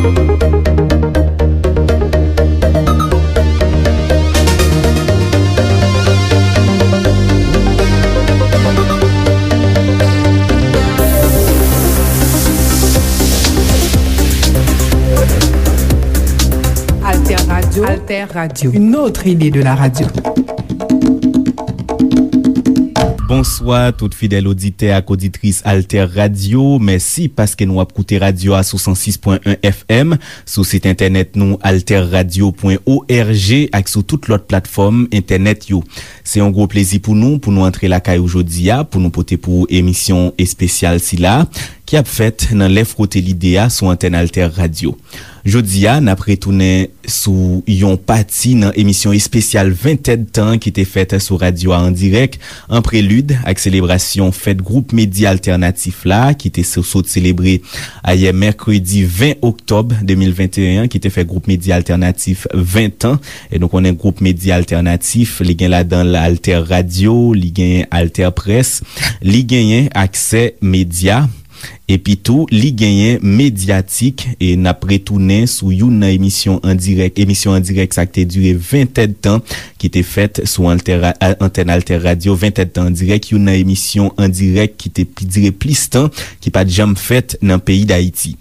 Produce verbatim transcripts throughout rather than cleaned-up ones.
Alter Radio. Alter Radio. Une autre idée de la radio. Bonswa, tout fidèl oditè ak oditris Alter Radio. Mèsi paske nou ap koute radyo a sou san sis pwen en F M, sou sit entènèt nou alter radio pwen org ak sou tout lòt platfòm entènèt yo. Se yon gwo plezi pou nou, pou nou antre lakay ou jodi a, pou nou pote pou ou emisyon espesyal sila, ki ap fèt nan lè fwote lide a sou antèn Alter Radio. Jodi a, n ap retounen sou yon pati nan emisyon espesyal ven èdtan ki te fèt sou radyo a an dirèk, an prelid ak selebrasyon fèt gwoup medya altènatif la, ki te so-, sot selebre ayè mèkredi ven oktòb de mil venteyen an, ki te fè gwoup medya altènatif ven tan. E nou konnen gwoup medya altènatif, li gen ladan l Alter Radio, li gen Alter Presse, li genyen Aksè Medya. Epi tou, li genyen Medyatik, e n ap retounen sou youn nan emisyon an dirèk, emisyon an dirèk sa k te dire ven èdtan, ki te fèt sou Alter, a, antèn Alter Radio, ven èdtan an dirèk, youn nan emisyon an dirèk ki te pi dire plis tan, ki pa t janm fèt nan peyi Dayiti.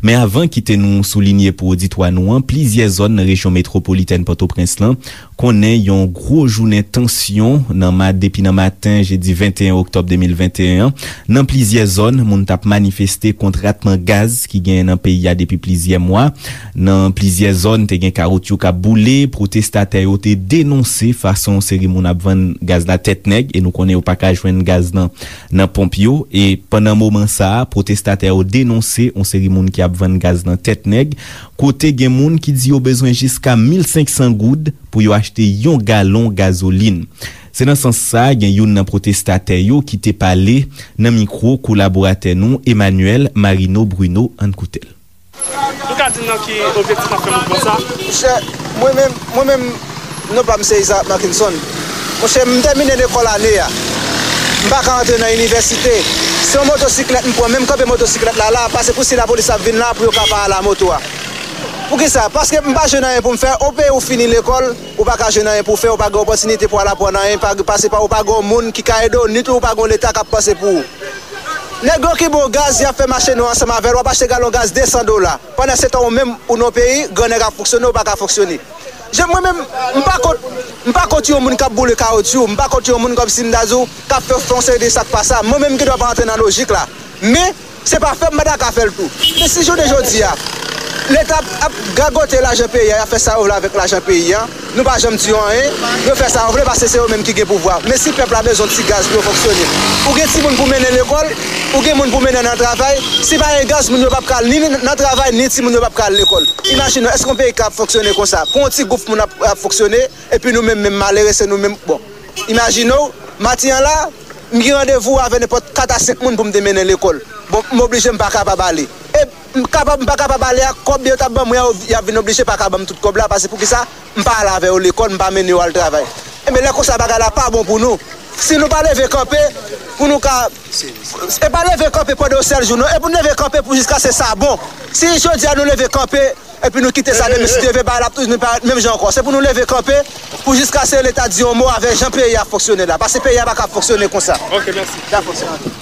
Men avan kite nou soulinye pou oditwa nou an, plizyè zòn nan rejyon metwopolitèn Pòtoprens lan konnen yon gwo jounen tansyon nan ma-, depi nan maten jedi venteyen oktòb de mil venteyen an. Nan plizyè zòn, moun t ap manifeste kont ratman gaz ki genyen nan peyi a depi plizyè mwa. Nan plizyè zòn, te gen kawotchou k ap boule. Pwotestatè yo te denonse fason yon seri moun ap vann gaz la tèt nèg, e nou konnen yo pa ka jwenn gaz nan, nan ponp yo. E pandan moman sa a, pwotestatè yo denonse yon seri moun ki ap vann gaz nan tèt nèg, kote gen moun ki di yo bezwen jiska mil senk san goud pou yo achte yon galon gazolin. Se nan sans sa, gen youn nan pwotestatè yo ki te pale nan mikwo kolaboratè nou, Emmanuel Marino Bruno. Ann koute l. Nou ka di m nan ki objektif n ap fè mouvman sa? Monchè, mwen menm, mwen menm, non pa m se Isaac Markinson. Monchè, m tèmine lekòl ane a. M pa ka antre nan inivèsite. Se yon motosiklèt m pran, men m kanpe motosiklèt la la, pase pou si lapolis ap vin la, pou yo ka pa al a moto a. Poukisa? Paske m pa jwenn anyen pou m fè. O peyi ou fini lekòl, ou pa ka jwenn anyen pou w fè, ou pa gen opòtinite pou w al aprann anyen, pa, pase pa, ou pa gen yon moun ki ka ede w, ni tou ou pa gen yon Leta k ap panse pou ou. Nèg yo ki ba w gaz, y ap fè mache nwa ansanm avè l, w ap achte galon gaz de san dola. Pandan se tan, ou menm, ou nan yon peyi, grannèg ap fonksyone, ou pa ka fonksyone. Je, mwen menm, m pa kont, m pa kont yon moun k ap boule kawotchou, m pa kont yon moun kòmsi m ta di w, k ap fè, fè yon seri de sa k pa sa. Mwen menm, m gen dwa pa antre nan lojik la. Men, se pa fè m, m pa ta ka fè l tou. Men si jounen jodi a, Leta ap, ap gagote lajan peyi a, y ap fè sa yo vle avèk lajan peyi a, nou pa janm di yo anyen, yo fè sa yo vle, paske se yo menm ki gen pouvwa. Men si pèp la bezwen ti gaz pou yo fonksyone, ou gen timoun pou mennen lekòl, ou gen moun pou mennen nan travay, si pa gen gaz, moun yo p ap ka al ni nan travay, ni timoun yo p ap ka al lekòl. Imajine w, èske yon peyi ka ap fonksyone konsa? Pou yon ti gwoup moun ap, ap fonksyone, epi nou menm, menm malere, se nou menm. Bon, imajine w, maten an la, m gen randevou avè nenpòt kat a senk moun pou m te mennen lekòl. Bon, m oblije m pa kapab ale. E m kapab, m pa kapab ale a, kòb yo t ap ban mwen an, y ap vin oblije pa ka ban m tout kòb la, paske poukisa m pa al avè yo lekòl, m pa mennen yo al travay. Enben, lè konsa, bagay la pa bon pou nou. Si nou pa leve kanpe, pou nou ka, e pa leve kanpe pandan yon sèl jou, non, e pou n leve kanpe pou jiskaske sa bon. Si jodi a nou leve kanpe, epi nou kite sa demen, si Dye vle, bagay la ap toujou parèt menm jan ankò. Se pou nou leve kanpe pou jiskaske Leta di yon mo avè jan peyi a fonksyone la. Paske peyi a pa ka fonksyone konsa. Ok, mèsi. Dakò, se note.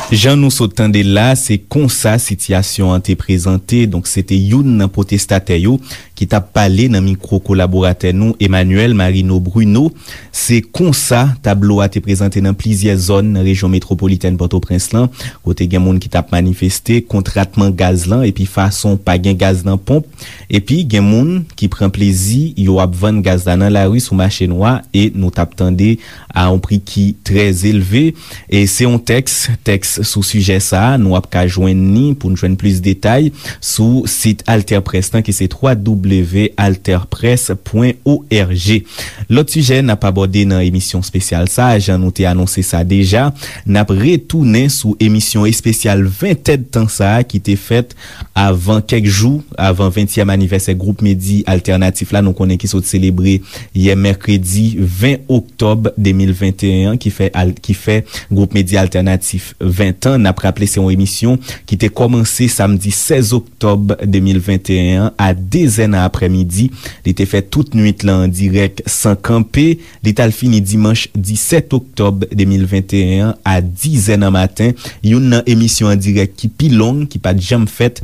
Jan nou sot tande l la, se konsa sitiyasyon an te prezante. Donk, se te youn nan pwotestatè yo ki t ap pale nan mikwo kolaboratè nou, Emmanuel Marino Bruno. Se konsa tablo a te prezante nan plizyè zòn nan rejyon metwopolitèn Pòtoprens lan, kote gen moun ki t ap manifeste kont ratman gaz lan epi fason pa gen gaz nan ponp, epi gen moun ki pran plezi yo ap vann gaz la nan lari sou mache nwa, e nou t ap tande a yon pri ki trè elve. E se yon tèks, tèks sou sijè sa a, nou ap ka jwenn ni pou n jwenn plis detay sou sit Alter Press lan, ki se twa w w w alter press pwen o r g. Lòt sijè n ap abòde nan emisyon espesyal sa a, jan nou te anonse sa deja, n ap retounen sou emisyon espesyal ven èdtan sa a ki te fèt avan kèk jou, avan ventyèm anivèsè gwoup Medi Altènatif la, nou konnen ki sot selebre yè mèkredi ven oktòb de mil venteyen an, ki fè al-, ki fè gwoup Medi Altènatif ven Tan, n ap raple se yon emisyon ki te kòmanse samdi sèz oktòb de mil venteyen an a de zè nan aprèmidi. Li te fèt tout nwit lan an dirèk san kanpe. Li t al fini dimanch disèt oktòb de mil venteyen an a di zè nan maten. Youn nan emisyon an dirèk ki pi long, ki pa t janm fèt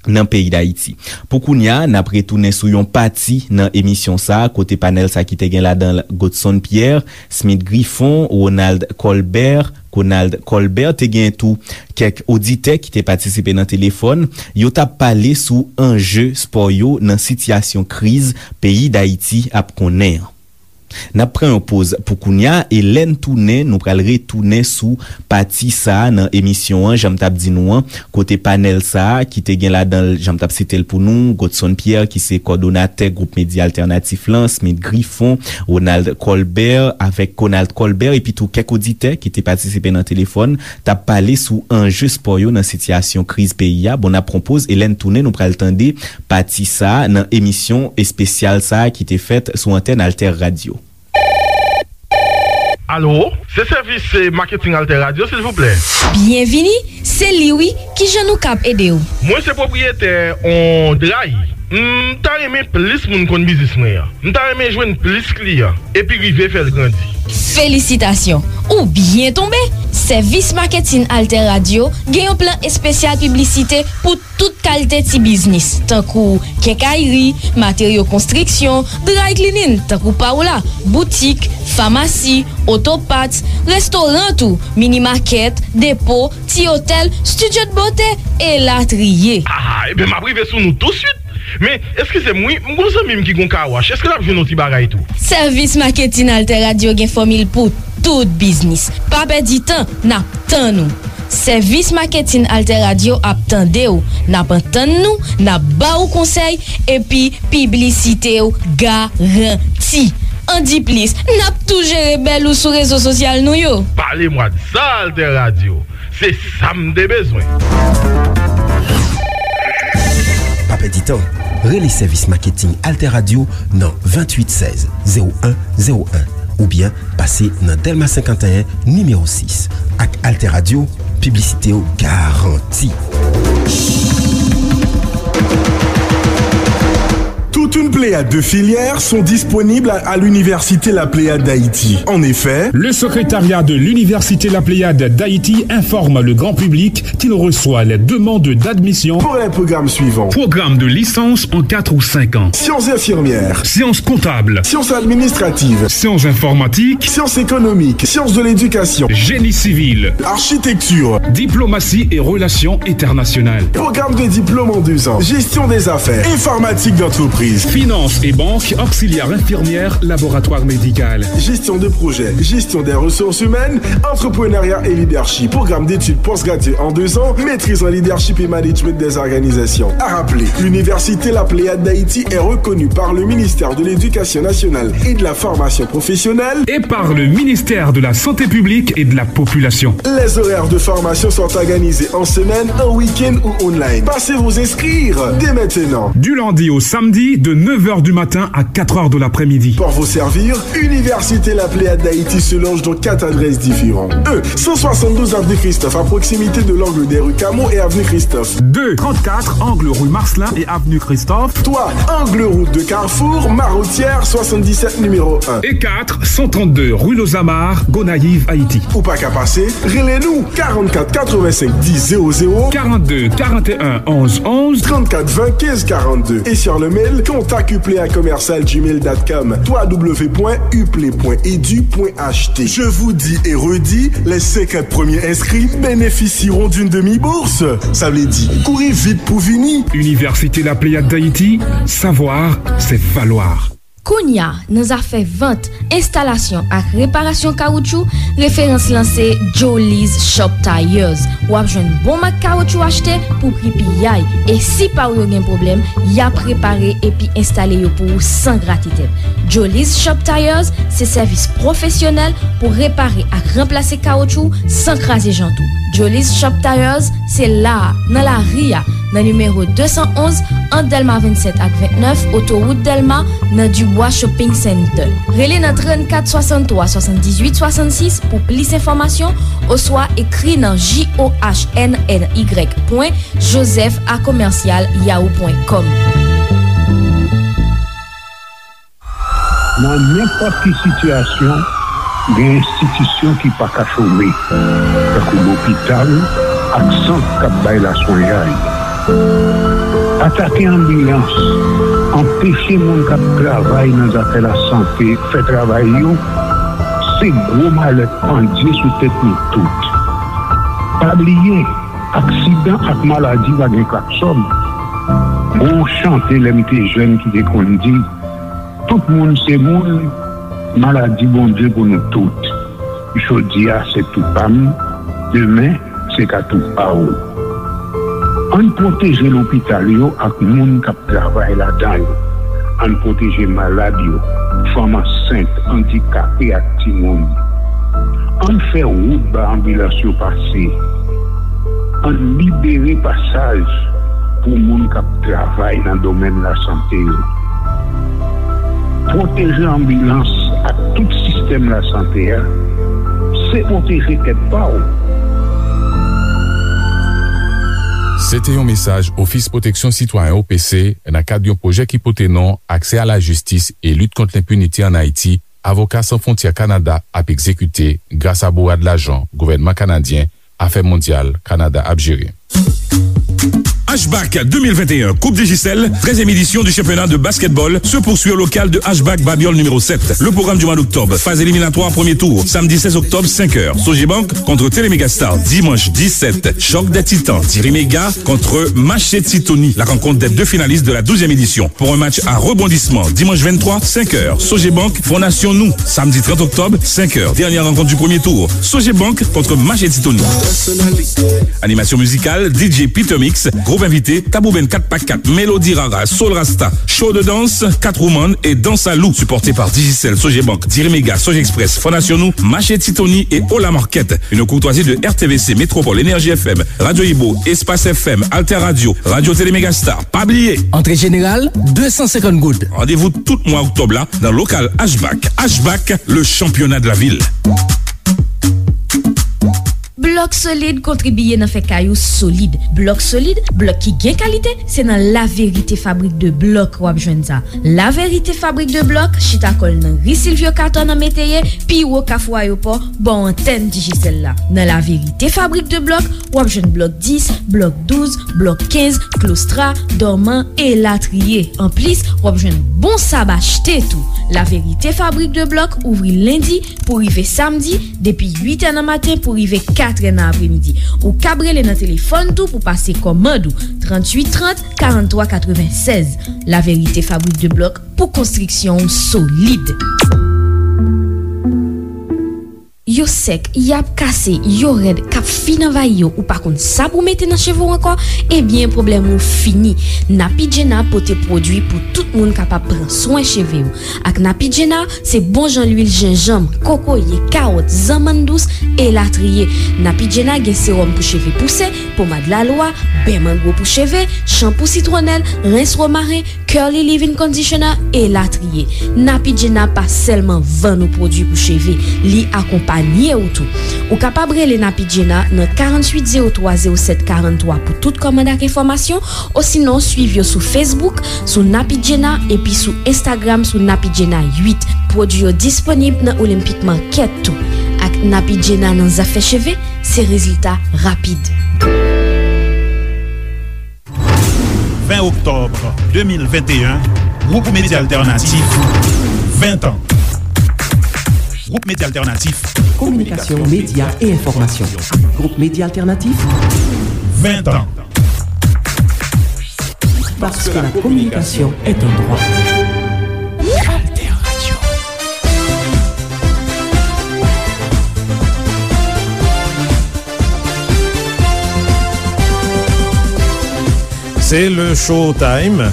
nan peyi Dayiti. Pou kounye a, n ap retounen sou yon pati nan emisyon sa a, kote panèl sa a ki te gen ladan l Godson Pierre, Smith Griffon, Ronald Colbert, Ronald Colbert, te gen tou kèk oditè ki te patisipe nan telefòn. Yo t ap pale sou anje spò yo nan sitiyasyon kriz peyi Dayiti ap konnen an. N ap pran yon poz pou kounye a, e lè n tounen, nou pral retounen sou pati sa a nan emisyon an, jan m t ap di nou an, kote panèl sa a ki te gen ladan l, jan m t ap site l pou nou, Godson Pierre, ki se kòdonatè gwoup medya altènatif lan, Smith Griffon, Ronald Colbert, avèk Ronald Colbert, epi tou kèk oditè ki te patisipe nan telefòn, t ap pale sou anje spò yo nan sitiyasyon kriz peyi a. Bon, n ap pran poz, e lè n tounen, nou pral tande pati sa a nan emisyon espesyal sa a ki te fèt sou antèn Alter Radio. Alo, se sèvis, eh, maketing Alter Radio, silvouplè. Byenvini, se li wi, kijan nou kab ede w? Mwen se pwopriyetè on dray. M ta renmen plis moun konn biznis mwen an. M ta renmen jwenn plis kliyan, epi rive fè l grandi. Felisitasyon, ou byen tonbe! Sèvis maketing Alter Radio gen yon plan espesyal piblisite pou tout kalite ti biznis, tankou kenkayri, materyo konstriksyon, dry cleaning, tankou Paola, boutik, famasi, oto parts, restoran tou, mini makèt, depo, ti otèl, studio de beauté, elatriye. Ah, ebyen, m ap rive sou nou touswit. Men, eskize m wi, m gon zanmi m ki gon car wash. Èske l ap jwenn yon ti bagay tou? Sèvis maketin Alter Radio gen fòmil pou tout biznis. Pa pèdi tan, n ap tann ou. Sèvis maketin Alter Radio ap tande w, n ap antann nou, n ap ba ou konsèy, epi piblisite w garanti. An di plis, n ap tou jere bèl ou sou rezo sosyal nou yo. Pale mwa de sa, Alter Radio. Se sa m te bezwen. Pa pèdi tan. Rele sèvis maketing Alter Radio nan venntuit sèz zewo en zewo en oubyen pase nan Dèlma senkanteyen nimewo sis. Ak Alter Radio, piblisite w garanti. Toute une pléiade de filières sont disponibles à, à l'Université La Pléiade d'Haïti. En effet, le secrétariat de l'Université La Pléiade d'Haïti informe le grand public qu'il reçoit les demandes d'admission pour les programmes suivants. Programme de licence en quatre ou cinq ans. Sciences infirmières. Sciences comptables. Sciences administratives. Sciences informatiques. Sciences économiques. Sciences de l'éducation. Génie civil. Architecture. Diplomatie et relations internationales. Programme de diplôme en deux ans. Gestion des affaires. Informatique d'entreprise. Finance et banque, auxiliaire infirmière, laboratoire médical. Gestion de projet. Gestion des ressources humaines. Entrepreneuriat et leadership. Programme d'études postgraduées en deux ans. Maîtrise en leadership et management des organisations. À rappeler, l'Université La Pléiade d'Haïti est reconnue par le ministère de l'Éducation nationale et de la formation professionnelle et par le ministère de la Santé publique et de la Population. Les horaires de formation sont organisés en semaine, en week-end ou online. Passez vous inscrire dès maintenant. Du lundi au samedi, de neuf heures du matin à quatre heures de l'après-midi. Pour vous servir, Université La Pléiade d'Haïti se loge dans quatre adresses différentes. Un, cent soixante-douze avenue Christophe, à proximité de l'angle des rues Camo et avenue Christophe. Deux, trente-quatre, angle rue Marcelin et avenue Christophe. Trois, angle route de Carrefour, Marotière, soixante-dix-sept, numéro un. Et quatre, cent trente-deux, rue Los Amars, Gonayiv, Ayiti. Ou pa ka pase, rele nou, quarante-quatre quatre-vingt-cinq dix zéro zéro, quarante-deux quarante et un onze onze, trente-quatre vingt quinze quarante-deux, et sur le mail contact uplea commercial gmail dot com, trois w point uplea point edu point H T. Je vous dis et redis, les cinquante premiers inscrits bénéficieront d'une demi-bourse. Sa vle di, kouri vit pou vini. Université La Pléiade d'Haïti, savoir, c'est valoir. Kounye a, nan zafè vant, enstalasyon ak reparasyon kawoutchou, referans lan se Joliz Shop Tires. W ap jwenn bon mak kawoutchou achte pou pri piyay. E si pa w yo gen pwoblèm, y ap repare epi enstale yo pou ou san grate tèt. Joliz Shop Tires se sèvis pwofesyonèl pou repare ak ranplase kawoutchou san kraze jant ou. Joliz Shop Tires se la a, nan lari a, nan nimewo de san onz, ant Dèlma vennsèt ak vennèf, otowout Dèlma, nan Dibwa. Wa Shopping Center. Rele nan trannkat swasanntwa swasanndizuit swasannsis pou plis enfòmasyon oswa ekri nan J O H N N Y pwen joseph a commercial yahoo pwen com. Nan nenpòt ki sitiyasyon, gen enstitisyon ki pa ka chome, tankou lopital ak sant k ap bay laswenyay. Atake anbilans, anpeche moun k ap travay nan zafè lasante fè travay yo, se gwo malè k pandye sou tèt nou tout. Pa bliye, aksidan ak maladi pa gen klaksòn. Gon chante lè m te jèn ki te konn di, tout moun se moun, maladi Bondye pou nou tout. Jodi a se tou pa m, demen se ka tou pa w. Ann pwoteje lopital yo ak moun k ap travay ladan yo. Ann pwoteje malad yo, fanm ansent, andikape ak timoun. Ann fè wout ba anbilans yo pase. Ann libere pasaj pou moun k ap travay nan domèn lasante yo. Pwoteje anbilans ak tout sistèm lasante a, se pwoteje tèt pa w. Se te yon mesaj Ofis Pwoteksyon Sitwayen O P C nan kad yon pwojè ki pote non Aksè a Lajistis e Lit Kont Lenpinite ann Ayiti, Avoka San Fwontyè Kanada ap egzekite gras a bourad lajan gouvènman kanadyen, Afè Mondyal Kanada ap jere. Ashback deux mille vingt et un, Coupe Digicel, treizième édition du championnat de basketball, se poursuit au local de Ashback Babiole numéro sept. Le programme du mois d'octobre, phase éliminatoire, premier tour, samedi seize octobre, cinq heures, Sogebank contre Télémégastar, dimanche dix-sept, Choc des Titans, Diriméga contre Machete Tony, la rencontre des deux finalistes de la douzième édition. Pour un match à rebondissement, dimanche vingt-trois, cinq heures, Sogebank, Fondasyon Nou, samedi trente octobre, cinq heures, dernière rencontre du premier tour, Sogebank contre Machete Tony. Animation musicale, D J Peter Mix, groupe invité, Tabou Band quatre par quatre, Mélodie Rara, Soul Rasta, show de danse, Catwoman et Danse à Loup, supporté par Digicel, Sogebank, Diriméga, Sogexpress, Fondasyon Nou, Machete Tony et Ola Market. Une courtoisie de R T V C, Métropole, Énergie F M, Radio Ibo, Espace F M, Alter Radio, Radio Télé Mégastar. Pa bliye! Antre jeneral, de san senkant goud. Randevou tout mwa oktòb la nan lokal Ashback. Ashback, le championnat de la ville. Blòk Solid kontribye nan fè kay ou solid. Blòk Solid, blòk ki gen kalite, se nan La Vérité Fabrique de Blocs w ap jwenn sa. La Vérité Fabrique de Blocs chita kò l nan ri Silvio Cator nan Meteyè, pi wo Kafou Ayewopò, bò antèn Digicel la. Nan La Vérité Fabrique de Blocs, w ap jwenn blòk dis, blòk douz, blòk kenz, klostra, dòman, elatriye. Anplis, w ap jwenn bon sab achte tou. La Vérité Fabrique de Blocs ouvri lendi pou rive samdi, depi uit è nan maten pou rive kat è nan apremidi. Ou kab rele nan telefòn tou pou pase kòmand ou, tranntuit trant, karanntwa katrevennsèz. La Vérité Fabrique de Blocs, pou konstriksyon w solid. Yo sèk, y ap kase, yo rèd, k ap fin anvayi yo, ou pa konn sa pou w mete nan cheve w ankò, ebyen, pwoblèm ou fini. Napi Gena pote pwodui pou tout moun kapab pran swen cheve yo. Ak Napi Gena, se bon jan lwil jenjanm, kokoye, kawòt, zanmann dous, elatriye. Napi Gena gen sewòm pou cheve pouse, pomad lalwa, bè mangwo pou cheve, chanpou sitwonèl, rens womaren, Curly Leave-In Conditioner, elatriye. Napi Gena pa sèlman vann ou pwodui pou cheve, li akonpanye ou tou. Ou kapab rele Napi Gena nan karanntuit zewo twa zewo sèt karanntwa pou tout kòmand ak enfòmasyon, osinon swiv yo sou Facebook, sou Napi Gena, epi sou Instagram, sou Napi Gena uit. Pwodui yo disponib nan Olympic Market tou. Ak Napi Gena nan zafè cheve, se rezilta rapid. Ven oktòb de mil venteyen, Gwoup Medya Altènatif, ven tan. Gwoup Medya Altènatif. Kominikasyon, medya e enfòmasyon. Gwoup Medya Altènatif, ven tan. Parce que la communication est un droit. Alter Radio. Se le Showtime.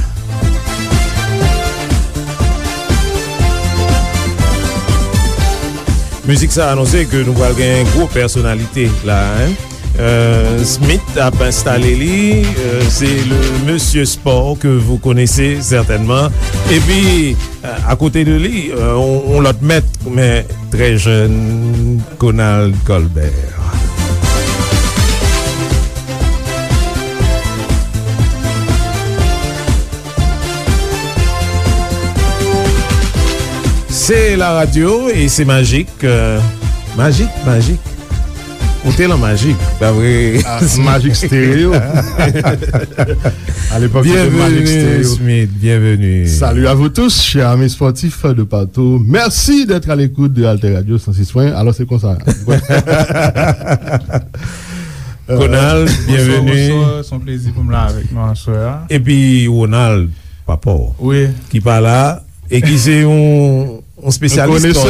Mizik sa anonse ke nou pral gen gwo pèsonalite la, en. Euh, Smith ap enstale li, euh, se le monsieur sport que vous connaissez certainement. Epi, euh, à côté de li, euh, on, on lòt mèt, men trè jèn, Conald Colbert. Se la radyo e se majik, euh, majik, majik. Ou te lan majik, pa vre? Ah, majik stereo. À l'époque, c'était Magic Bienvenue, Stereo. Smith, bienvenue. Salut à vous tous, chers amis sportifs de partout. Merci d'être à l'écoute de Alter Radio cent six point un. Alors, c'est comme ça. Conald, bienvenue. Bonsoir, bonsoir. Se yon plezi pou m la avèk nou aswè a. Epi Ronald, papa w, wi, ki pa la, e ki se yon, yon spesyalis spò,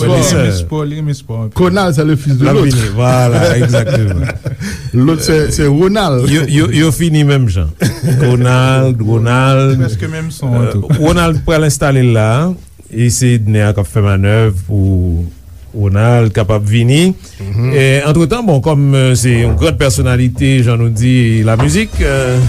konesè, wi, spò. Li renmen spò, li renmen spò anpil. Conald, c'est le fils de l'autre. L ap vini, vwala, egzakteman. Lòt, se, se Ronald. Yo, yo, yo fini menm jan. Conald, Ronald. Prèske menm son an tou. Euh, Ronald pral enstale l la. E se Edner k ap fè manèv pou Ronald kapab vini. Mhm. E, antretan, bon, kòm, euh, se yon gran pèsonalite, jan nou di, lamizik, euh,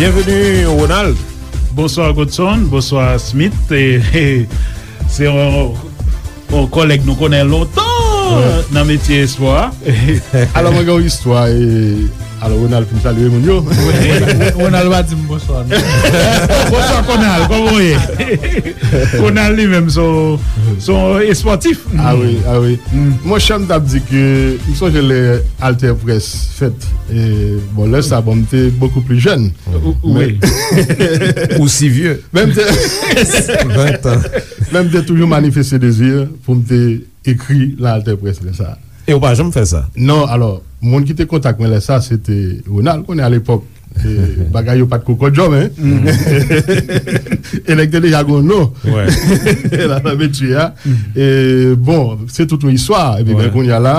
Byenveni, Ronald. Bonswa, Godson. Bonswa, Smith. E, e, se yon, yon kòlèg nou konnen lontan, wi, nan metye espò a. Alò, mwen gen yon istwa, e, alò, Ronald fin salye moun yo. Wi, Ronald pa di m bonswa, non. Bonswa, Conald, kòman w ye? Conald li menm, se yon, se yon espòtif. Ah wi, ah wi. Mm. Monchè, m t ap di ke m sonje lè Alter Press fèt. E, bon, lè sa, bon, m te beaucoup plus jeune. Ou, ou, men wi. Aussi vieux. Men m te, vingt ans. Men m te toujou manifeste dezi pou m te ekri nan Alter Press lè sa. E ou pa janm fè sa? Non, alò, moun ki te kontak mwen lè sa, se te Ronald, konnen alepòk, e, bagay yo pa t ko kòdjò, men. Mm. E nèg te deja gon non. Wè. La, nan metye a. Mm. E, bon, se tout yon istwa. Epi, wè, ben, kounye a la,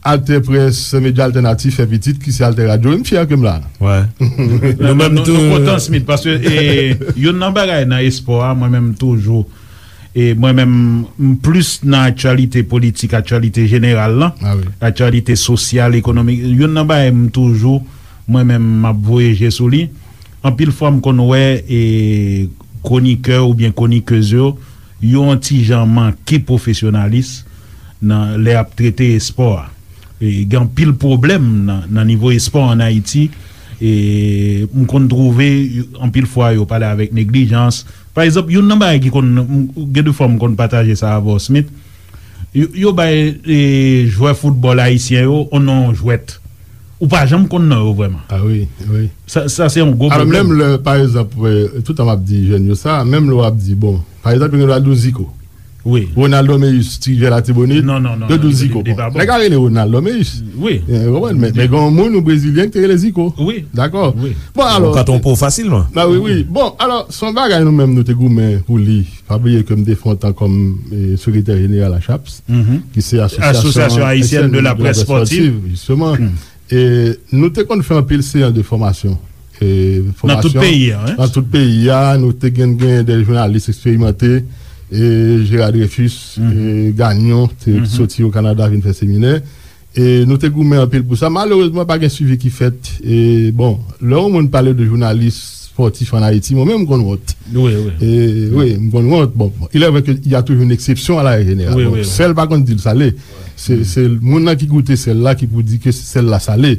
Alter Press, medya altènatif fè pitit, ki se Alter Radio. M fyè ke m la. Wè. Nou menm tou. Nou kontan, Smith, paske, e, youn nan bagay nan espò a, mwen menm toujou, e mwen menm, m plis nan aktyalite politik, aktyalite jeneral lan, ah wi, aktyalite sosyal, ekonomik. Youn nan bagay m toujou, mwen menm, m ap voye je sou li. Anpil fwa, m konn wè, e, kwonikè oubyen kwonikez yo, yo yon ti jan manke pwofesyonalis nan, lè y ap trete espò a. E, gen anpil pwoblèm nan, nan nivo espò ann Ayiti. E, m konn twouve, anpil fwa, yo pale avèk neglijans. Pa egzanp, youn nan bagay ki konn, m, gen de fwa m konn pataje sa avè w, Smith. Yo, yo bay, e, jwè foutbòl ayisyen yo, on non jwèt. Ou pa janm konn non yo vrèman. Ah wi, wi. Sa, sa se yon gwo pwoblèm. Alò, menm lè, pa egzanp, e, toutan m ap di jèn yo sa, menm lè w ap di, bon, pa egzanp, yo gen dwa di w Zico. Wi. Ronaldo Meyus, ti jwè Latibonit, non, non, non, yo di w Zico. Bon, nèg la rele Ronaldo Meyus. Wi. E, ou konprann? Men, men gen yon moun, yon brezilyen ki te rele Zico. Wi. Dakò? Wi. Bon, alò, ou ka twonpe w fasilman. Ba wi, wi. Bon, alò, se yon bagay nou menm nou te goumen pou li. Pa bliye ke m te fè yon tan kòm, e, sekretè jeneral ACHAPS, ki se Association Haïtienne de la Presse Sportive, jisteman. E nou te konn fè anpil seyans de fòmasyon. E, nan tout peyi a, wi. Nan tout peyi a, nou te gen, gen de jounalis eksperimante, e, Gérard Dreyfus, e, Gagnon, te soti o Kanada vin fè seminè. E nou te goumen anpil pou sa. Malerezman, pa gen swivi ki fèt. E, bon, lè yon moun pale de jounalis spòtif ann Ayiti, mwen menm, m konn wont. Wi, wi. E, wi, m konn wont. Bon, bon, il est vrai que il y a toujours une exception à la règle générale. Wi, bon, wi, wi. Sèl pa konn di l sale. Se, se moun nan ki goute sèl la ki pou di ke sèl la sale.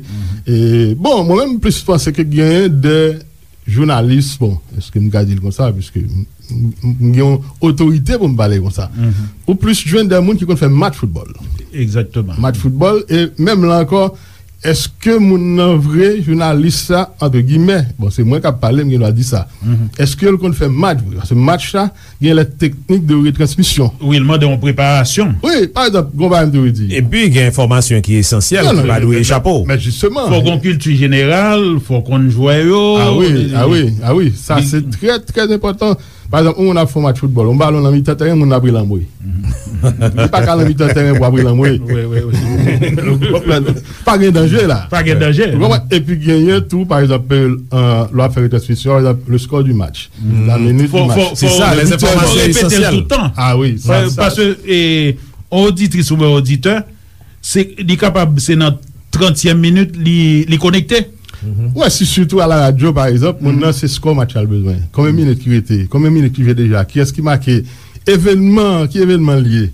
E, bon, mwen menm, m plis panse ke gen de jounalis, bon, èske m ka di l konsa, piske m, m, m gen yon otorite pou m pale konsa. Ou plis jwenn de moun ki konn fè match foutbòl. Egzakteman. Match foutbòl, e menm la ankò, Èske moun nan vre, jounalis sa, antre gimè, bon, se mwen k ap pale, m gen dwa di sa. Èske l konn fè match vre? Paske match sa, gen lè teknik de retransmisyon. Wi, l mande yon preparasyon. Wi, pa egzanp, gon bagay m te vle di. Epi, gen enfòmasyon ki esansyèl, ki pa dwe echape w. Men jisteman. Fò gon kilti jeneral, fò konn jwè yo. Ah wi, ah wi, ah wi, sa se trè, trè enpòtan. Pa egzanp, yon moun ap fè yon match foutbòl, yon balon nan mitan tèren, moun nan ap rele anmwe. Li pa ka nan mitan tèren pou ap rele anmwe. Wi, wi, wi. Ou konprann? Pa gen danje la. Pa gen danje. Ou konprann? Epi genyen tou, pa egzanp, euh, lè w ap fè retransmisyon, pa egzanp, le score du match. La minute du match. Se sa, les informations essentielles. Fò repete l tout tan. Ah wi, sa, sa. Paske, eh, yon oditris oubyen oditè, se, li kapab, se nan trantyèm minit, li, li konekte. Ou wè, si sitou a la radyo, pa egzanp, moun nan se skò match la l bezwen. Konbyen minit ki rete? Konbyen minit ki jwe deja? Kiyès ki make? Evènman, ki evènman l ye?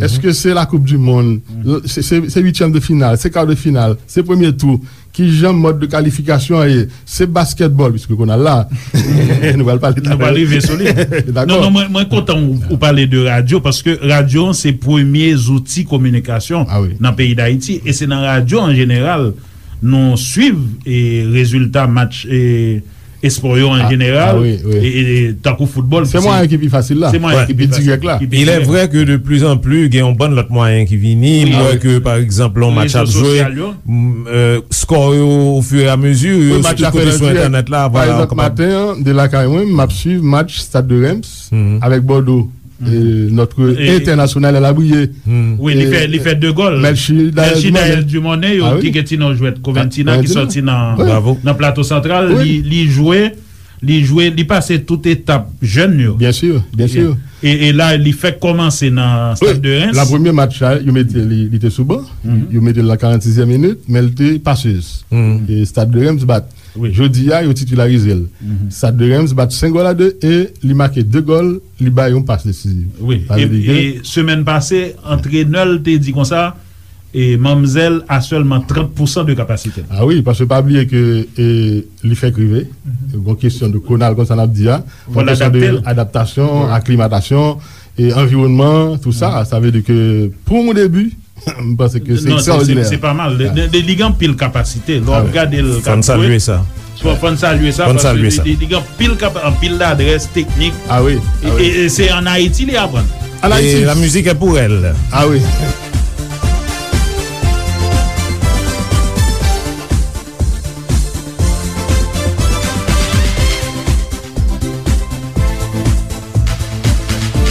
Èske se la Coupe du Monde? Se, se, se uityèm de final? Se kar de final? Se premye tou? Kijan mòd de kalifikasyon an ye? Se baskètbòl, piske kounye a la, nou pral pale de... Nou pral rive sou li. Dakò. Non, non, mwen, mwen kontan ou, ou pale de radyo, paske radyo se premye zouti kominikasyon nan peyi Dayiti, e se nan radyo an jeneral nou swiv, e, rezilta match, e, espò yo an jeneral, e, e, e, tankou foutbòl. Se mwayen ki pi fasil la. Se mwayen ki pi fasil, ki pi dirèk la. Il est vrai que de plus en plus, gen yon bann lòt mwayen ki vini. M wè ke, pa egzanp, lè yon match ap jwe, m, euh, skò yo, au fur et à mesure, yo sou tout kote sou entènèt la. Pa egzanp, maten an, de lakay mwen, m ap swiv match Stade de Reims avèk Bordeaux. E, notre international, elle a brillé. Wi, li fè, li fè de gòl. Melchie Daël Dumornay, yo, ki gen ti non jwèt Coventina, ki sòti nan, nan Plato Santral, li, li jwe, li jwe, li pase tout etap jèn yo. Byen si, byen si. E, e la, li fèk kòmanse nan Stade de Reims. Wi, la premye match la, yo mete li, li te sou ban. Yo mete l nan karannsizyèm minit, men l te pasez. E Stade de Reims bat. Jodi a, yo titilarize l. Stade de Reims bat senk gòl a de e li make de gòl, li bay yon pas desiziv. Wi. E, e semèn pase, antrenè l te di konsa, e manmzèl a sèlman trant pousan de kapasite l. Ah wi, paske pa bliye ke, e, li fèk rive. Gon kesyon de konal konsa n ap di a. Gon kesyon de adaptasyon, aklimatasyon, e anviwònman, tou sa. Sa vle di ke pou yon debi, m panse ke se ekstraòdinè. Non, se, se, se pa mal. Li, li, li gen anpil kapasite. Lè w ap gade l k ap jwe. Fò n salye sa. Fò, fò n salye sa, paske li, li, li gen anpil kapa-, anpil ladrès teknik. Ah wi, ah wi. E, e, e se ann Ayiti li aprann. Ann Ayiti. Et la musique est pour elle. Ah wi.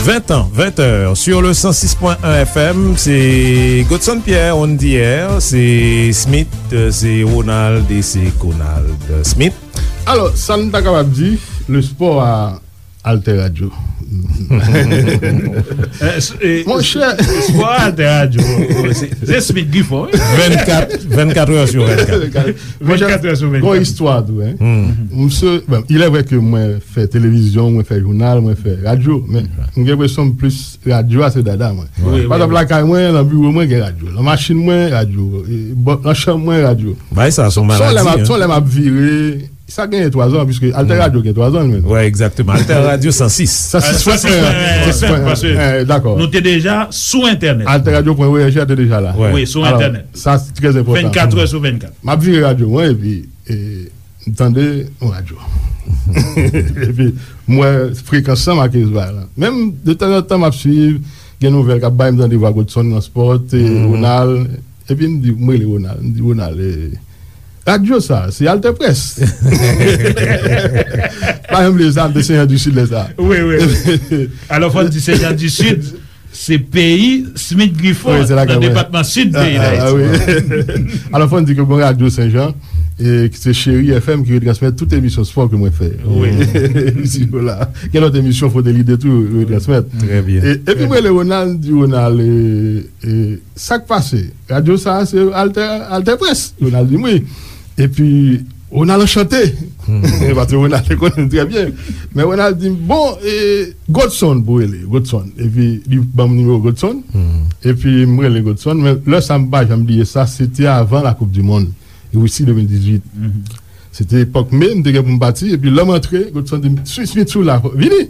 Vingt ans, vingt heures, sur le cent six point un F M, se Godson Pierre, on the air, se Smith, se Ronald e se Conald Smith. Alò, sa n ta kapab di, le sport a Alter Radio. Monchè. Sport a Alter Radio. Se, se Smith Griffon, wi. Vennkat, vennkat heures sur vennkat. Vennkat heures sur vennkat. Gon istwa tou, hein. Misye, bon, il est vrai que mwen fè televizyon, mwen fè jounal, mwen fè radyo, men m gen enpresyon plis radyo a se dada mwen. Wi, wi. Pa egzanp, lakay mwen, nan biwo mwen, gen radyo. Nan machin mwen, radyo. E, bò, nan chanm mwen, radyo. Bagay sa, se yon maladi, hein. Son lè m ap, son lè m ap vire, sa genyen twa zan, piske Alter Radio gen twa zan, li menm. Wi, egzakteman. Alter Radio san sis. San sis pwen en. San sis pwen en, dakò. Nou te deja sou entènèt. Alter Radio pwen O R G a te deja la. Wi, sou entènèt. Alò, sa, se trè enpòtan. Vennkat è sou vennkat. M ap vire radyo mwen, epi, e, m tande yon radyo. Epi, m wè frekans lan make zwa lan. Menm, de tanzantan, m ap swiv, gen nouvèl k ap bay, m tande vwa Godson nan spò, e, Ronald. Epi m di, m rele Ronald. M di, "Ronald, e, radyo sa, se Alter Presse." Pa janm bliye sa, m te Sen Jan di Sid lè sa. Wi, wi, wi. Alò, fò n di Sen Jan di Sid, se peyi Smith Griffon, nan depatman Sid peyi Dayiti. Alò, fò n di ke gon radyo Sen Jan, e, ki se Cheri F M, ki retransmèt tout emisyon spò ke mwen fè. Wi. Isi la. Gen lòt emisyon Frote Lide tou, yo retransmèt. Trè byen. E, epi m rele Ronald, m di, "Ronald, e, e, sa k pase? Radyo sa a se Alter, Alter Presse." Ronald di m, "Wi." Epi, Ronald anchante. Paske Ronald te konnen m trè byen. Men Ronald di m, "Bon, e, Godson pou rele, Godson." Epi, li ban m nimewo Godson. Epi, m rele Godson. Men lè sa, m pa janm bliye sa, se te avan la Coupe du Monde, Risi de mil dizuit. Se te epòk me, m te gen pou m pati. Epi, lè m antre, Godson di m, "Smith, Smith, sou la, vini."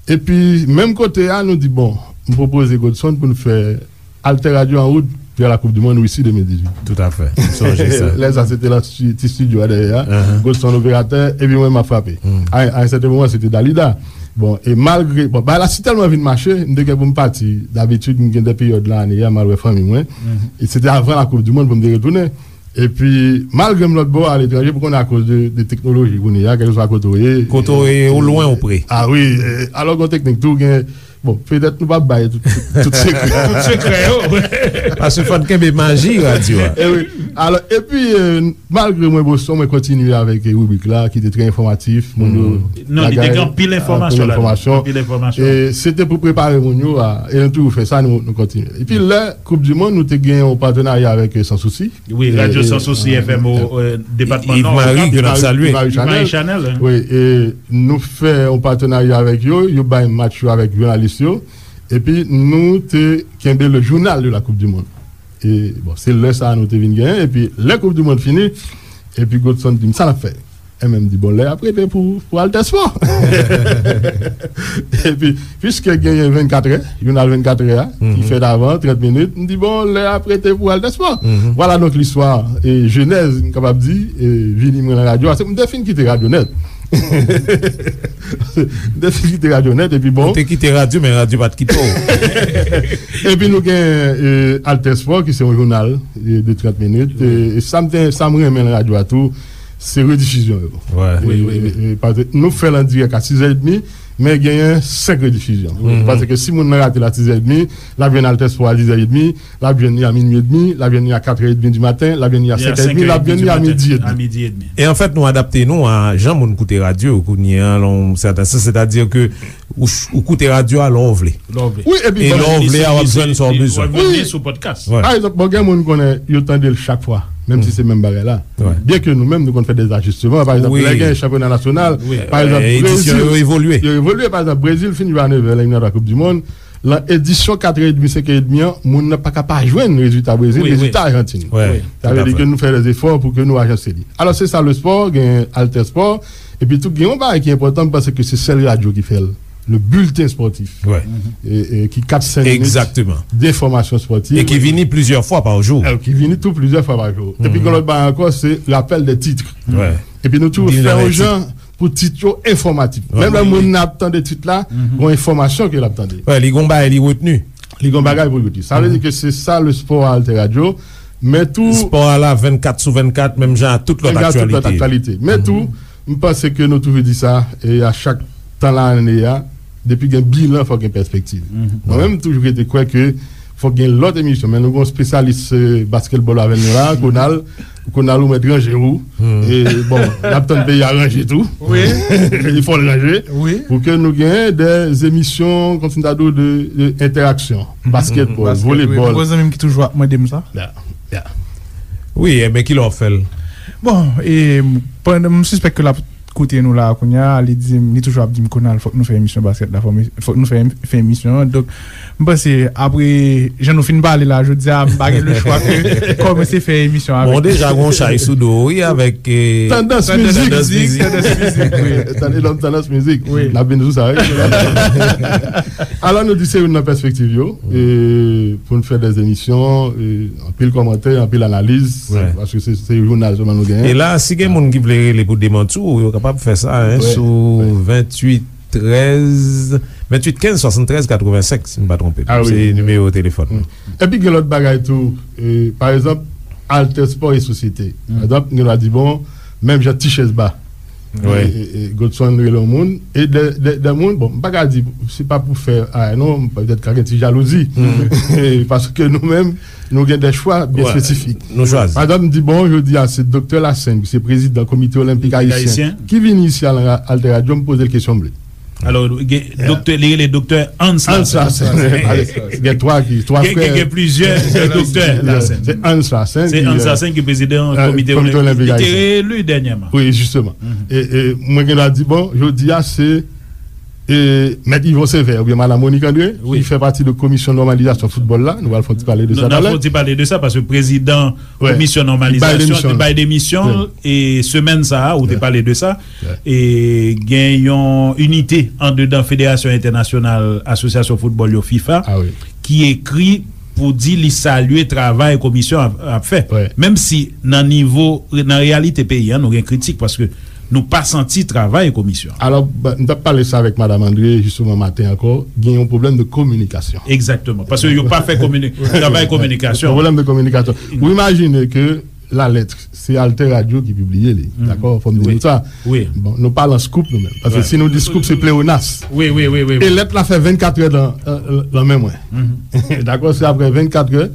Epi, menm kote a, nou di, "Bon, m pwopoze Godson pou n fè Alter Radio an wout." de la Coupe du Monde Russie de mil dizuit. Toutafè. M sonje sa. Lè sa, se te nan sti- ti estidyo a dèyè a. Godson operatè, epi mwen, m ap frape. A, a yon sèten moman, se te Dalida. Bon, e malgre, bon, bagay la si tèlman vin mache, m te gen pou m pati. Dabitid, m gen de peryòd nan ane a, m al wè fanmi mwen. E se te avan la Coupe du Monde pou m te retounen. Epi, malgre m lòt bò, aletranje, pou konnen akoz de, de teknoloji, kounye a, kèlkeswa kote w ye. Kote w ye, ou lwen ou pre. A wi, e, alò, gen teknik tou, gen, bon, petèt nou p ap bay tout, tout, tout sekrè. Tout sekrè yo. Paske fò n kenbe maji radyo a. E wi. Alò, epi, e, malgre mwen Boston, mwen kontinye avèk, e, ribrik la, ki te trè enfòmatif. Moun yo, non, li te gen anpil enfòmasyon ladan. Anpil enfòmasyon. Anpil enfòmasyon. E se te pou prepare moun yo a, e nou toujou fè sa, nou, nou kontinye. Epi lè Koup di Mond, nou te gen yon patenarya avèk, e, Sans Souci. Wi, Radyo Sans Souci F M o, e, depatman Nò, Yves-Marie, ke n ap salye. Yves-Marie Chanel. Wi, e nou fè yon patenarya avèk yo, yo bay match yo avèk jounalis yo, epi nou te kenbe le journal de la Coupe du Monde. E, bon, se lè sa a nou te vin genyen, epi lè Koup di Mond fini, epi Godson di m, "Sa n ap fè?" E mwen m di, "Bon, lè a ap rete pou, pou Altèspò." Epi, piske genyen vennkatrè, jounal vennkatrè a, ki fèt avan, trant minit, m di, "Bon, lè a ap rete pou Altèspò." Vwala donk listwa, e jenèz, m kapab di, e vini mwen nan radyo a. Se m te fin kite radyo nèt. M te fin kite radyo nèt, epi bon. Ou te kite radyo, men radyo pa t kite w. Epi nou gen, e, Altèspò, ki se yon jounal, e, de trant minit. E, e sa m te, sa m renmen nan radyo a tou, se redifizyon yo. Wi, wi, wi. E, e, paske nou fè l an dirèk a sis è edmi, men genyen senk redifizyon. Paske si moun nan rate l a sis è edmi, l ap jwenn Altèspò a dis è edmi, l ap jwenn li a minui edmi, l ap jwenn li a kat è edmi di maten, l ap jwenn li a senk è edmi, l ap jwenn li a midi edmi. E anfèt, nou adapte nou a jan moun koute radyo kounye a, nan yon sèten sans, sètadi ke ou, ou koute radyo a lè w vle. Lè w vle. Wi, epi e lè w vle a, w ap jwenn sa w bezwen. W ap jwenn li sou podcast. Wi. Pa egzanp, bon, gen moun konnen yo tande l chak fwa, menm si se menm bagay la. Byenke nou menm, nou konn fè dèzajisteman. Pa egzanp, lè gen chanpyona nasyonal, pa egzanp, edisyon yo evolye. Yo evolye. Pa egzanp, Brezil fin jwe a nèv è, lè y nan la Coupe du Monde, nan edisyon kat è edmi, senk è edmi an, moun nan pa ka pa jwenn rezilta Brezil, rezilta Ajantin. Sa vle di ke nou fè dèzefò pou ke nou ajanse li. Alò, se sa lespò, gen Altèspò, epi tou gen yon bagay ki enpòtan, m panse ke se sèl radyo ki fè l, le bulletin sportif. E, e ki kat senk minit de enfòmasyon spòtiv. E ki vini plizyè fwa pa jou. E ki vini tou plizyè fwa pa jou. Epi gen lòt bagay ankò, se rapèl de tit. Epi nou toujou fè yon jan pou tit yo enfòmatif. Menm lè moun nan ap tande tit la, gon enfòmasyon ke l ap tande. Wi, li gon bagay li retni. Li gon bagay pou l retni. Sa vle di ke se sa lespò a Altè Radio, men tou spò a la vennkat sou vennkat, menm jan a tout lòt aktyalite. Men tou, m panse ke nou toujou di sa, e a chak tan lane a, depi gen bilan, fòk gen pèspektiv. Mwen menm, m toujou rete kwè ke fòk gen lòt emisyon, men nou gon espesyalis, e, basketball avè nou la, Konal. Konal, ou mèt ranje ou. E, bon, n ap tann peyi a ranje tou. Wi. Fò l ranje. Wi. Pou ke nou gen des émissions, kòmsi m ta di w, de, de entèraksyon. Basketball, volleyball. Wi, gon zanmi m ki toujou ap mande m sa. Ya, ya. Wi, enben, kilè w ap fè l? Bon, e, pandan, m sispèk ke l ap koute nou la kounye a, li di m, li toujou ap di m, "Konal, fòk nou fè emisyon baskèt la, fòk nou, fòk nou fè, fè emisyon an." Donk, m panse, apre jan nou fin pale la, jodi a, m pa gen lechwa ke kòmanse fè emisyon avèk. Bon, deja, gon chay sou do, wi, avèk, e, tandans mizik. Tandans mizik, wi. Tande lòm tandans mizik. Wi. N ap vin sou sa, wi. Alò, nou di se youn nan pèspektiv yo, e, pou n fè dè emisyon, e, anpil kòmantè, anpil analiz, paske se, se jounal sèlman nou genyen. E la, si gen moun ki vle rele pou demanti w, yo kapab fè sa, en, sou venntuit trèz, venntuit kenz swasanntrèz katrevensenk, si m pa twonpe m. Se nimewo telefòn. Epi gen lòt bagay tou, e, pa egzanp, Altè Spò e Sosyete. Pa egzanp, gen dwa di, bon, menm jan Tichèz Ba. E, e, e, Godson rele yon moun, e de, de, de moun, bon, m pa ka di, se pa pou fè, a, non, petèt ka gen ti jalouzi. Paske nou menm, nou gen de chwa byen espesifik. Nou chwazi. Pa egzanp, m di, bon, jodi a, se Doktè Lassaigne, ki se prezidan Komite Olenpik Ayisyen, ki vini isi a nan Altè Radio, m poze l kesyon m vle. Alò, gen doktè, li rele Doktè Hans Lassaigne. Gen twa ki, twa frè. Gen, gen plizyè doktè Lassaigne. Se Hans Lassaigne ki prezidan Komite Olenpik. Li te reeli dènyèman. Wi, jisteman. E, e, mwen gen dwa di, bon, jodi a, se, e, Mèt Yvon Sévère oubyen Madan Monique André, ki fè pati de komisyon nòmalizasyon foutbòl la. Nou pral fè yon ti pale de sa talè. N ap fè yon ti pale de sa, paske prezidan komisyon nòmalizasyon te bay demisyon l, e semèn sa a, ou te pale de sa. E gen yon inite andedan Federasyon Entènasyonal Asosyasyon Foutbòl yo, fifa, ki ekri pou di li salye travay komisyon ap, ap fè. Wi. Menm si nan nivo, nan reyalite peyi a, nou gen kritik paske nou pa santi travay komisyon an. Alò, ba, m t ap pale sa avèk Madam Andre, jisteman, maten ankò, gen yon pwoblèm de kominikasyon. Egzakteman. Paske yo pa fè komini-, travay kominikasyon. Yon pwoblèm de kominikasyon. Ou imajine ke Lalèt, se Alter Radio ki pibliye li, dakò? Fò m di nou sa. Wi. Bon, nou pa lan scoop nou menm. Paske si nou di scoop, se pleonas. Wi, wi, wi, wi. E lèt la fè vennkat è lan, lan, lan men mwen. Dakò? Se apre vennkat è,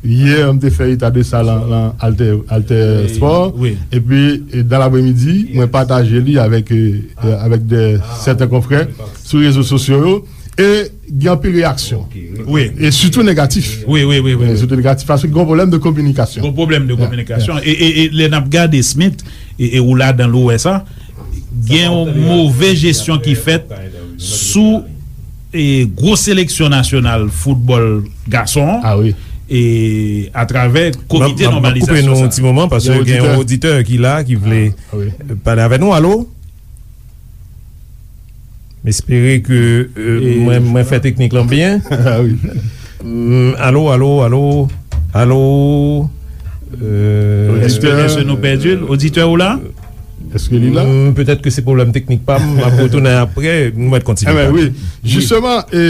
yè, m te fè eta de sa lan, lan Alter, Alter Sport. Wi. Epi, e, dan lapremidi, mwen pataje li avèk, e, e, avèk de, sèten konfrè sou rezo sosyo yo. E gen anpil reyaksyon. Wi. E sitou negatif. Wi, wi, wi, wi, wi. Sitou negatif, paske gen yon pwoblèm de kominikasyon. Gen yon pwoblèm de kominikasyon. E, e, e lè n ap gade Smith, e, e ou ladan l ou wè sa, gen yon move jesyon ki fèt sou, e, gwo seleksyon nasyonal foutbòl gason an, e atravè komite nòmalizasyon sa. M ap koupe nou yon ti moman, paske gen yon oditè ki la, ki vle pale avè nou. Alo? M espere ke, euh, mwen, mwen fè teknik lan byen. Ah wi. Mm, alo, alo, alo, alo. Euh, èske, èske nou pèdi l? Oditè ou la? Èske li la? Mm, petèt ke se pwoblèm teknik pa m, m ap retounen apre, nou mèt kontinye pale. Wi. Jisteman, e,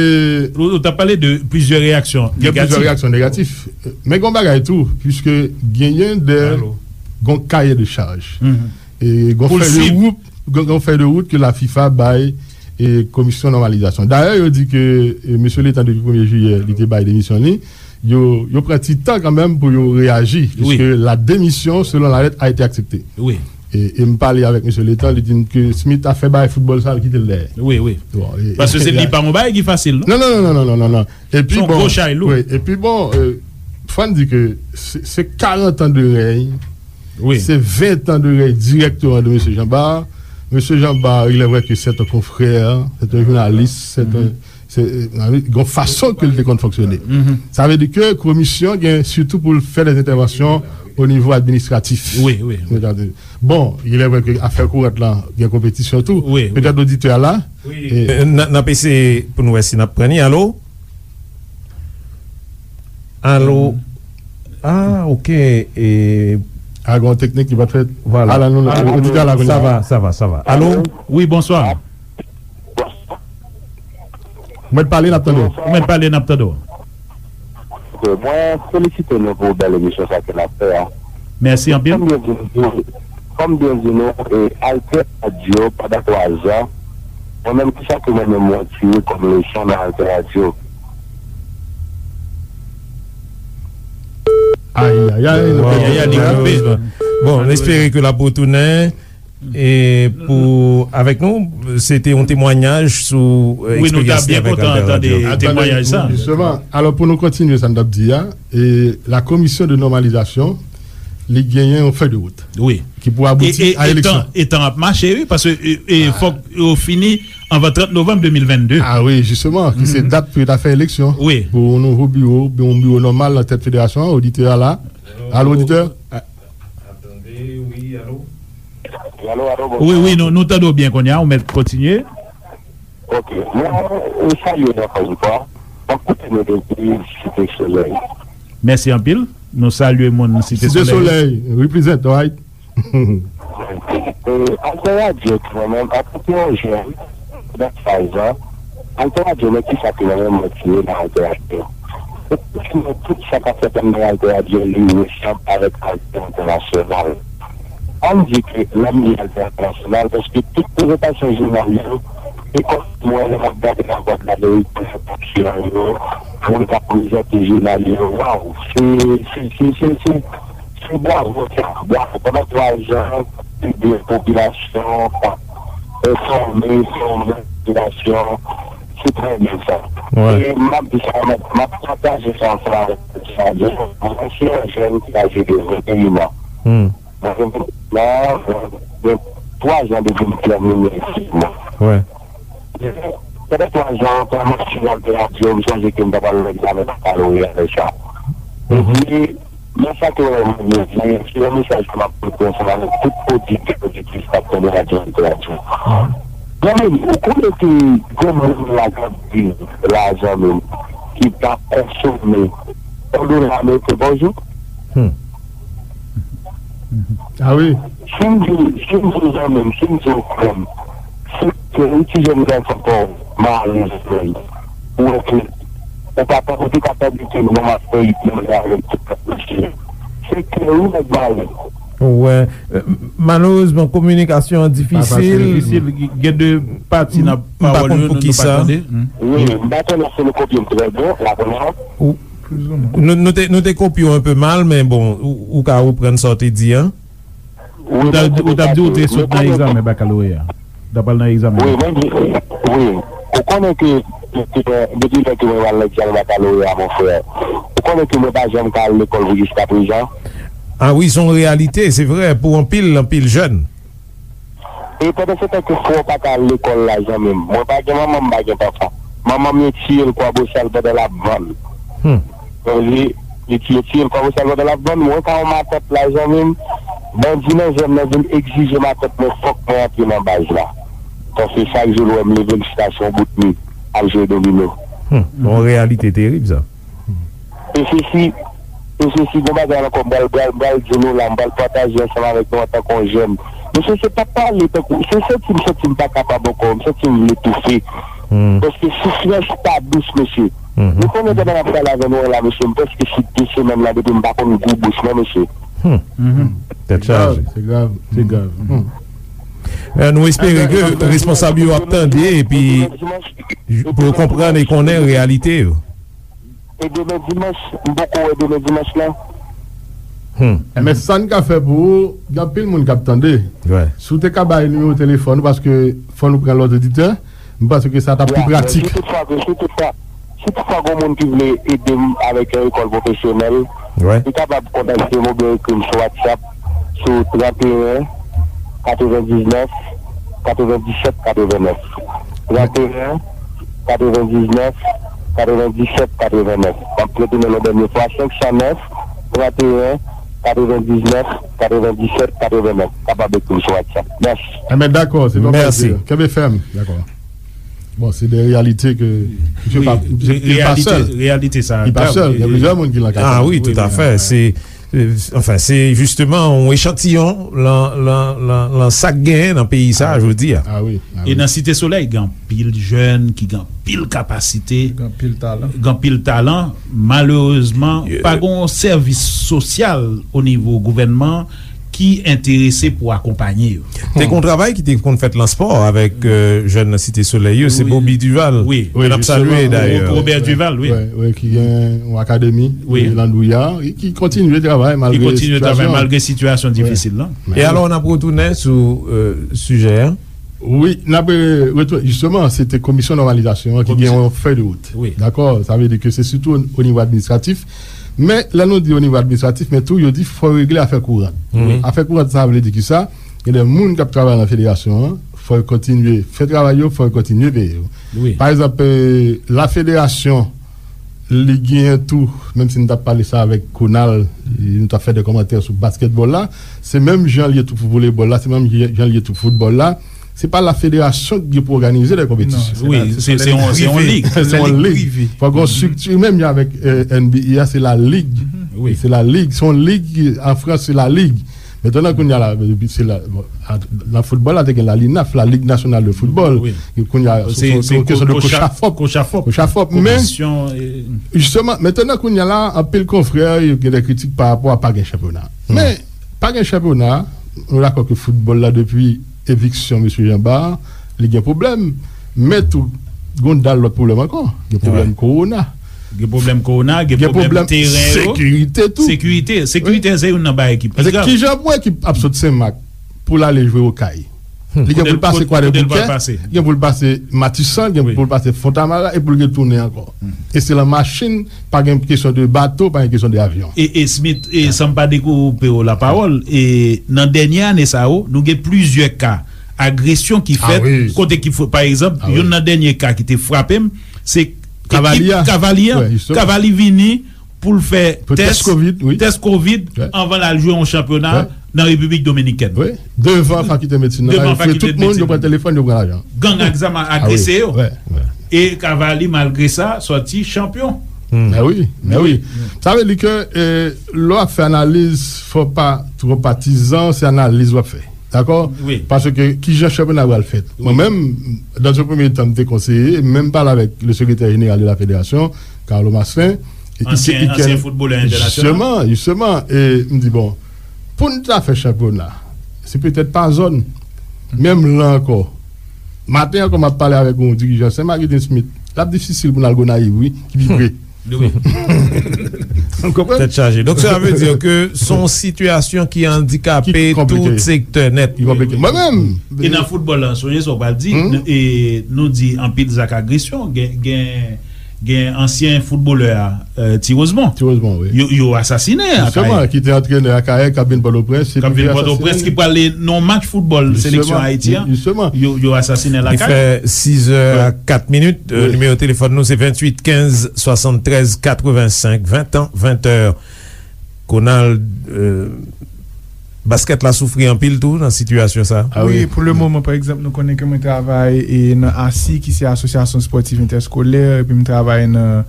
ou, ou t ap pale de plizyè reyaksyon negatif. Gen plizyè reyaksyon negatif. Men gen yon bagay tou, piske genyen de, gen yon kaye de chaj. E gen yon fèy de wout, gen, gen yon fèy de wout ke la fifa bay, e, komisyon nòmalizasyon. Dayè, yo di ke, e, mesye Letan, depi premye jiyè, li te bay demisyon li. Yo, yo pran ti tan kanmenm pou yo reyaji, piske la démission, selon la lettre, a été acceptée. Wi. E, e m pale avèk mesye Letan, li di m ke Smith afè bay foutbòl sa, l kite l dèyè. Wi, wi. Bon, e, paske se li pa yon bagay ki fasil, non? Non, non, non. Epi bon, wi, epi bon, e, fò n di ke se, se karant an de rèy. Wi. Se ven tan de rèy dirèkteman de mesye Jean Bart. Mesye Jean Bart, il est vrai que c'est un confrère, c'est un journaliste, c'est un, se, e, gen yon fason ke l te konn fonksyone. Sa vle di ke komisyon gen sitou pou l fè dè entèvansyon o nivo administratif. Wi, wi, wi. Bon, il est vrai que afè kourant lan, gen konpetisyon tou. Wi, wi. Petèt oditè a la. Wi. E, n, n ap eseye pou n wè si n ap pran li. Alo? Alo? Ah, ok. E, a, gen yon teknik ki pa t fèt. Vwala. Ala nou, oditè a la kounye a. Sa va, sa va, sa va. Alo? Wi, bonswa. Ou mèt pale, n ap tande w. Ou mèt pale, n ap tande w. Ok, mwen felisite nou pou bèl emisyon sa ke n ap fè a. Mèsi anpil. Kòm byen di nou, kòm byen di nou, e, Alter Radio pandan twa zan, mwen menm, kisa ke mwen menm mwen tire kòm leson nan Alter Radio? Ayayay, nou pèdi li. Bon, n espere ke l ap retounen. E pou, avèk nou, se te yon temwayaj sou, e, eksperyans li avèk Alter Radio. Wi, nou ta byen kontan tande temwayaj sa. Jisteman, alò, pou nou kontinye sa n t ap di a, e, la commission de normalisation, li genyen yon fèy de wout ki pou abouti a eleksyon. E, e, e tan, e tan ap mache, wi, paske, e, e, fòk yo fini anvan trant novanm de mil vennde. Ah wi, jisteman, ki se dat pou yo ta fè eleksyon pou yon nouvo biwo, yon biwo nòmal nan tèt federasyon an, oditè a la. Alo, oditè? Alo, alo, bonjou. Wi, wi, nou, nou tande w byen kounye a, ou mèt kontinye. Ok, mwen, mwen salye nou ankò yon fwa. Mwen koute nou depi Site Solèy. Mèsi anpil. Nou salye moun Site Solèy. Site Solèy, represent, right? E, Alter Radio, mwen menm, antanke yon jèn, nan faz lan, Alter Radio, men kisa ke mwen menm mwen tire nan Alter Radio? Tout sa k ap fèt anndan Alter Radio, li resanm avèk Alter Entènasyonal. Ann di ke lè m di Alter Entènasyonal, paske tout prezantasyon jounal yo, e kòm mwen, lè m ap gade Lavwadlamerik, prezantasyon yo, moun k ap prezante jounal yo, waw, se, se, se, se, se, Se bwavo sa, bwavo. Pandan twa zan, ede popilasyon, enfòme, fòme popilasyon, se trè byen sa. E m ap di sa, m ap, m ap pataje sa ansanm avèk sa. Mwen se yon jèn ki aje de venteyen an. Mwen gen venteyen an, mwen gen twa zan depi m tèmine etid mwen. Pandan twa zan, pandan m ap swiv Alter Radio, m sonje ke m t ap al nan egzamen bakaloreya lè sa. Epi, men sa ke mwen vle di, se yon mesaj ke m ap pote ansanm avèk tout oditè, oditris k ap tande radyo Alter Radio. Zanmi m, ou konnen ke gen moun la k ap viv la, zanmi m, ki pa konsome yon dola ameriken pa jou. Hmm. Ah wi. Si m di, si m di zanmi m, si m di yon frè m, se ke yon ti jèn gason pa w malere, ou wè ke ou pa, ou te ka tande ke non, m ap fè ritm nan avèk tout lòt mesye. Se ke yon nèg malere. Ou wè, euh, malerezman, kominikasyon an difisil. Difisil, gen de pati nan pawòl yo, nou pa tande. Wi, m pa konnen si nou kopye m trè byen, la premyè. Nou, nou te, nou te kopye w enpe mal, men bon, ou, ou ka reprann sa w te di an. Ou t ap, ou t ap di ou te sot nan egzamen bakaloreya. Ou t ap al nan egzamen. Wi, mwen di, wi. Ou konnen ke, ke, ke depi lè ke mwen al nan egzamen bakaloreya, mon frè, ou konnen ke mwen pa janm ka al lekòl pou jiska prezan. Ah wi, se yon reyalite, se vre, pou anpil, anpil jèn. E pandan se tan ke frè w pa ka al lekòl la, zanmi m, mwen pa gen manman, m pa gen papa. Manman m, yo tiye l Kwabosal pandan l ap vann. Hmm. Yo tiye, yo tiye l Kwabosal pandan l ap vann. Mwen ka yon matant la, zanmi m. Bandi nan zòn nan vin egzije matant mwen, fòk mwen antre nan baz la. Paske chak jou l wè m leve l chita sou yon bout mi, al jwe domino. Hmm. Yon reyalite terib, sa. E se si, e se si gon bagay ankò, m pral, pral, pral di nou la, m pral pataje ansanm avèk nou antanke yon jèn. Mesye, se pa pale tankou, se santi m, santi m pa kapab ankò, m santi m vle toufe. Hmm. Paske soufrans pa dous, mesye. Mhm. Nou konnen pandan n ap pale avè nou an la, mesye, m prèske sou de semèn la depi m pa konn gou bouch mwen, mesye. Hmm. Mhm. Tèt chaje. Se grav, se grav. Hmm. Men nou espere ke responsab yo ap tande epi pou yo konprann e konnen reyalite yo. E demen dimanch, m poko wè demen dimanch lan. Hmm. Men sa n ka fè pou ou, gen anpil moun k ap tande. Wi. Si w te ka bay nimewo telefòn ou, paske fò nou pran lòt oditè, m panse ke sa t ap pi pratik. Si toutfwa ke, si toutfwa, si toutfwa gen moun ki vle ede m avèk yon lekòl pwofesyonèl, wi, li kapab kontakte m oubyen ekri m sou WhatsApp sou trannteyen, katrevendiznèf, katrevendisèt, katrevennnèf. Trannteyen, katrevendiznèf, katrevendisèt, katrevennèf. M ap retounen yon dènye fwa, senk san nèf, trannteyen, katrevendiznèf, katrevendisèt, katrevennèf. Kapab ekri m sou WhatsApp. Mèsi. Enben, dakò, se pa pwoblèm. Kenbe fèm. Dakò. Bon, se de reyalite ke, ke wi, pa, li pa sèl. Reyalite sa. Li pa sèl. Gen plizyè moun ki nan ka sa. Ah wi, toutafè. Se, euh, anfen, se jisteman yon echantiyon lan, lan, lan, lan sa k genyen nan peyi sa a jodi a. Ah wi, ah wi. E nan Site Solèy, gen anpil jèn ki gen anpil kapasite, gen anpil talan. Gen anpil talan. Malerezman, pa gen yon sèvis sosyal o nivo gouvènman ki enterese pou akonpanye yo. Te gen yon travay ki te konn fèt lan spò avèk, euh, jèn nan Site Solèy yo, se Bobby Duval, ke n ap salye dayè. Robert Duval, wi. Wi, wi, ki gen yon akademi, wi, Landouya, e ki kontinye travay malgre sitiyasyon. Ki kontinye travay malgre sitiyasyon difisil lan. E alò, n ap retounen sou, euh, sijè a. Wi, n ap, euh, retounen. Jisteman, se te komisyon nòmalizasyon an ki gen yon fèy de wout. Wi. Dakò? Sa vle di ke se sitou o, o nivo administratif. Men, lè nou di o nivo administratif, men tou, yo di fò regle afè kouran. Wi. Afè kouran, sa vle di ki sa? Gen de moun k ap travay nan federasyon an, fò yo kontinye fè travay yo, fò yo kontinye peye yo. Wi. Pa egzanp, euh, la federasyon, li genyen tou, menm si n t ap pale sa avèk Konal, nou t ap fè de kòmantè sou baskètbòl la, se menm jan l ye tou pou volebòl la, se menm jan l ye tou pou foutbòl la. Se pa la federasyon ki gen pou òganize de konpetisyon. Wi, se, se yon, se yon lig. Se yon lig. Fò gen yon estrikti, menm jan avèk, euh, N B A a, se la lig. Wi. Se la lig. Se yon lig, an Frans, se la lig. Mentnan, kounye a la, se la, bon, a, nan foutbòl la, te gen la linaf, la Ligue Nationale de Football. Wi. E kounye a, se, se, se yon kesyon de kochafòp. Kochafòp. Kochafòp. Men, jisteman, mentnan, kounye a la, anpil konfrè, yo gen de kritik pa rapò a pa gen chanpyona. Men, pa gen chanpyona, nou dakò ke foutbòl la, depi eviksyon mesye Jean Bart, li gen pwoblèm. Men tou, gen yon dal lòt pwoblèm ankò. Gen pwoblèm kowona. Gen pwoblèm kowona, gen pwoblèm teren yo. Sekirite tou. Sekirite. Sekirite, se youn nan bagay ki pi grav. Kijan pou ekip ap sot Senmak pou l ale jwe Okay? Li gen pou l pase Kwadèboukè, gen pou l pase Matisan, gen pou l pase Fontamara, e pou l retounen ankò. E se lan machin, pa gen kesyon de bato, pa gen kesyon de avyon. E, e Smith, e san m pa dekoupe w lapawòl, e nan dènye ane sa yo, nou gen plizyè ka agresyon ki fèt, kote ki fo-, pa egzanp, youn nan dènye ka ki te frape m, se ekip Kavali a. Kavali a. Kavali vini pou l fè tès, tès kovid, wi, tès kovid anvan l al jwe yon chanpyona nan Repiblik Dominikèn. Wi. Devan fakilté medsin nan, yo fouye tout moun, yo pran telefòn, yo pran lajan. Gang ak zam agrese yo. E Kavali, malgre sa, sòti chanpyon. Mè wi, mè wi. Sa vle di ke, eh, lè w ap fè analiz, fò w pa twò patizan, se analiz w ap fè. Dakò? Paske kijan chanpyona a pral fèt? Mwen menm, dans un premier temps, m te konseye, m menm pale avèk le sekretè jeneral de la federasyon, Carlo Maslin. Ansyen foutbolè entènasyonal. Jisteman, jisteman. E m di, bon, pou n ta fè chanpyona, se petèt pa zòn. Menm la ankò, maten ankò, m ap pale avèk yon dirijan Sen Mak Eden Smith. L ap difisil pou n al Gonayiv, wi, ki pi pre. Wi. Ou konprann? Tèt chaje. Donk, sa vle di ke se yon sitiyasyon ki andikape tout sektè nèt. Ki konplike. Mwen menm. E nan foutbòl la, sonje sa w pral di, e nou di anpil zak agresyon, gen, gen, gen ansyen foutbolè a, eh, Ti Rosemond. Ti Rosemond, wi. Yo, yo asasinen Akayè. Jisteman, ki te antrenè Akayè, k ap vin Pòtoprens, k ap vin Pòtoprens, ki prale nan yon match foutbòl seleksyon Ayiti an. Jisteman. Yo, yo asasinen l Akayè. Li fè sis è a kat minit. Euh, nimewo telefòn nou se venntuit kenz swasanntrèz katrevensenk, ven tan, ven è. Konald, euh, baskèt la soufri anpil tou nan sitiyasyon sa. Wi, pou le moman, pa egzanp, nou konnen ke mwen travay e nan ASI, ki se Asosyasyon Spòtiv Entèskolè, epi m travay nan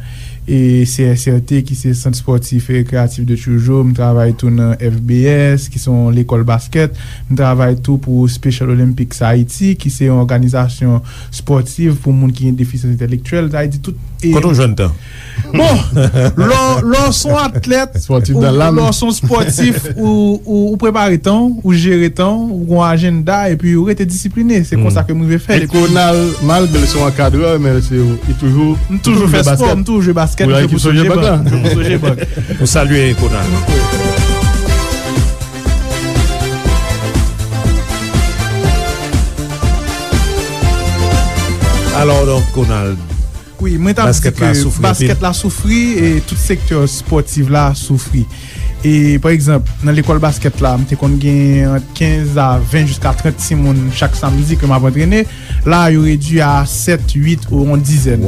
e C S R T, ki se Sant Spòtif e Rekreyatif de Tioujo. M travay tou nan F B S, ki se yon lekòl baskèt. M travay tou pou Special Olympics Haiti, ki se yon òganizasyon spòtiv pou moun ki gen defisans entèlektyèl. Sa vle di tout. Kote w jwenn tan? Bon, lè w, lè w se yon atlèt, ou, lè w se yon spòtif, ou, ou, ou prepare tan w, ou jere tan w, ou gen yon ajanda, epi ou rete disipline. Se konsa ke m rive fè l. E Konald, malgre l se yon ankadrè, men se, li toujou, m toujou fè spò, m toujou jwe baskèt, m jwe pou Sogebank. M jwe pou Sogebank. Nou salye Konald. Alò, donk, Konald, wi, mwen t ap di ke baskèt la soufri, e tout sektè spòtif la soufri. E, pa egzanp, nan lekòl baskèt la, m te konn gen ant kenz a ven jiska trant timoun chak samdi ke m ap antrene. La, yo redui a sèt, uit ou yon dizèn.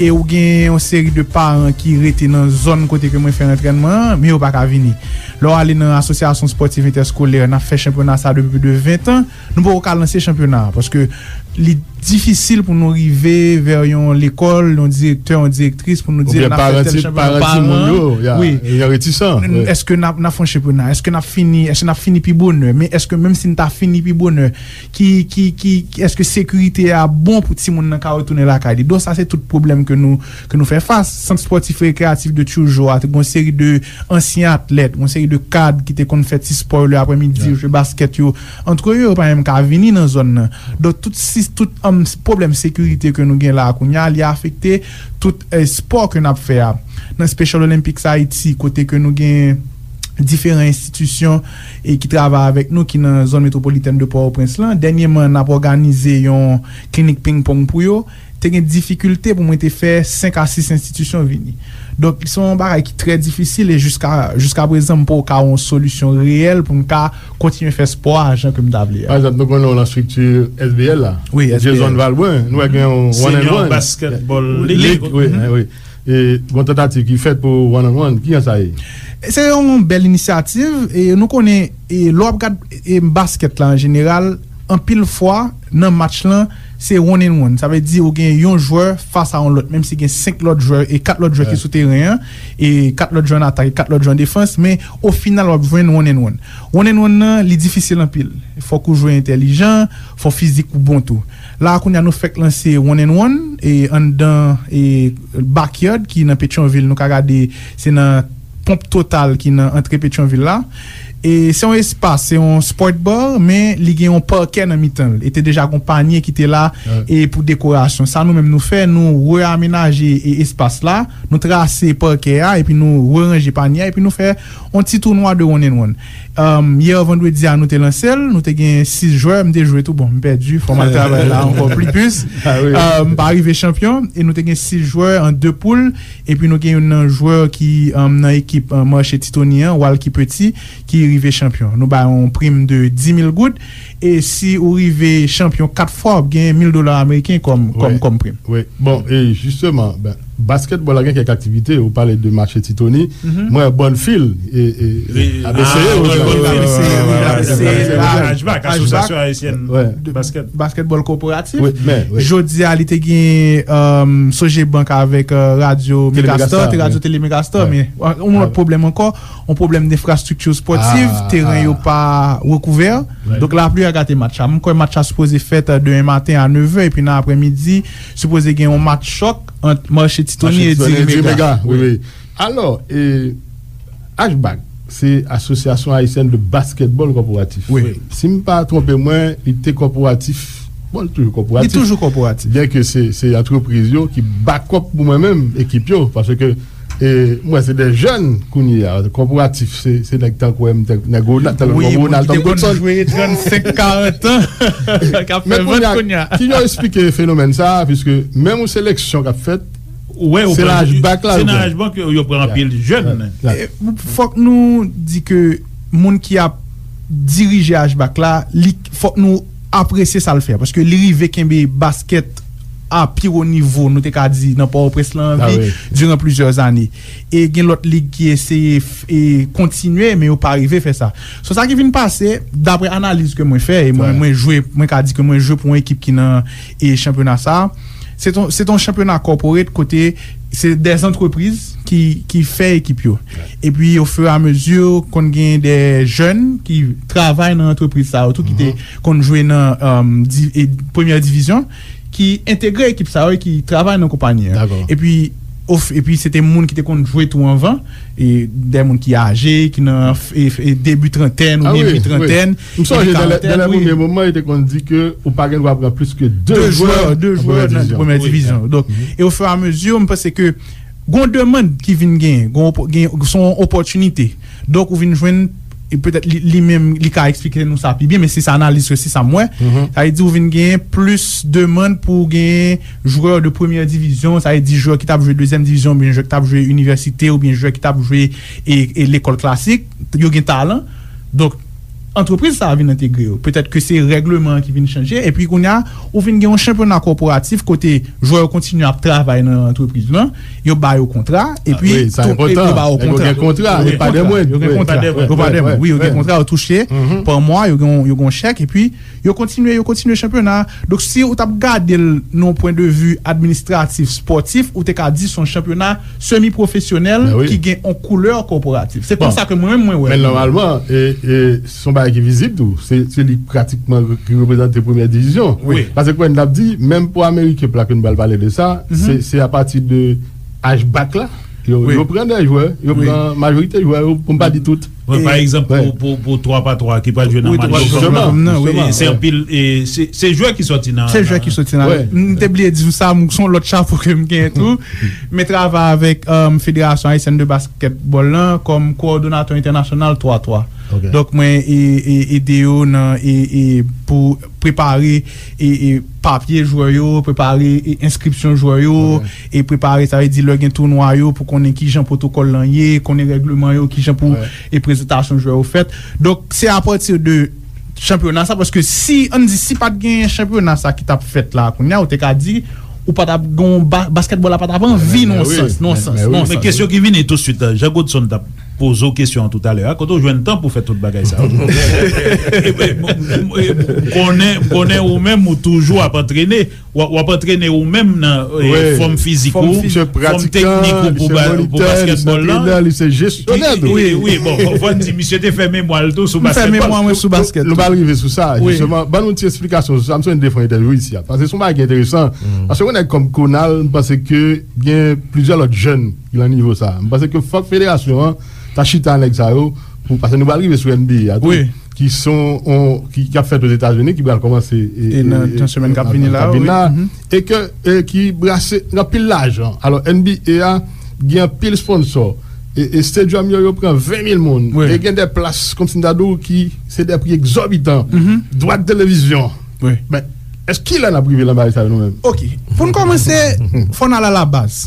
E ou gen yon seri de paran ki rete nan zòn kote ke mwen fè antrènman an, men yo pa ka vini. Lè w ale nan Asosyasyon Spòtiv Entèskolè, n ap fè chanpyona sa depi plis de ven tan, nou poko ka lanse chanpyona a, paske li difisil pou nou rive vè yon lekòl, yon direktè, yon direktris, pou nou di n ap fè tèl chanpyona. Paran, wi. Yo retisan. Èske n ap, n ap fè yon chanpyona? Èske n ap fini, èske n ap fini pi bonè? Men èske menm si n ta fini pi bonè, ki, ki, ki, èske sekirite a bon pou timoun nan ka retounen lakay li? Donk, sa se tout pwoblèm ke nou, ke nou fè fas. Sant Spòtif Rekreyatif de Tioujo a, te gen yon seri de ansyen atlèt, yon seri de kad ki te konn fè ti spò yo leaprès-midi, yo jwe baskèt yo antre yo, yo pa menm ka vini nan zòn nan. Donk, tout si, tout, um, pwoblèm sekirite ke nou gen la a kounye a, li afekte tout, eh, spò ke n ap fè a. Nan Special Olympics Haiti, kote ke nou gen diferan enstitisyon e ki travay avèk nou, ki nan zòn metwopolitèn de Pòtoprens lan. Dènyèman, n ap òganize yon klinik pingpong pou yo. Te gen difikilte pou mwen te fè senk a sis enstitisyon vini. Donk, se yon bagay ki trè difisil e jiska, jiska prezan, m poko ka yon solisyon reyèl pou m ka kontinye fè spò a jan ke m ta vle a. Pa egzanp, nou konnen w nan estrikti S B L la. Wi, S B L. Jason Valbrun, nou wè gen yon one and one. Senior Basketball League. League, wi, wi. E gon tantativ ki fèt pou one on one, kijan sa ye? Se yon bèl inisyativ, e nou konnen, e lè w ap gad, e baskèt la an jeneral, anpil fwa, nan match lan, se one and one. Sa vle di ou gen yon jwè fas a yon lòt, menm si gen senk lòt jwè e kat lòt jwè ki sou teren an, e kat lòt jwè an atak e kat lòt jwè an defans, men o final w ap jwenn one and one. One and one nan, li difisil anpil. Fòk ou jwe entèlijan, fò fizik ou bon tou. La a kounye a nou fèk lanse one and one, e anndan, e backyard ki nan Petyonvil, nou ka gade, se nan Ponp Total ki nan antre Petyonvil la. E se yon espas, se yon sport bar, men li gen yon pakè nan mitan l. E te deja gon panye ki te la, e pou dekorasyon. Sa nou menm nou fè, nou reamenaje, e espas la, nou trase pakè a, epi nou reranje panye a, epi nou fè yon ti tounwa de one and one. Um, yè vandredi a, nou te lanse l, nou te gen sis jwè, m te jwe tou, bon, m pèdi, fò m al travay la ankò pli plis. Um, m pa rive chanpyon, e nou te gen sis jwè an de poul, epi nou gen youn nan jwè ki, um, nan ekip, um, mache Titoni an, Walky Petit, ki rive chanpyon. Nou ba yon prim de dis mil goud, e si ou rive chanpyon kat fwa, w ap gen mil dola ameriken kòm, kòm, kòm prim. Wi. Bon, e jisteman, ben, Baskètbòl la gen kèk aktivite, ou pale de match Titoni. Mwen, Bonnfield, e, e, ap eseye, ap eseye, ap eseye, Ashback, Asosyasyon Ayisyèn Baskèt. Baskètbòl kòporatif. Jodi a, li te gen, um, Sogebank avèk, uh, Radyo Megastar, te Radyo Tele Megastar, men, uh, yon lòt pwoblèm ankò, yon pwoblèm denfrastrikti spòtif, teren yo pa rekouvè. Donk, lapli a gate match la. M kwè match la sipoze fèt, uh, demen maten a nevè, epi nan aprèmidi, sipoze gen yon match chòk ant Marché Titoni e Diri Mega. Wi, wi. Alò, e, Ashback, se Association Haïtienne de Basketball Corporatif. Wi. Si m pa twonpe mwen, li te kòporatif. Bon, li toujou kòporatif. Li toujou kòporatif. Byen ke se, se antrepriz yo ki bakòp pou mwen menm, ekip yo, paske, e, mwen se de jèn kounye a. Kòporatif, se, se nèg tankou m, nèg Ronald, tankou Ronald, tankou Godson. Wi, moun ki te konn jwe trannsenk, karant an, k ap fè vant kounye a. Men kounye a, ki jan w eksplike fenomèn sa a, piske menm yon seleksyon k ap fèt, se nan Ashback la, se nan Ashback yo, yo pran anpil jèn. E, fòk nou di ke moun ki ap dirije Ashback la, li, fòk nou apresye sa l fè, paske li rive kenbe baskèt a pi wo nivo, nou te ka di, nan Pòtoprens lan an vi, diran plizyè ane. E gen lòt lig ki eseye f-, e kontinye, men yo pa rive fè sa. So, sa ki vin pase, daprè analiz ke mwen fè, e mwen, mwen jwe, mwen ka di ke mwen jwe pou yon ekip ki nan, e chanpyona sa a. Se t on, se t on chanpyona corporate kote se de antrepriz ki, ki fè ekip yo. Epi, ofiramezi, konn gen de jèn ki travay nan antrepriz sa yo tou, ki te konn jwe nan, um, di-, e, premyè divizyon, ki entegre ekip sa yo e ki travay nan konpayi an. Epi, of-, epi se te moun ki te konn jwe tou anvan, e de moun ki aje, ki nan f-, e, e debi trantèn oubyen mi trantèn. M sonje nan lè, nan lè premye moman, yo te konn di ke ou pa gen dwa pran plis ke de jwè, de jwè nan premyè divizyon. Donk, e ofiramezi, m panse ke gon demann ki vin genyen, gon opo-, gen, se yon opòtinite. Donk, ou vin jwenn, e petèt li, li menm, li ka eksplike nou sa pi byen, men se sa analiz, se sa m wè. Sa vle di, ou vin genyen plis demann pou genyen jwè de premyè divizyon, sa vle di jwè ki t ap jwe dezyèm divizyon, oubyen jwè ki t ap jwe inivèsite, oubyen jwè ki t ap jwe e, e lekòl klasik, yo gen talan. Donk, antrepriz sa a vin entegre yo. Petèt ke se règleman an ki vin chanje, epi kounye a, ou vin gen yon chanpyona kòporatif kote jwè yo kontinye ap travay nan antrepriz lan, yo ba yo kontra, epi yo ba yo kontra. Yo gen kontra, yo gen kontra, yo pa de mwen, wi, yo gen kontra, yo touche pa mwa, yo gen, yo gen yon chèk, epi yo kontinye, yo kontinye chanpyona. Donk, si ou t ap gade l nan yon pwen de vi administratif, spòtif, ou te ka di se yon chanpyona semi pwofesyonèl ki gen yon koulè kòporatif. Se konsa ke mwen menm mwen wè. Men nòmalman, e, e, se yon bagay ki vizib tou. Se, se li pratikman ki reprezante premyè divizyon. Paske kòm n ap di, menm pou Ameriken la ke nou pral pale de sa, se, se apati de Ashback la, yo, yo pran de jwè, yo pran majorite jwè yo, pou m pa di tout. Wi, pa egzanp, pou, pou, pou twa pa twa ki pral jwe nan match yo kòm nan, se anpil, e, se, se jwè ki sòti nan, se jwè ki sòti nan. M te bliye di w sa, m, se yon lòt chapo ke m genyen tou. Men travay avèk, um, Federasyon Ayisyèn de Baskètbòl lan kòm kowòdonatè entènasyonal twa twa. Donk, mwen e, e, ede yo nan, e, e, pou prepare, e, e, papye jwè yo, prepare, e, enskripsyon jwè yo, e prepare, sa vle di lè gen tounwa yo, pou konnen kijan pwotokòl lan ye, konnen règleman yo, kijan pou, e, prezantasyon jwè yo fèt. Donk, se apati de chanpyona sa, paske si, ann di, si pa t gen chanpyona sa ki t ap fèt la, kounye a, ou te ka di, ou pa t ap gen ba-, baskètbòl la pa t ap anvi nan yon sans, nan yon sans, nan yon sans. Men kesyon ki vini tousuit, Jean Godson t ap poze w kesyon an toutalè a, kote w jwenn tan pou fè tout bagay sa yo? M konnen, m konnen ou menm, ou toujou ap antrene, w ap, w ap antrene ou menm nan, e, fòm fizik ou, fòm teknik ou pou ba-, pou baskètbòl lan. Wi, wi, bon, fò, fò n di, misye te fè memwa l tou sou baskètbòl. M fè memwa mwen sou baskèt tou. Nou pral rive sou sa, jisteman. Ban nou ti eksplikasyon sou sa. M sonje n te fè yon entèvyou isi a. Paske se yon bagay ki enteresan. Paske yon nèg kòm Konal, m panse ke gen plizyè lòt jèn ki nan nivo sa. M panse ke fòk federasyon an ta chita nèg sa yo, pou, paske nou pral rive sou N B A a tou, ki son, on, ki, ki ap fèt Ozetazini, ki pral kòmanse, e, e, nan, e, nan semèn k ap vini la, wi. E ke, e ki brase anpil lajan. Alò, N B A a gen anpil sponsò. E, e stadium yo, yo pran ven mil moun. E gen de plas, kòmsi m ta di w, ki se de pri egzòbitan. Dwa de televizyon. Men, èske kilè n ap rive nan bagay sa yo nou menm? Ok. Pou n kòmanse, fò n al a la baz.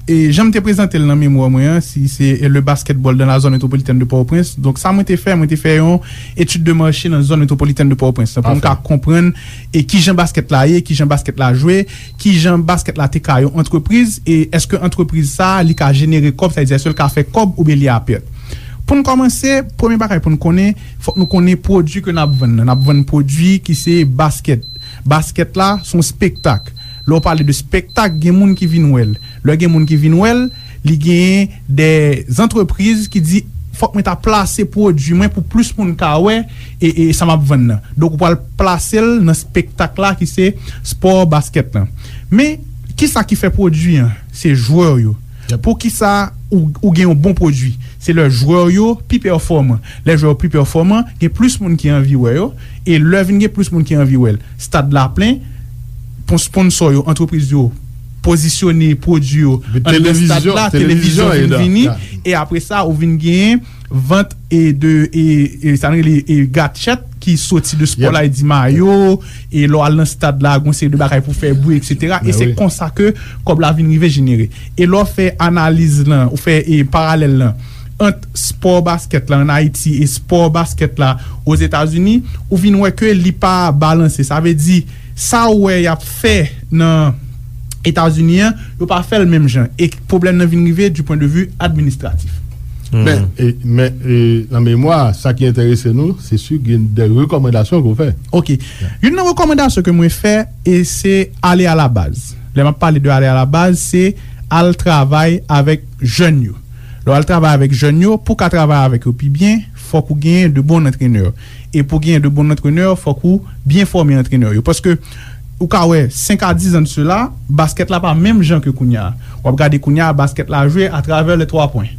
e jan m te prezante l nan memwa mwen an, si se, e, le basketball dans la zone métropolitaine de Port-au-Prince. Donk, sa mwen te fè, mwen te fè yon etid de mache nan zòn metwopolitèn de Pòtoprens lan, pou m ka konprann e kijan baskèt la ye, kijan baskèt la jwe, kijan baskèt la te ka yon antrepriz, e èske antrepriz sa a, li ka jenere kòb, sa vle di, èske l ka fè kòb oubyen li a pèt. Pou n kòmanse, premye bagay pou n konnen, fòk nou konnen pwodui ke n ap vann nan. N ap vann pwodui ki se baskèt. Baskèt la, se yon spektak. Lè w pale de spektak, gen moun ki vin wè l. Lè gen moun ki vin wè l, li genyen de antrepriz ki di, "Fòk mwen ta plase pwodui mwen pou plis moun ka wè e, e sa m ap vann nan." Donk, ou pral plase l nan spektak la ki se spò baskèt lan. Men, kisa ki fè pwodui an? Se jwè yo. Poukisa ou, ou gen yon bon pwodui? Se lè jwè yo pi pèfòman. Lè jwè yo pi pèfòman, gen plis moun ki anvi wè yo. E lè vin gen plis moun ki anvi wè l, stad la plen, pon-, sponsò yo, antrepriz yo pozisyone pwodui yo anndan stad la, televizyon vin vini, e apre sa, ou vin genyen vant e de, e, e sa n rele, e, gadjèt ki soti de spò la, e di mayo, e lè w al nan stad la, gon seri de bagay pou fè bri, etsetera. E se konsa ke kòb la vin rive jenere. E lè w fè analiz lan, ou fè, e, paralèl lan ant spò baskèt la ann Ayiti e spò baskèt la Ozetazini, ou vin wè ke li pa balanse. Sa vle di, sa w wè y ap fè nan Etazini an, yo pa fè l menm jan. E pwoblèm nan vin rive du point de vue administratif. Men, e, men, e, nan memwa, sa ki enterese nou, se si gen de rekòmandasyon ke w fè. Ok. Youn nan rekòmandasyon ke mwen fè, e se ale a la baz. Lè m ap pale de ale a la baz, se al travay avèk jèn yo. Lè w al travay avèk jèn yo, pou w ka travay avèk yo pi byen, fòk ou genyen de bon antrenè. E pou genyen de bon antrenè, fòk ou byen fòme antrenè yo. Paske ou ka wè, senk a diz an de sela, baskèt la pa menm jan ke kounye a. W ap gade kounye a, baskèt la jwe atravè le twa pwen.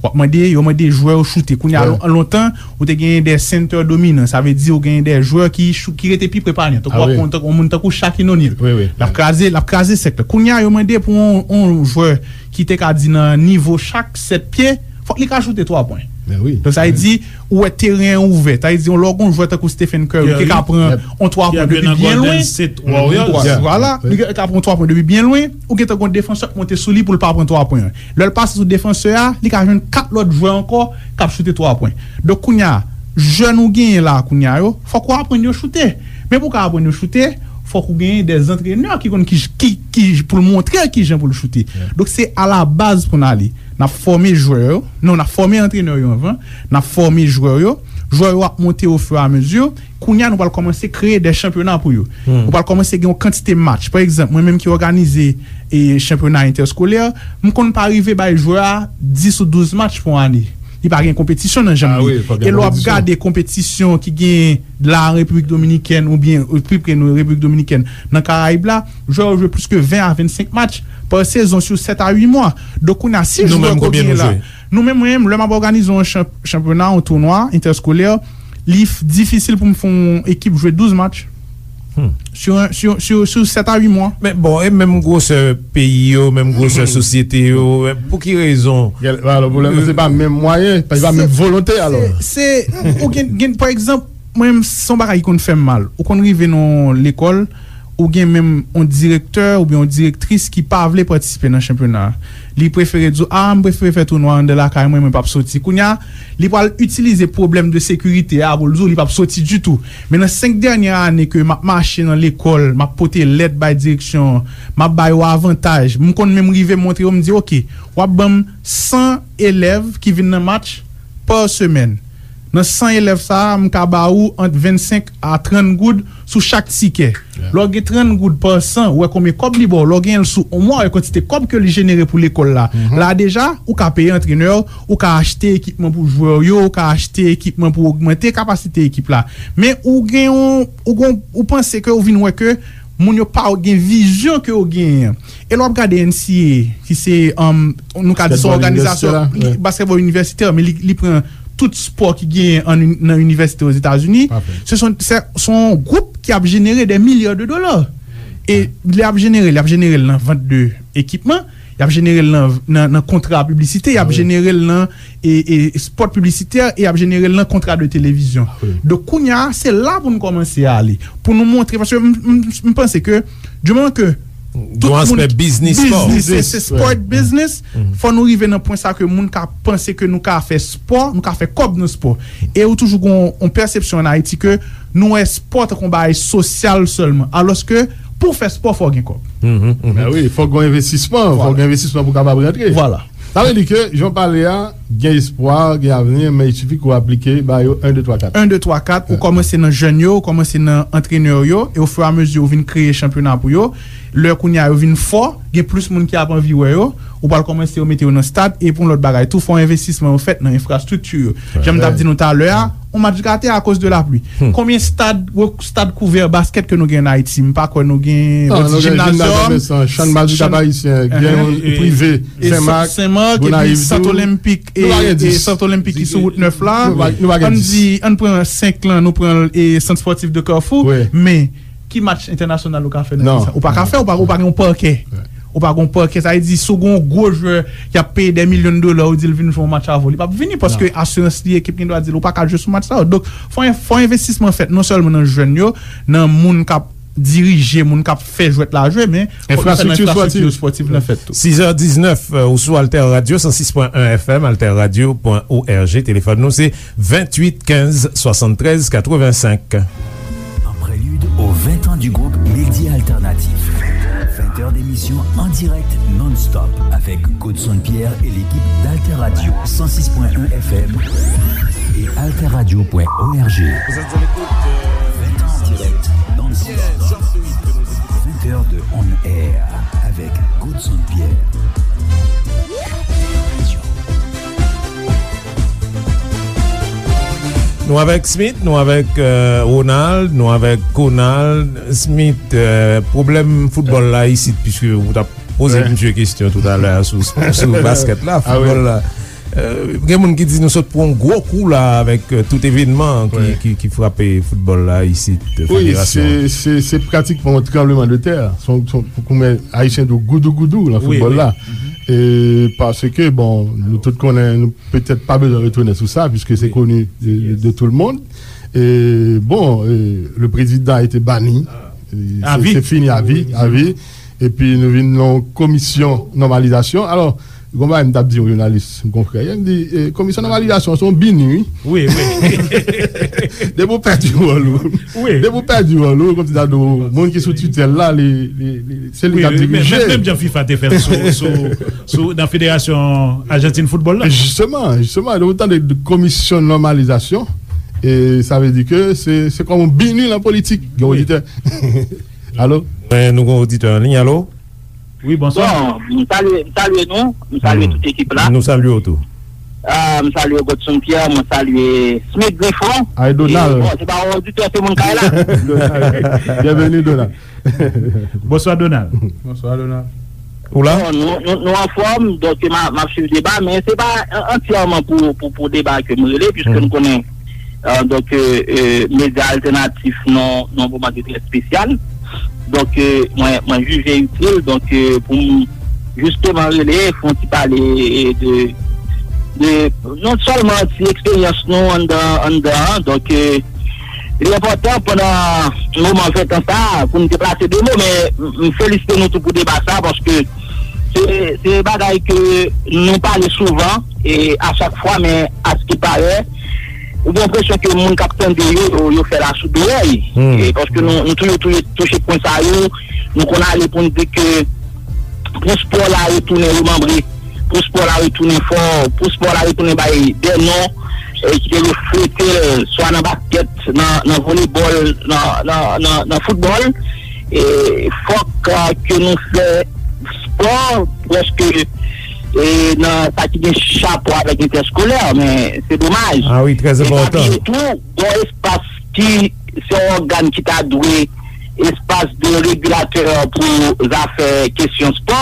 W ap mande, yo mande jwè yo choute. Kounye a, lon-, lontan, ou te genyen de sentè dominan. Sa vle di, ou genyen de jwè ki chou-, ki rete pi pre panye. Tankou w ap pran, tankou yon moun tankou Shaquille O'Neal. L ap kraze, l ap kraze sèk la. Kounye a, yo mande pou yon, yon jwè ki te ka di nan nivo chak sèt pye, fòk li ka choute twa pwen. Donk, sa vle di, ou wè teren an ouvè. Sa vle di, lè w gen yon jwè tankou Stephen Curry, ki ka pran yon twa pwen depi byen lwen. Vwala, li ka pran twa pwen depi byen lwen, ou gentan gen yon defansè k monte sou li pou l pa pran twa pwen an. Lè l pase sou defansè a, li ka jwenn kat lòt jwè ankò k ap choute twa pwen. Donk, kounye a, jèn ou genyen la, kounye a yo, fòk ou aprann yo choute. Men pou w ka aprann yo choute, fòk ou genyen de antrenè ki konn ki, ki, ki, pou l montre l kijan pou l choute. Donk, se a la baz pou n ale. N ap fòme jwè yo. Non, n ap fòme antrenè yo anvan. N ap fòme jwè yo. Jwè yo ap monte au fur et à mesure. Kounye a, nou pral kòmanse kreye de chanpyona pou yo. Nou pral kòmanse gen yon kantite match. Pa egzanp, mwen menm ki òganize, e, chanpyona entèskolè, m konn pa rive bay jwè a dis ou douz match pou ane. Li pa gen konpetisyon nan janm li. E lè w ap gade konpetisyon ki gen la Repiblik Dominikèn oubyen, e, pi pre nou, Repiblik Dominikèn, nan Karayib la, jwè yo jwe plis ke ven a vennsenk match pa sezon sou sèt a uit mwa. Donk, kounye a, si jwè ke w genyen la, nou menm, mwen menm, lè m ap òganize yon chanp-, chanpyona, yon tounwa entèskolè, li f-, difisil pou m fè yon ekip jwe douz match. Sou, sou, sou, sou sèt a uit mwa. Men bon, e menm gwosè peyi yo, menm gwosè sosyete yo, men pou ki rezon? Alò, pwoblèm nan, se pa menm mwayen, se pa menm volonte, alò. Se, se, ou gen, gen, pa egzanp, mwen menm, se yon bagay ki konn fè m mal. Ou konn rive nan yon lekòl, ou gen menm yon direktè oubyen yon direktris ki pa vle patisipe nan chanpyona a. Li prefere di w, "A, m prefere fè tounwa anndan lakay mwen, mwen p ap soti." Kounye a, li pral itilize pwoblèm de sekirite a pou l di w li p ap soti ditou. Men nan senk dènye ane ke m ap mache nan lekòl, m ap pote lèt bay direksyon an, m ap ba yo avantaj, m konn menm rive montre yo, m di, "Oke, w ap ban m san elèv ki vin nan match pa semèn." Nan san elèv sa a, m ka ba ou ant vennsenk a trant goud sou chak tikè. Lè w gen trant goud pa san, ou wè konbyen kòb li ba w. Lè w gen l sou yon mwa, ou wè kantite kòb ke li jenere pou lekòl la. La deja, ou ka peye antrenè, ou ka achte ekipman pou jwè yo, ou ka achte ekipman pou ogmante kapasite ekip la. Men ou gen yon, ou gon, ou panse ke ou vin wè ke moun yo pa gen vizyon ke w genyen an. E lè w ap gade N C A A, ki se, um, nou ka di se yon òganizasyon baskètbòl inivèsitè, men li, li pran tout spò ki genyen an, nan inivèsite Ozetazini. Se son, se, se yon gwoup ki ap jenere de milya de dola. E li ap jenere, li ap jenere l nan vant de ekipman, li ap jenere l nan, nan, nan kontra piblisite, li ap jenere l nan e, e spot piblisitè, e y ap jenere l nan kontra de televizyon. Donk, kounye a, se la pou nou kòmanse ale. Pou nou montre, paske m, m, m panse ke, di moman ke Tout moun aspè biznis spò. Biznis, se, se sport business. Fò nou rive nan pwen sa ke moun ka panse ke nou ka fè spò, nou ka fè kòb nan spò. E ou toujou gon yon pèsepsyon an Ayiti ke nou wè spò tankou yon bagay sosyal sèlman. Alòske, pou w fè spò, fò w gen kòb. Ben wi, fòk gen yon envestisman, fòk gen envestisman pou w kapab rantre. Vwala. Sa vle di ke, jan w pale a, gen espwa, gen avni, men il sifi ke w aplike ba yo en, de, twa, kat. En, de, twa, kat, ou kòmanse nan jèn yo, ou kòmanse nan antrenè yo, e ofiramezi ou vin kreye chanpyona pou yo. Lè kounye a yo vin fò, gen plis moun ki ap anvi wè yo, ou pral kòmanse yo mete yo nan stad, e pou yon lòt bagay tou, fò envestisman yo fèt nan enfrastrikti yo. Jan m t ap di nou talè a, yon match gate akoz de lapli. Konbyen stad, stad kouvè baskèt ke nou gen an Ayiti? M pa kwè nou gen yon ti jimnazyòm. Chann baskèt ayisyen, gen yon prive, Senmak, Gonayiv tou. Sant Olenpik, e Sant Olenpik ki sou wout nèf la. Ann di, ann pran senk lan, nou pran Sant Spòtif de Kafou, men ki match entènasyonal ou ka fè nan peyi sa? Ou pa ka fè, ou pa, ou pa gen yon pakè. Ou pa gen yon pakè, sa vle di, si w gen yon gwo jwè, y ap peye dè milyon dola, ou di l vin jwe yon match avè w, li p ap vini, paske asirans li, ekip li dwa di l, ou pa ka jwe sou match sa yo. Donk, fò, fò envestisman fèt, non sèlman nan jèn yo, nan moun k ap dirije, moun k ap fè jwèt la jwe, men fò nou fè nan enfrastrikti spòtif lan fèt tou. Sizè diznèf, ou sou Alter Radio, san sis pwen en F M, alter radio pwen org, telefòn nou se venntuit kenz swasanntrèz katrevensenk. En prélude aux vingt ans du groupe Medi Alternatif. Vingt heures d'émission en direct non-stop avec Godson Pierre et l'équipe d'Alter Radio cent six point un F M et alter radio point org. Vous êtes à l'écoute de vingt ans en direct non-stop. Vingt heures de on air avec Godson Pierre. Nou avèk Smith, nou avèk, euh, Ronald, nou avèk Conald. Smith, euh, pwoblèm foutbòl la isit, piske ou t ap poze misye kesyon toutalè sou, sou baskèt la, foutbòl la. Euh, gen moun ki di nou sot pran yon gwo kou la avèk, euh, tout evènman ki, ki, ki frape foutbòl la isit, federasyon. Wi, se, se, se pratikman yon tranblemanntè. Se yon, se yon, pou koumen ayisyen di w goudougoudou nan foutbòl la. E paske, bon, nou tout konnen, nou petèt pa bezwen retounen sou sa, puisque c'est connu de, de, de tout le monde. E, bon, e, le président a été banni. E, c'est, c'est fini à vie, à vie. Epi nou vin nan yon komisyon nòmalizasyon. Alò, gon bagay m t ap di yon jounalis, yon konfrè, m di, e, komisyon nòmalizasyon, se yon bini, wi. Wi, wi. Depi w pèdi wòl ou. Wi. Depi w pèdi wòl ou, kòmsi ta di w, moun ki sou titèl la, li, li, li, se li k ap dirije. Menm, menm jan fifa te fè l sou, sou, sou, nan Federasyon Ajantin Foutbòl la. Jisteman, jisteman, lè w tande de komisyon nòmalizasyon, e sa vle di ke se, se kòm yon bini nan politik, gen oditè. Alo? Men nou gen oditè an liy, alo? Wi, bonswa. Bon, m salye, m salye nou, m salye tout ekip la. Nou salye w tou. Ah, m salye Godson Pierre, mwen salye Smith Griffon. Ay, Donald. E, bon, se pa yon oditè, se moun kay la. Donald. Byenveni, Donald. Bonswa, Donald. Bonswa, Donald. Ou la? Bon, nou, nou, nou anfòm, donk m a, m ap swiv deba, men se pa an-, antyèman pou, pou, pou deba ke m rele, piske nou konnen, euh, donk, euh, euh, medya altènatif nan, nan yon moman ki trè espesyal. Donk, euh, mwen, mwen jije itil, donk, euh, pou m jisteman rele, fè yon ti pale de, de, non sèlman ti eksperyans nou anndan, anndan an, donk, euh, li enpòtan pandan moman ventan sa a pou n deplase de mo, men m, m felisite nou tou pou deba sa a, paske se, se bagay ke nou pale souvan, e a chak fwa, men askiparè, ou gen enpresyon ke moun k ap tande yo, yo, yo fè l asou dorèy. E paske nou, nou toujou, toujou touche pwen sa yo, nou konn ale pou n di ke pou spò la retounen remanbre, pou spò la retounen fò, pou spò la retounen bay de non, e ki te reflete l swa nan baskèt, nan, nan volebòl, nan, nan, nan, nan foutbòl. E fòk, a, ke nou fè spò prèske, e, nan sa ki gen rapò avèk entèskolè, men se domaj. Ah wi, trè enpòtan. E pa bliye tou, gon espas ki se yon ògàn ki ta dwe espas de regilatè pou zafè kesyon spò.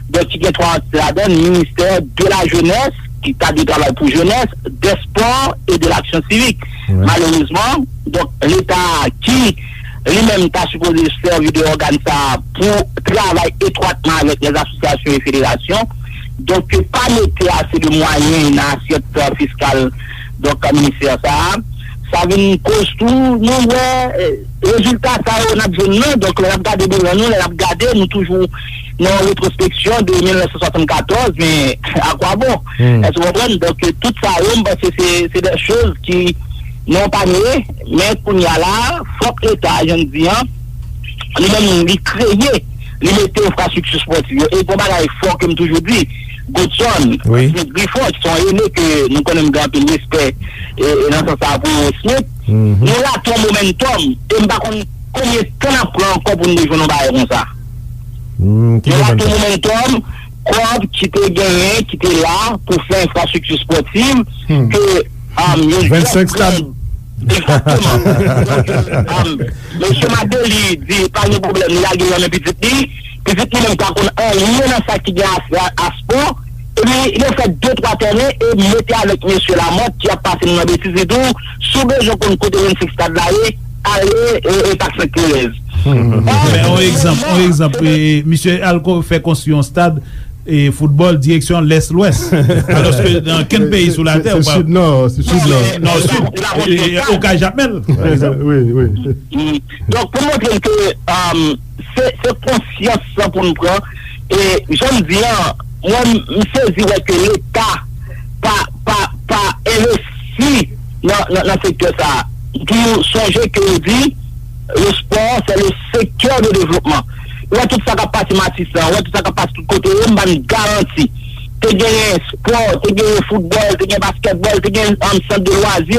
Donk, ki gen twa antite ladan l, ministè de la jeunesse, ki ta dwe travay pou jenès, des sports et de l'action civique. Malerezman, donk, Leta ki li menm ta sipoze sèvi de ògàn sa a pou travay etwatman avèk lèzasosyasyon e federasyon, donk, pa mete ase de mwayen nan asyèt, euh, fiskal, donk, ministè sa a. Sa vin koz tou, nou wè, e, rezilta sa yo n ap jwenn nan. Donk, lè n ap gade bilan nou, lè n ap gade, nou toujou nan yon retwospeksyon de mil nèf san swasann katòz, men akwabon? Èske w konprann? Donk, tout sa yo, m panse se, se de choz ki nou pa nye, men kounye a la, fòk Leta, jan m di an, li menm, li kreye, li mete enfrastrikti espòtiv yo. E gon bagay fò ke m toujou di, Godson, Smith Griffon, ki se yon ene ke nou konnen m gen anpil respè, e, e nan sans sa pou Smith, nou rate yon momentòm, e m pa konn konbyen tan n ap pran ankò pou n rejwenn yon bagay konsa. Nou rate yon momentòm, kòb ki te genyen, ki te la pou fè enfrastrikti espòtiv, ke, um, yon jèn, egzakteman. Donk, um, mesye Martelly di pa gen pwoblèm, li lage l nan men pitit li. Pitit li menm pa konn anyen nan sa ki gen a, a, a spò. Epi, yo fè de twa tèren e mete avèk mesye Lamothe ki ap pase nou nan betiz, li di w, si w bezwen konn kote vennsenk stad la ye, ale, e, e Pak Sent Terèz. Men, yon egzanp, yon egzanp, e, misye al ko-, fè konstwi yon stad, e, foutbòl direksyon lès lwès. Alòske nan kenn peyi sou latè, ou pa, se sid nò, se sid nò. Nò sid, e, e, Okay Jakmèl, pa egzanp. Wi, wi. Donk, pou montre ke, um, se, se konsyans sa pou n pran. E jan m di an, mwen, m sezi wè ke Leta pa, pa, pa envesti nan, nan, nan sektè sa a. Pou sonje ke yo di, le sport, c'est le secteur de développement. Ou wè tout sa k ap pase Matisan, ou wè tout sa k ap pase tout kote yo, m ba n garanti. Te genyen spò, te genyen foutbòl, te genyen baskètbòl, te genyen, um, sant de lwazi.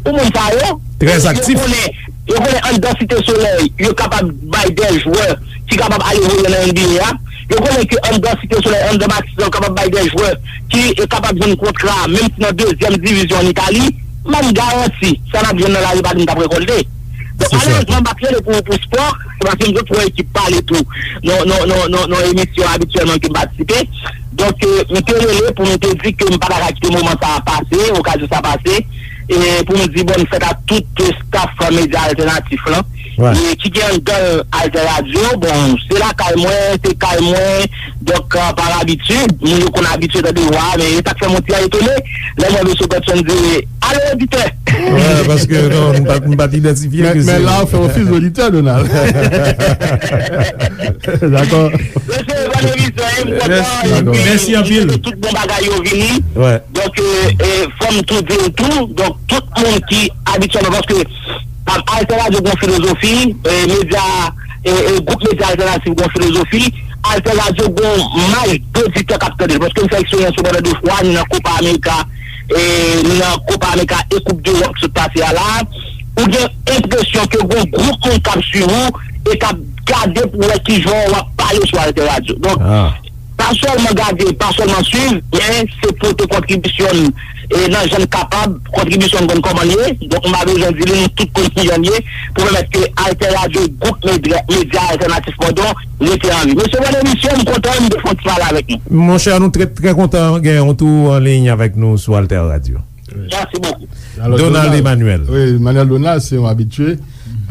Pou moun sa yo, yo konnen, yo konnen anndan Site Solèy, yo kapab bay de jwè ki kapab ale voye nan N B A a. Yo konnen ke anndan Site Solèy, anndan Matisan, yo kapab bay de jwè ki, e, kapab jwenn kontra, menm si nan dezyèm divizyon ann Itali. M ba n garanti, sa n ap jwenn nan lari pa di n t ap rekòlte. Donk, malerezman, m pa t rele pou, pou spò, se paske m jwenn yon ekip pale tou nan, nan, nan, nan, nan emisyon abityèlman ke m patisipe. Donk, e, m te rele pou m te di ke m pa ta ka kite moman sa a pase, okazyon sa a pase, e pou m di bòn fèt a tout staff medya altènatif lan, e ki gen anndan l Alter Radio. Bon, se lakay mwen, se kay mwen, donk, e, pa labitid, moun yo konn abitye tande vwa a, men e sa k fè m yon ti etone lè m wè mesye Godson di, "Alo, oditè!" Wi, paske non, m pa, m pa t idantifye ke se. Men la, w fè ofis oditè, Donald. Dakò. Mesye, bòn emisyon, e, m kontan, epi, mèsi anpil, tout bon bagay yo vini. Donk, e, e, fò m tou di l tou, donk, tout moun ki abityèlman, paske, um, Alter Radio gon filozofi, e, medya, e, e, gwoup medya altènatif gon filozofi, Alter Radio gon maj oditè k ap tande l, paske m fè eksperyans yo pandan de fwa, ni nan Copa America, e, ni nan Copa America e Coupe d'Europe sot pase a la, ou gen enpresyon ke gon gwoup moun k ap swiv ou e k ap gade pou wè kijan w ap pale sou Alter Radio. Donk, pa sèlman gade, pa sèlman swiv, men se pote kontribisyon n, e, nan jan n kapab, kontribisyon n konn kòman l ye. Donk, m pa bezwen di li, nou tout konn kijan l ye, pou pèmèt ke Alter Radio, gwoup medya, medya altènatif, padon, rete an vi. Mesye, bòn emisyon, m kontan, m te fè yon ti pale avèk nou. Monchè, nou trè, trè kontan gen yon tou an liy avèk nou sou Alter Radio. Mèsi bokou. Donald Emmanuel. Wi, Emmanuel Donald, se yon abitye.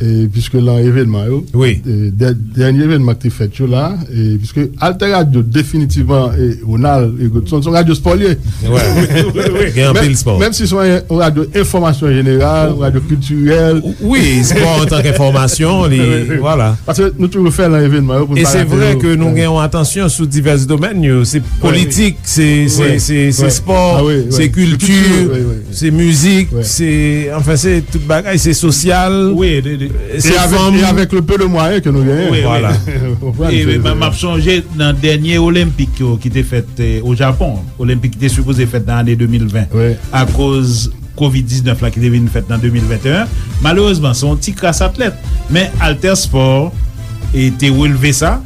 E, piske lan evènman yo, e, dè-, dènye evènman ki te fèt yo la, e, piske Alter Radio, definitivman, e, Ronald, e, se yon radyo spò l ye. Gen anpil spò. Menm si se yon radyo enfòmasyon jeneral, yon radyo kiltirèl. Wi, spò antanke enfòmasyon, li, vwala. Paske nou toujou fè lan evènman yo pou n pa rate yo. E se vre ke nou gen yon atansyon sou divès domèn yo. Se politik, se, se, se, se spò, se kilti, se mizik, se, anfen, se tout bagay, se sosyal, se fanm. E avèk le peu de moyens que nous gagnons. Wi, wi. Vwala. E, m ap sonje nan dènye Olenpik yo ki te fèt, e, o Japon, Olenpik ki te sipoze fèt nan ane de mil ven, akoz kovid diznèf la ki te vin fèt nan de mil venteyen. Malerezman, se yon ti kras atlèt. Men Alter Sport, e, te relve sa.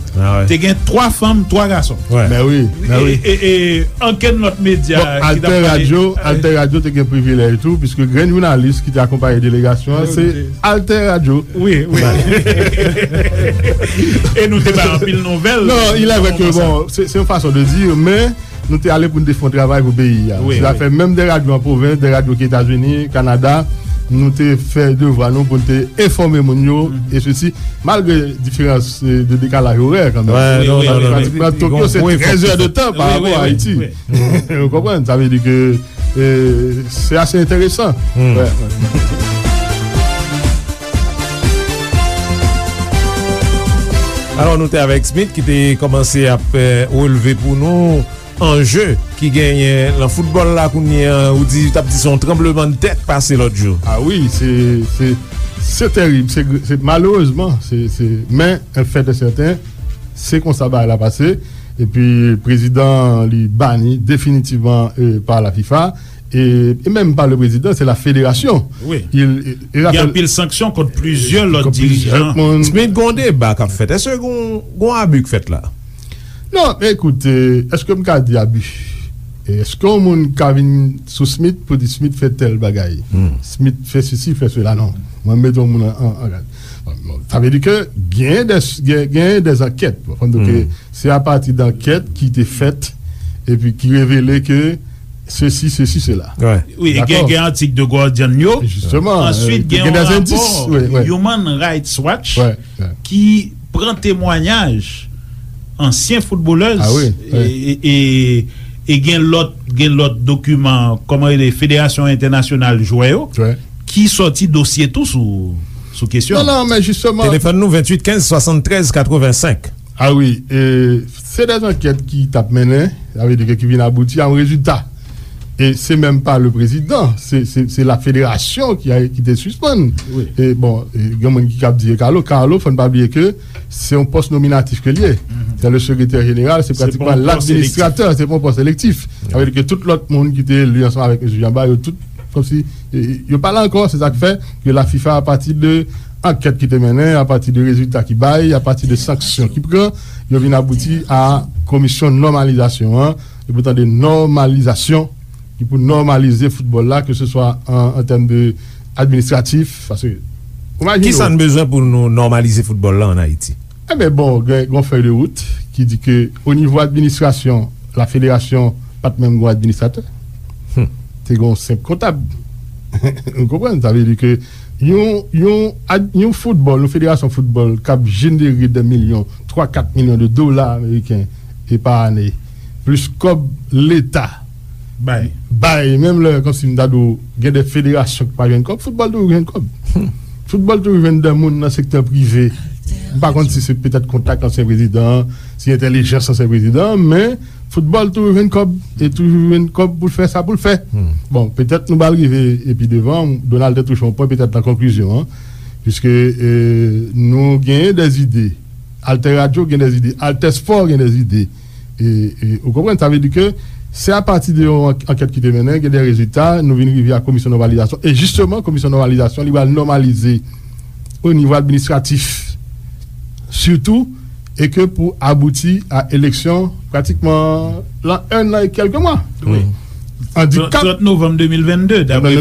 Te gen twa fanm, twa gason. Men wi, men wi. E, e, e, ankenn lòt medya ki t ap pale. Alter Radio, Alter Radio te gen privilèj tou, piske grenn jounalis ki te akonpaye delegasyon an, se Alter Radio. Wi, wi. E nou te bay anpil nouvèl. Non, il est vrai que, bon, se, se yon fason de dire, men nou te ale pou n te fè yon travay pou peyi a. Wi, wi. Sa fè menm de radyo an pwovens, de radyo ki Etazini, Kanada, nou te fè devwa nou pou n te enfòme moun yo, e sesi, malgre diferans, e, de dekalaj orè kanmenm. Wi, wi, wi. Paske Tokyo se trèz è de tan pa rapò a Ayiti. Ou konprann? Sa vle di ke, e, se ase enteresan. Wi, wi. Alò, nou te avèk Smith ki te kòmanse ap eh, relve pou nou anje ki genyen nan foutbòl la kounye a. Ou di, t ap di se yon tranblemanntè k pase lòt jou. Ah wi, se, se, se terib. Se, se, malerezman, se, se, men, en fèt e sèten, se konsa bagay la pase. Epi, prezidan li bani definitivman eh, pa la fifa. E, e menm pa le prezidan, se la federasyon. Wi. Il, e, e Gen anpil sanksyon kont plizyè lòt dirijan. Smith, gon deba k ap fèt. Èske gon, gon abi k fèt la? Non, men ekout, eh, èske m ka di abi? Eh, èske yon moun ka vin sou Smith pou di Smith fè tèl bagay? Smith fè sesi, fè sela? Non. Mwen, m mete yon moun an, an, an gad. Bon, bon, sa vle di ke gen de, gen, gen de ankèt. Bon, fò n di ke se apati de ankèt ki te fèt epi ki revele ke sesi, sesi, sela. Wi, gen, gen atik The Guardian yo. Answit, gen yon rapò Human Rights Watch ki pran temwayaj ansyen foutbolèz e, e, e, e gen lòt, gen lòt dokiman, kòman rele, Federasyon Entènasyonal Jwè yo, ki sòti dosye tou sou, sou kesyon. Non, non, men jisteman. Telefòn nou, venntuit kenz swasanntrèz katrevensenk. Ah wi, e, se de ankèt ki t ap mennen, sa vle di ke ki vin abouti a yon rezilta. E se menm pa le prezidan, se, se, se la federasyon ki a, ki te sispann. E bon, e gen moun ki kab di e Carlo, Carlo, fò n pa bliye ke se yon pòs nominatif ke l ye. Se le sekretè jeneral, se pratikman ladministratè, se pa yon pòs elektif. Sa vle di ke tout lòt moun ki te eli ansanm avèk mesye Jean Bart, yo tout, kòmsi, e, yo pa la ankò, se sa k fè ke la fifa, apati de ankèt ki te mennen, apati de rezilta ki bay, apati de sanksyon ki pran, yo vin abouti a komisyon nòmalizasyon an, e pou tande nòmalizasyon ki pou nòmalize foutbòl la, ke se swa an, an tèm de administratif, paske, imajine w. Kisa n bezwen pou nou nòmalize foutbòl la ann Ayiti? Enben, bon, gen, gen yon fèy de wout ki di ke o nivo administrasyon, la federasyon pa t menm gen yon administratè. Te gen yon senp kontab. Ou konprann? Sa vle di ke yon, yon, ad- yon foutbòl, yon federasyon foutbòl k ap jenere de milyon, twa, kat milyon de dola ameriken e pa ane, plis kòb leta bay. Bay, menm lè, kòmsi m ta di w, gen de federasyon ki pa jwenn kòb, foutbòl toujou jwenn kòb. Foutbòl toujou jwenn de moun nan sektè prive. M pa konn si se petèt kontak ansyen prezidan an, si entèlijans ansyen prezidan an, men foutbòl toujou jwenn kòb, e toujou jwenn kòb pou l fè sa pou l fè. Bon, petèt nou pral rive epi devan, Donald te touche yon pwen petèt nan konklizyon an, piske, e, nou genyen de zide, Alter Radio gen de zide, Alter Sport gen de zide. E, e, ou konprann, sa vle di ke se apati de yon ank- ankèt ki te mennen, gen de rezilta, nou vin rive a komisyon nòmalizasyon. E jisteman, komisyon nòmalizasyon, li pral nòmalize o nivo administratif, sitou, e ke pou abouti a eleksyon pratikman lan en an e kèlke mwa. Wi. Andikap trant novanm de mil vennde, daprè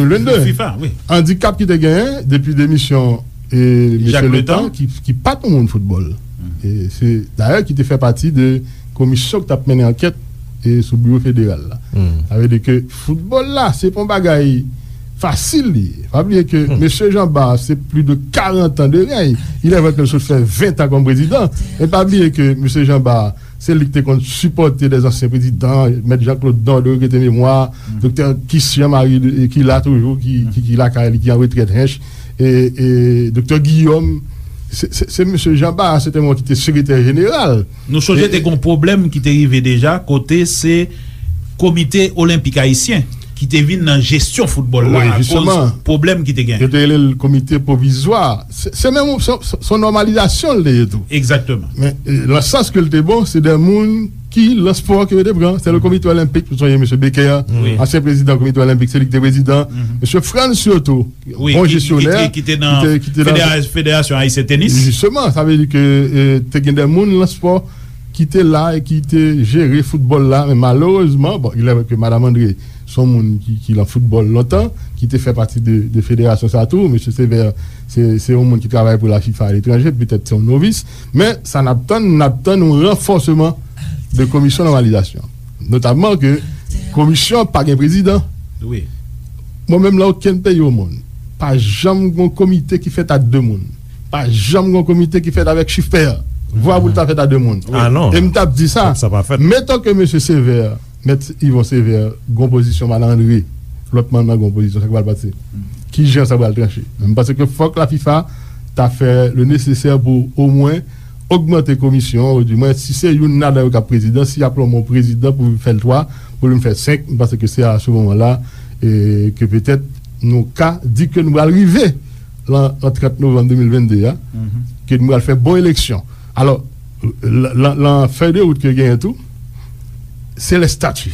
fifa, wi. Andikap ki te genyen depi demisyon e mesye Letan, ki, ki pa t yon moun foutbòl. E se dayè ki te fè pati de komisyon ki t ap mennen ankèt e sou biwo federal la. Sa vle di ke foutbòl la, se pa yon bagay fasil li ye. Pa bliye ke mesye Jean Bart, se plis de karant an de rèy. Il est vrai ke l sot fè ven an kòm prezidan, men pa bliye ke mesye Jean Bart, se li ki te konn sipòte de zansyen prezidan, mèt Jean Claude Dorderie, rete memwa, doktè Kis Jean Marie, ki la toujou, ki, ki, ki lakay li, ki an retrèt Hench, e, e doktè Guillaume, se, se, se mesye Jean Bart, se te mwen ki te sekretè jeneral. Nou sonje te gon pwoblèm ki te rive deja, kote se Komite Olenpik Ayisyen ki te vin nan jesyon foutbòl la akoz pwoblèm ki te gen. Yo te rele l komite pwovizwa. Se, se menm, se, se, se yon nòmalizasyon l te ye tou. Egzakteman. Men, e, nan sans ke l te bon, se de moun ki, nan spò ke yo te pran. Se le Komite Olenpik, pou sonje mesye Becker, ansyen prezidan Komite Olenpik, se li ki te prezidan. Mesye Frantz Cioto, bon jesyonè, ki te, ki te nan Federasyon Ayisyen Tenis. Jisteman, sa vle di ke, e, te gen de moun nan spò ki te la e ki te jere foutbòl la, men malerezman, bon, il est vrai que Madame André, se yon moun ki, ki lan foutbòl lontan, ki te fè pati de, de federasyon sa tou. Mesye Sévère, se, se yon moun ki travay pou la fifa aletranje, petèt se yon novis, men sa n ap tann, n ap tann yon ranfòseman de komisyon nòmalizasyon. Notamman ke komisyon an pa gen prezidan. Wi. Mwen menm, lan okenn peyi omonn, pa janm gen yon komite ki fèt a de moun. Pa janm gen yon komite ki fèt avèk chif pè. Vwa pou l ta fèt a de moun. Ah non. E m t ap di sa. Sa pa fèt. Meton ke mesye Sévère, mèt Yvon Sévère, gen yon pozisyon, Madan André, lòt manm nan gen yon pozisyon, sa k pral pase? Kijan sa pral tranche? Men m panse ke fòk la fifa ta fè le nécessaire pou omwen ogmante komisyon, ou di mwen, si se youn ladan yo k ap prezidan, si y ap lonmen yon prezidan pou vin fè l twa, pou vin fè senk, m panse ke se a se moman la, e, ke petèt nou ka di ke nou pral rive lan, an trant novanm de mil vennde a, ke nou pral fè bon eleksyon. Alò, lan, lan, lan fèy de wout ke genyen tou, se lestati.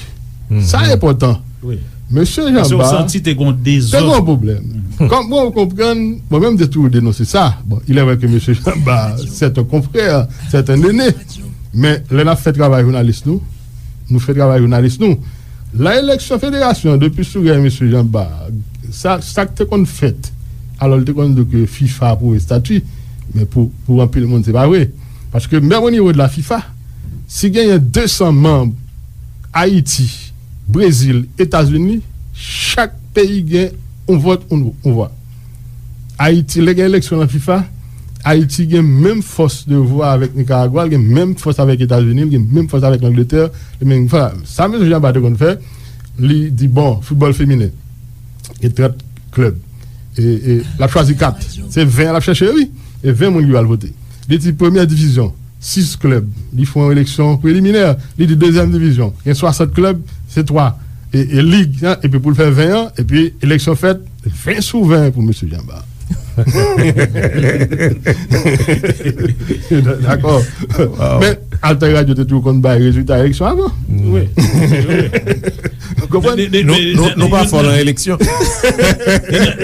Sa enpòtan. Mesye Janba te gon pwoblèm. Kòm mwen konprann, mwen menm m te toujou denonse sa. Bon, il est vrai que mesye Janba, c'est un confrère, c'est un aîné. Men lè n ap fè travay jounalis nou, nou fè travay jounalis nou. Lan eleksyon federasyon, depi sou rèy mesye Janba, sa, sa k te konn fèt, alò l te konn di ke fifa apwouve estati, men pou, pou anpil moun, se pa vre. Paske menm o nivo de la fifa, si genyen de san manm, Ayiti, Brezil, Etazini, chak peyi gen yon vòt, yon, yon vwa. Ayiti, lè gen eleksyon lan fifa, Ayiti gen menm fòs de vwa avèk Nikaragwa, l gen menm fòs avèk Etazini, l gen menm fòs avèk Langletè, li menm, sa mesye Janba te konn fè, li di, bon, foutbòl feminen, gen trant klèb. E, e l ap chwazi kat. Se ven l ap chèche, wi. E ven moun ki pral vote. Li di premyè divizyon, sis klèb. Li fè yon eleksyon preliminè. Li di dezyèm divizyon, gen swasant klèb, se twa. E, e lig, epi pou l fè ven an, epi eleksyon fèt, ven sou ven pou mesye Janba. Dakò. Men Alter Radio te toujou konn bay rezilta eleksyon avan. Wi. Konprann? Nou pa fò lan eleksyon.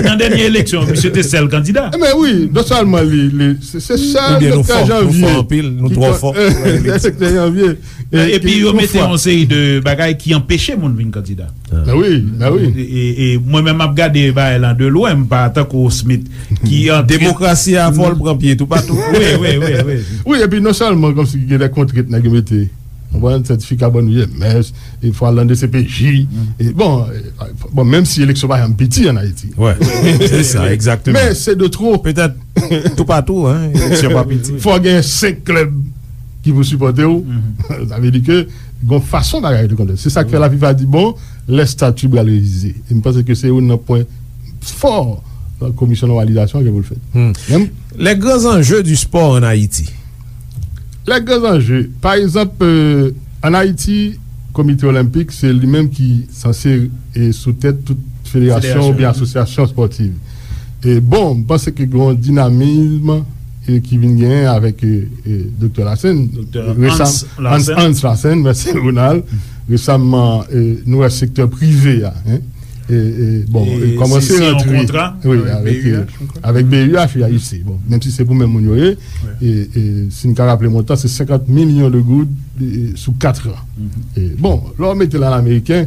Nan dènye eleksyon, misye te sèl kandida. Men wi, non sèlman li, li se sèl Doktè Janvye. Oubyen nou fò, nou fò anpil, nou twò fò. Doktè Janvye. Epi yo mete yon seri de bagay ki anpeche moun vin kandida. Wi, wi. E mwen menm m ap gade bagay lan de lwen, m pa tankou Smith ki antre. Demokrasi a fò l pran pye toupatou. Wi, wi, wi, wi. Wi, epi non sèlman kòmsi gen de kontrent nèg yo mete, konprann, sètifika bann ou ye mès, e fò al nan D C P J. E bon, bon, menm si eleksyon pa janm piti an Ayiti. Se sa, egzakteman. Men se de twò. Petèt toupatou, en, eleksyon pa piti. Fò gen senk klèb ki pou sipòte w. Sa vle di ke gon fason bagay yo te konn fèt. Se sa k fè la fifa di, bon, lè stati pral revize. E m panse ke se youn nan pwen fò komisyon nòmalizasyon an gen pou l fèt. Les grands enjeux du sport en Haïti. Les grands enjeux. Pa egzanp, an Ayiti, Komite Olenpik, se li menm ki sanse sou tèt tout federasyon oubyen asosyasyon espòtiv. E bon, m panse ke gen yon dinamism ki vin genyen avèk Doktè Larsen. Doktè Hans Larsen. Hans Larsen, mèsi Ronald. Resaman, nou wè sektè prive a, en, e bon, kòmanse rantre, wi, avèk B U H, wi, ayisyen. Bon, menm si se pou menm moun yo ye, e si n ka raple montan, se senkant milyon de goud sou kat an. E bon, lè w mete l an ameriken,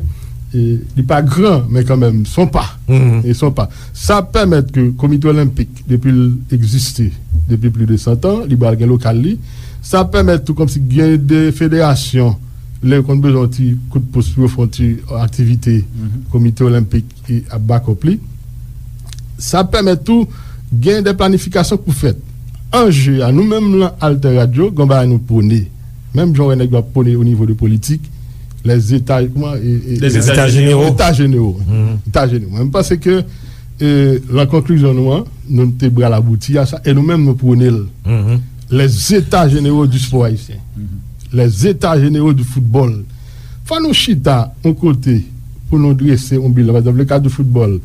li pa gran, men kanmenm, se yon pa. E se yon pa. Sa ap pèmèt ke Komite Olenpik, depi l egziste, depi plis de san tan, li pral gen lokal li. Sa ap pèmèt tou kòmsi gen de federasyon, lè yo konn bezwen yon ti kout pous pou yo fè yon ti aktivite, Komite Olenpik ap bakòp li. Sa ap pèmèt tou gen de planifikasyon k pou fèt. Anje a, nou menm lan Alter Radio, gen yon bagay nou pwone. Menm jan w wè nèg yo ap pwone o nivo de politik, les états, kòman, e, e, Les états généraux. États généraux. États généraux. Mwen, m panse ke, e, lan konklizyon nou an, nou te pral abouti a sa, e nou menm nou pwone l. Les états généraux du sport haïtien. Les états généraux du football. Fò nou chita yon kote pou nou drese yon bilan. Pa egzanp, le ka di foutbòl,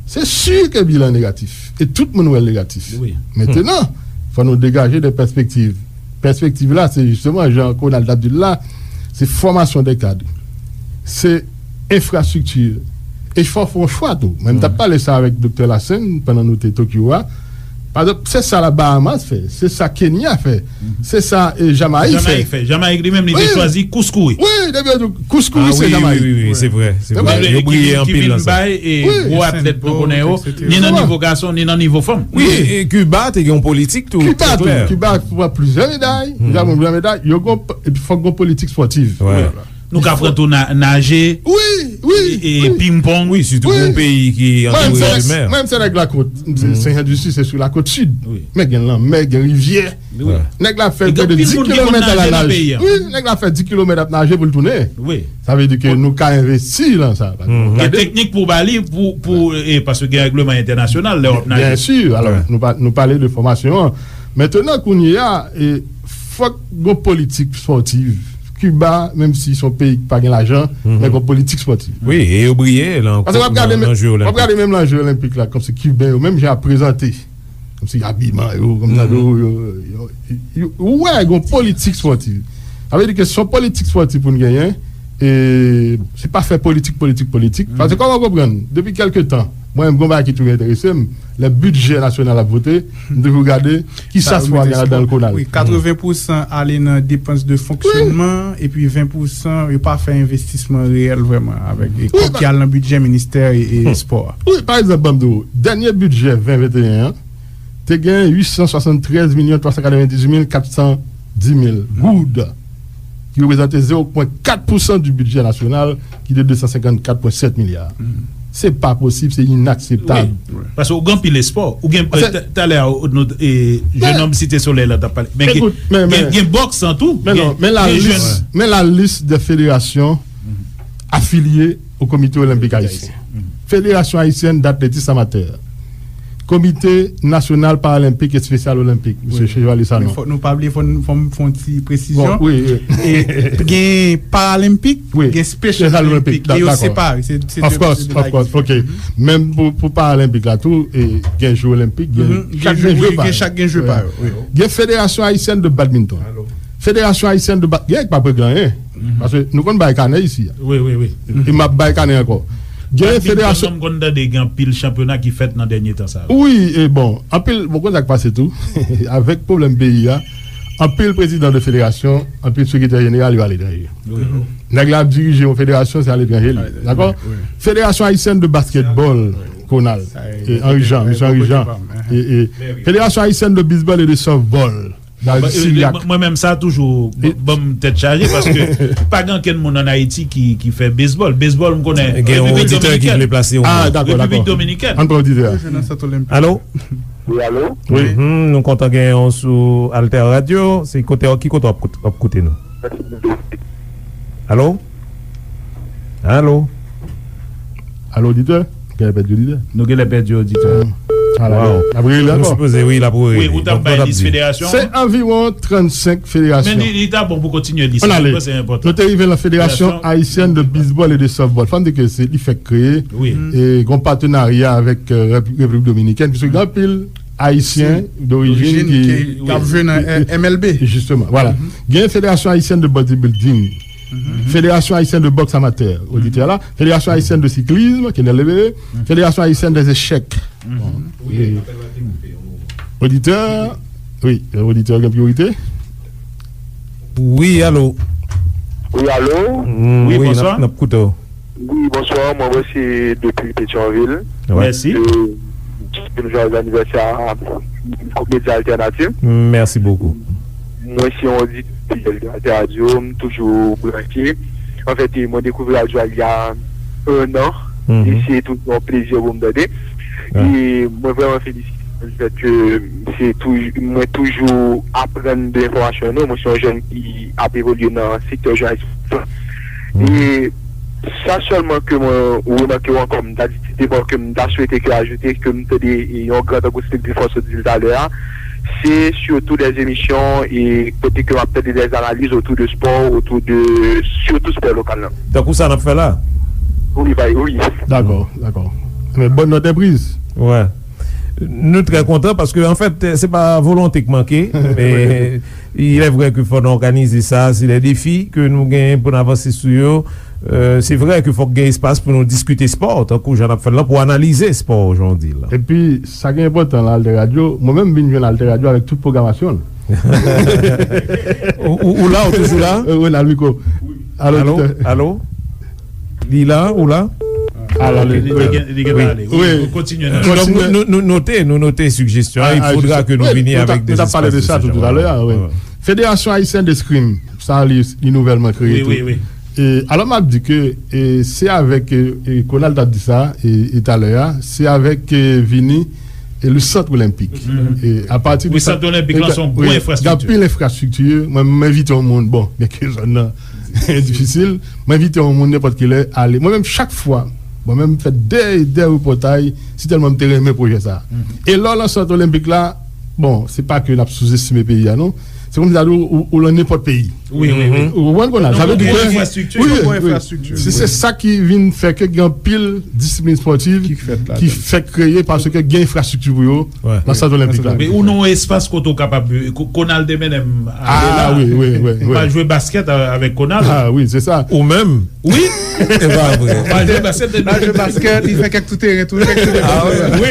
se si ke bilan negatif. E tout moun wè l negatif. Mentenan, fò nou degaje de pèspektiv. Pèspektiv la, se jisteman, jan Ronald t ap di l la, se fòmasyon de kad. Se enfrastrikti. E fò fè yon chwa tou. Mwen, m t ap pale sa avèk Doktè Larsen pandan nou te Tokyo a. Pa egzanp, se sa la Bahamas fè, se sa Kenya fè, se sa, e, Jamayik fè. Jamayik fè. Jamayik li menm, li te chwazi kouskouri. Wi, depi yo di kouskouri, se Jamayik. Wi, wi, wi, se vre, se vre. Yo briye anpil lan sa. Ki vin bay, e, gwo atlèt nou konnen yo, ni nan nivo gason, ni nan nivo fanm. Wi, e Kiba te gen yon politik tou, trè klè. Kiba tou, Kiba pran plizyè meday, Kiba pran plizyè meday, yo gon, epi fòk gon politik espòtiv. Nou ka pran tou na-, naje, wi, wi, e, e ping-pong. Wi, sitou pou yon peyi ki antoure de mè. Mwen, m se nèg lakòt, m se Sen Jan di Sid, se sou lakòt sid. Men gen lanmè, gen rivyè. Nèg la fè près de dis kilomèt a la naj. Wi, nèg la fè dis kilomèt ap naje pou l tounen. Sa vle di ke nou ka envesti lan sa. Gen teknik pou ba li, pou, pou, e, paske gen règleman entènasyonal lè w ap naje. Byen si, alò, nou pa, nou pale de fòmasyon an. Mentenan, kounye a, e, Fòk gon politik spòtiv. Kiba, menm si se yon peyi ki pa gen lajan, men gon politik spòtiv. Wi, e yo briye la ankò nan jwe olenpik. Paske w ap gade menm nan jwe olenpik la, kòmsi Kiben yo, menm jan y ap prezante, kòmsi abiman yo, kòmsi yo, yo, yo, yo, ou wè gon politik spòtiv. Sa vle di ke se yon politik spòtiv pou n genyen, e se pa fè politik, politik, politik. Paske kòman w konprann, depi kèlke tan, mwen menm, gon bagay ki toujou enterese m, lè bidjè nasyonal ap vote, m toujou gade kisa spò a gen ladan l, Konal. Wi, katreven pousan ale nan depans de fonksyonman, epi ven pousan yo pa fè envestisman reyèl vrèman avèk e kòb ki al nan bidjè ministè e, e spò a. Wi, pa egzanp, ban m di w, dènye bidjè ven venteyen an, te gen uit san swasanntrèz milyon twa san katrevendizuit mil kat san di mil goud, ki reprezante zewo pwen kat pousan di bidjè nasyonal, ki te de san senkannkat pwen sèt milya. Se pa posib, se inakseptab. Wi, paske ou gen anpil espò. Ou gen, talè a, nou, e, jennonm Site Solèy la t ap pale. Men gen, gen, gen bòks lan tou. Men non, men la lis, men la lis de federasyon afilye au Comité Olympique Haïtien. Fédération Haïtienne d'Athlétisme Amateur. Komite Nasyonal Paralenpik Espesyal Olenpik, mesye Chevalier Sanon. Men fòk nou pa bliye, fò n, fò m fè yon ti presizyon. Bon, wi, wi. E, gen Paralenpik, gen Special Olympic, e yo separe. Se, se de, of course, se de of course. Ok. Menm pou, pou Paralenpik la tou, e, gen Jeux Olympiques, gen chak gen jwe pa yo. Gen Fédération Haïtienne de Badminton. Fédération Haïtienne de Ba-, gen k pa p regle anyen. Paske nou konn bay kanè isi a. Wi, wi, wi. E m ap bay kanè ankò. Gen federasyon. Badminton, m konn tande gen anpil chanpyona ki fèt nan dènye tan sa yo. Wi, e bon, anpil, bon, konn sa k pase tou. Avèk pwoblèm peyi a, anpil prezidan de federasyon, anpil sekretè jeneral yo aletranje. Nèg la ap dirije yon federasyon, se aletranje li. Dakò? Fédération Haïtienne de Basketball, Konal, e Henri Jean, mesye Henri Jean. E, e Fédération Haïtienne de Baseball et de Softball. Bon, mwen menm sa toujou ban m tèt chaje, paske pa gen ankenn moun ann Ayiti ki, ki fè bezbòl. Bezbòl, m konnen Repiblik Dominikèn. Gen yon oditè ki vle plase yon mo. Ah, dakò, dakò. Repiblik Dominikèn. Ann pran oditè a. Alo? Wi, alo? Wi. Nou kontan genyen w sou Alter Radio. Se kote, ki kote w ap kout-, ap koute nou? Alo? Alo? Alo, oditè? Genlè pèdi oditè. Nou genlè pèdi oditè. Ala, l ap rele ankò. Nou sipoze, wi, l ap rele. Wi, ou t ap bay lis federasyon an? Se anviwon trannsenk federasyon. Men li, li ta bon pou kontinye lis la, mwen panse li enpòtan. Nou te rive nan Fédération Haïtienne de Baseball et de Softball. Fò n di ke se li fèk kreye. Wi. E gen yon patenarya avèk, euh, Rep-, Repiblik Dominikèn, piske gen anpil Ayisyen dorijin ki, ki ap jwe nan M L B. Jisteman, vwala. Gen Fédération Haïtienne de Bodybuilding. Fédération Haïtienne de Boxe Amateur, oditè la. Fédération Haïtienne de Cyclisme, Kenel Lebere. Fédération Haïtienne des Échecs. Bon, e, oditè, wi, oditè gen priyorite. Wi, alo. Wi, alo. Wi, bonswa. N ap, n ap koute w. Wi, bonswa, mwen, mwen se depi Petyonvil. Mèsi. E, m jwèz anivèsè a Group Medya Altènativ. Mèsi bokou. Mwen se yon oditè de Alter Radio, m toujou branche. Anfèt, e, mwen dekouvri radyo a il y a un an, e se toujou yon plezi pou m tande. E mwen vrèman felisite nou, lefèt ke se tou-, mwen toujou aprann de enfòmasyon nou. Mwen se yon jèn ki ap evolye nan sektè jounalis. E sa sèlman ke mwen remake w ankò, m ta di ti deman ke m ta swete ke ajoute, ke m tande yon gran tankou Steve Griffon sot di l talè a, se sitou dè emisyon e kote ke m ap tande dè analiz otou de spò, otou de sitou spò lokal la. Tankou sa n ap fè la? Wi, bay, wi. Dakò, dakò. Men bòn nòt enpriz. Wè. Nou trè kontan paske, anfèt, se pa volonte k manke, men il est vrai ke fò n òganize sa, se de defi ke nou genyen pou n avanse sou yo. Euh, se vrè ke fòk gen espas pou nou diskite spò, tankou jan n ap fè l lan, pou analize spò jan w di l lan. Epi, sa ki enpòtan nan Alter Radio, mwen menm m vin jwenn Alter Radio avèk tout pwogramasyon l. Ou, ou, ou la, ou toujou la? Euh, Ronald Micro. Alo, alo, oditè. Alo? Li la, ou la? Ah, la, li, li, li gen, li gen pale. Wi, wi. Kontinye. Donk, nou, nou, nou note, nou note sigjestyon an. Il faudra que nous venions avec des espaces de ce genre. Wi, nou t ap pale de sa tou, talè a, wi. Fédération Haïtienne d'Escrime, sa li, li nouvèlman kreye tou. Wi, wi, wi. E, alò, m ap di ke, e, se avèk, e, e, Konal t ap di sa, e, e talè a, se avèk, e, vini, e, le sant olenpik. E, apati de sant olenpik lan, se yon gwo enfrastrikti. Gen anpil enfrastrikti. Mwen, m envite yon moun, bon, byenke zòn nan difisil, m envite yon moun nenpòt kilè ale. Mwen menm, chak fwa, mwen menm, m fè de, de repòtaj, si tèlman m te renmen pwojè sa. E lè w lan sant olenpik la, bon, se pa ke n ap souzestime peyi a, non. se kòmsi ta di w, ou, ou nan nenpòt peyi. Wi, wi, wi. Ou konprann, Konal? Sa vle di ke, wi, wi. Se, se sa ki vin fè ke gen anpil disiplin espòtiv ki fèt kreye paske gen enfrastrikti pou yo nan sant olenpik la. Men ou nan yon espas kote ou kapab, Ko-, Konal te mennen m ale la. M pa jwe baskèt a-, avèk Konal. Ah wi, se sa. Ou menm? Wi. E pa vre. M pa jwe baskèt. M pa jwe baskèt, li fè kèk tou teren tou, kèk tou teren. Ah wi.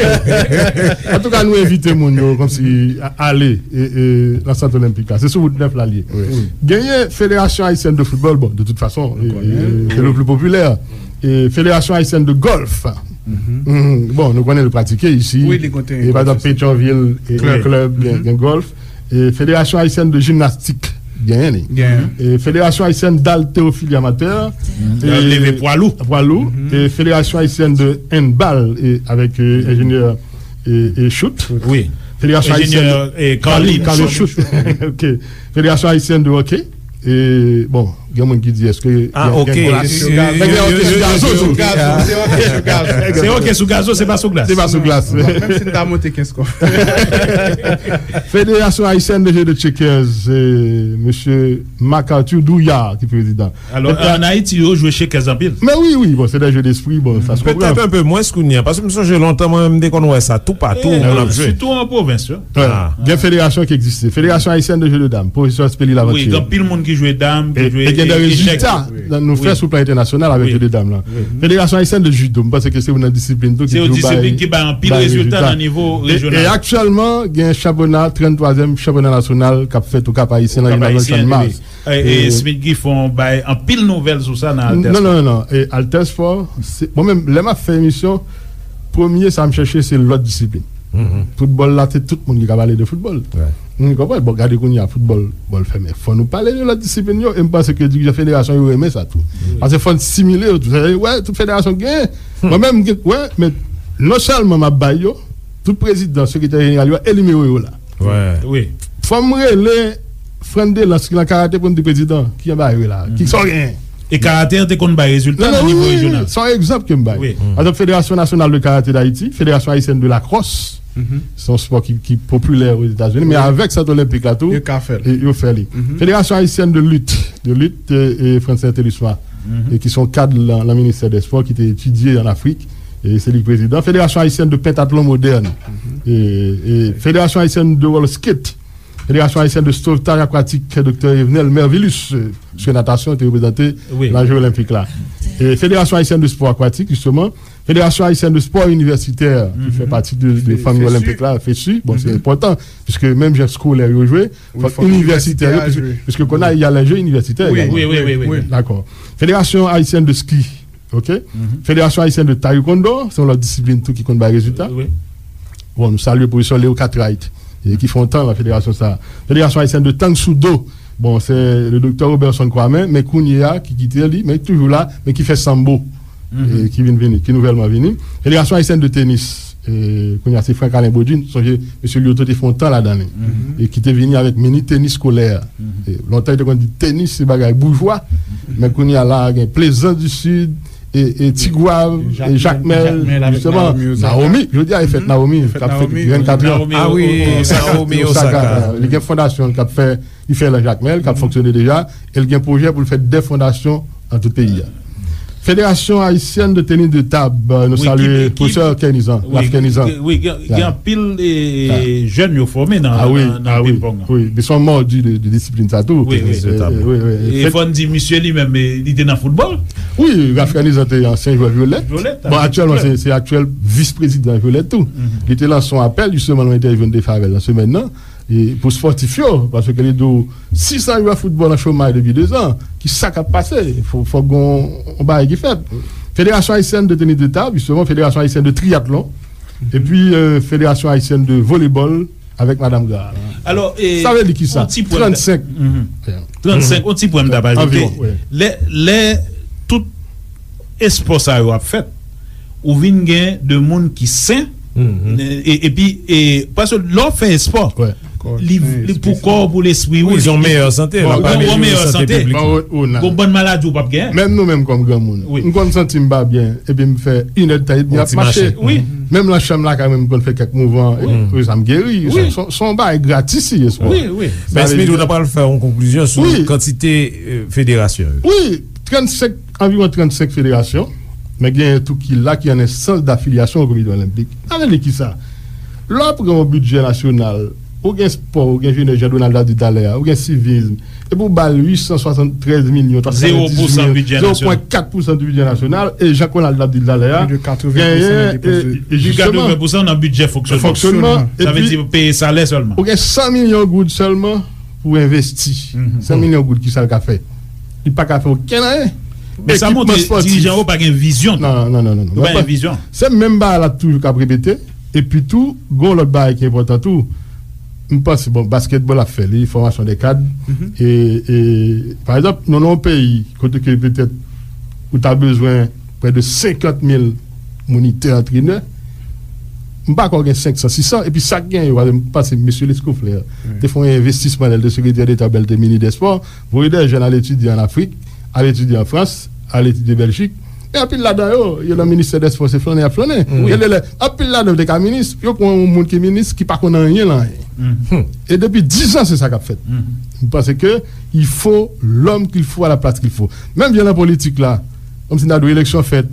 Antouka, nou envite moun yo kòmsi a-, ale e, e, nan sant olenpik la. Se sou wout nèf la l ye. Genyen Fédération Haïtienne de Football, bon, de toute façon, e, e, c'est le plus populaire. E Fédération Haïtienne de Golf. Mhm. Bon, nou konnen l pratike isi. Wi, li konn te. E pa egzanp, Petyonvil, e, gen klèb, gen, gen gòlf. E Fédération Haïtienne de Gymnastique, genyen li. E Fédération Haïtienne d'Haltérophilie Amateur. Mhm. E leve pwa lou. Pwa lou. Mhm. E Fédération Haïtienne de Handball, e avèk, e, enjenyè, e, e Choute. Wi. Fédération Haïtienne, enjenyè, e, Carly, Carly Choute. Ok. Fédération Haïtienne de Hockey. E, bon, gen moun ki di, èske gen, gen glas? Yo, yo, yo, yo, yo, yo, se hockey sou gazo, se pa sou glas. Se pa sou glas. Menm si n ta monte kenz kòb. Fédération Haïtienne de Jeu de Checkers, e, mesye Marc-Arthur Douillard ki prezidan. Alò, an Ayiti, yo jwe checkers anpil. Men wi, wi, bon, se de jeu d'esprit, bon, sa se konprann. Petèt un peu mwens kounye a, paske m sonje lontan, mwen menm, m te konn wè sa toupatou, moun ap jwe. Sitou an pwovens, wi. Gen federasyon ki egziste. Fédération Haïtienne de Jeu de Dames, pwofesè Speli Laventure. Wi, gen anpil moun ki jwe dam, ki jwe echèk. E gen de rezilta nou fè sou plan entènasyonal avèk jeu de dames la. Fédération Haïtienne de Judo, m panse ke se youn nan disiplin tou ki toujou bay, disiplin ki bay anpil rezilta nan nivo rejyonal. E aktyèlman, gen chanpyona, tranntwazyèm chanpyona nasyonal k ap fèt Okap Ayisyen nan Gimnaz Channmas. E, e Smith Griffon bay anpil nouvèl sou sa nan Alter Sport. Non, non, non, non. E Alter Sport, se, mwen menm, lè m ap fè emisyon, premye sa m chèche, se lòt disiplin. Foutbòl la, se tout moun ki ka pale de foutbòl. Ou konprann? Bon, gade kounye a, foutbòl, bòl fèmen. Fò nou pale de lòt disiplin yo, e m panse ke dirijan federasyon yo renmen sa tou. Paske fò n stimile yo tou. Sa vle di, wè, tout federasyon genyen. Mwen menm, m gen, wè, men non sèlman m ap bay yo, tout prezidan, sekretè jeneral yo, e nimewo yo la. Wi. Fò m rele Frandelans ki nan karate pou m di prezidan, ki jan bagay yo ye la? Ki sa w genyen? E karate an te konn bay rezilta nan nivo rejyonal. Se yon egzanp ke m bay. Wi. Pa egzanp, Fédération Nationale de Karaté d'Haïti, Fédération Haïtienne de Lacrosse, se yon spò ki, ki popilè Ozetazini, men avèk sant olenpik la tou, yo ka fè l. E yo fè li. Fédération Haïtienne de Lutte, de Lutte, e, e Francine Thélusma, e ki se yon kad nan, nan ministè dè spò ki te etidye an Afrik, e se li k prezidan. Fédération Haïtienne de Pentathlon Moderne, e, e Fédération Haïtienne de Roller Skate, Fédération Haïtienne de Sauvetage Aquatique, Doktè Evenel Mervilus, e, paske natasyon te reprezante nan Jeux Olympiques la. E Fédération Haïtienne de Sport Aquatique, justement, Fédération Haïtienne de Sport Universitaire, ki fè pati de, de fanmi olenpik la, fesu, bon, se enpòtan, piske menm jan eskolè yo jwe, fòk inivèsitè yo, piske, piske kounye a, y a les Jeux universitaires également. Wi, wi, wi, wi. Dakò. Fédération Haïtienne de Ski, ok? Fédération Haïtienne de Taekwondo, se yon lòt disiplin tou ki konn bay rezilta. Bon, nou salye pwofesè Leo Cartwright, e ki fè yon tan nan federasyon sa a. Fédération Haïtienne de Tang Soo Do, bon, se le doktè Roberson Kwame, men kounye a, ki kite li, men ki toujou la, men ki fè sanbo, e ki vin vini, ki nouvèlman vini. Fédération Haïtienne de Tennis, e kounye a, se Franck Alain Baudry, sonje, mesye Lyoto te fè yon tan ladan li, e ki te vini avèk mini tenis skolè. E lontan, yo te konn di tenis, se bagay boujwa, men kounye a la, gen Plaisance du Sud, e, e Tigwav, e Jakmèl, jisteman, Naomi, jodi a, e fèt Naomi, k ap fèt vennkat an. Ah wi, Naomi Osaka. Li gen fondasyon l k ap fè, li fè nan Jakmèl, k ap fonksyone deja, e l gen pwojè pou l fè de fondasyon nan tout peyi a. Fédération Haïtienne de Tennis de Table, nou salye pwofesè Kernizan, Ralph Kernizan. Wi, gen, gen anpil, e, jèn yo fòme nan, nan, nan ping-pong. Wi, ils sont mordus de, de disiplin sa tou. Wi, wi. E fò n di, misye li menm, e, li te nan foutbòl. Wi, Ralph Kernizan te ansyen jwè Vyolèt. Bon, aktyèlman, se, se aktyèl vis-prezidan Vyolèt tou. Li te lanse yon apèl, jisteman, nan yon entèvyou n te fè avè l nan semèn nan, e pou spòtif yo, paske li di w, sisan jwè foutbòl an chomaj depi dezan, ki sa k ap pase? Fò, fò gen yon bagay ki fèt. Fédération Haïtienne de Tennis de Table, jisteman, Fédération Haïtienne de Triathlon, epi, e, Fédération Haïtienne de Volleyball, avèk Madanm Gra. Alò, e, sa vle di kisa? Trannsenk. Trannsenk, yon ti pwen m t ap ajoute. Anviwon, wi. Lè, lè tout espò sa yo ap fèt, ou vin gen de moun ki sen, e, epi, e, paske lè w fè espò, Li, li pou kò w, pou lespri w, li, li, li, li an meyè sante. Gon bann maladi ou p ap genyen. Menm nou menm kòm granmoun, m konn santi m pa byen, epi m fè inèd tan, epi m ap mache. Menm nan chanm lakay mwen, m konn fè kèk mouvman, epi sa m geri. Se yon bagay gratis li ye, spò. Men Smith, ou ta pral fè yon konklizyon sou kantite federasyon yo. Wi, trannsenk, anviwon trannsenk federasyon, men genyen tou ki la ki an enstans dafilyasyon o Komite Olenpik. Sa vle di kisa? Lè w ap pran yon bidjè nasyonal, ou gen spò, ou gen jenès, jan Donald ap di talè a, ou gen sivism, epi ou ba l uit san swasanntrèz milyon twa san dizuit mil, zewo pwen kat pousan di bidjè nasyonal, e jan Ronald ap di talè a, genyen, e, e, jisteman, nan bidjè fonksyonman. Fonksyonman, sa vle di peye salè sèlman. Ou gen san milyon goud sèlman pou envesti. San milyon goud, kisa l ka fè? Li pa ka fè okenn anyen. Men sa montre dirijan yo pa gen vizyon tou. Non, non, non, non. Yo pa gen vizyon. Se menm bagay la toujou k ap repete. Epi tou, gen yon lòt bagay ki enpòtan tou. M panse, bon, basketball ap fè li, fòmasyon de kad. E, e, pa egzanp, nou nan yon peyi kote ke petèt ou ta bezwen prè de senkant mil monitè, antrenè. M pa kwè w gen senk san, sis san. Epi sa k genyen yo, m panse mesye Lescouflair te fè yon envestisman lè l te sekretè deta, lè l te minis dè spò, voye de jèn al etidye ann Afrik, al etidye an Frans, al etidye Bèljik. E anpil ladan yo, yo nan ministè dè spò, se flannen y ap flannen. Gen de lè, anpil ladan yo te ka minis, yo pran yon moun ki minis ki pa konn anyen nan anyen. E depi diz an, se sa k ap fèt. M panse ke il faut l'homme qu'il faut à la place qu'il faut. Menm jan nan politik la, kòmsi n ta dwe eleksyon fèt,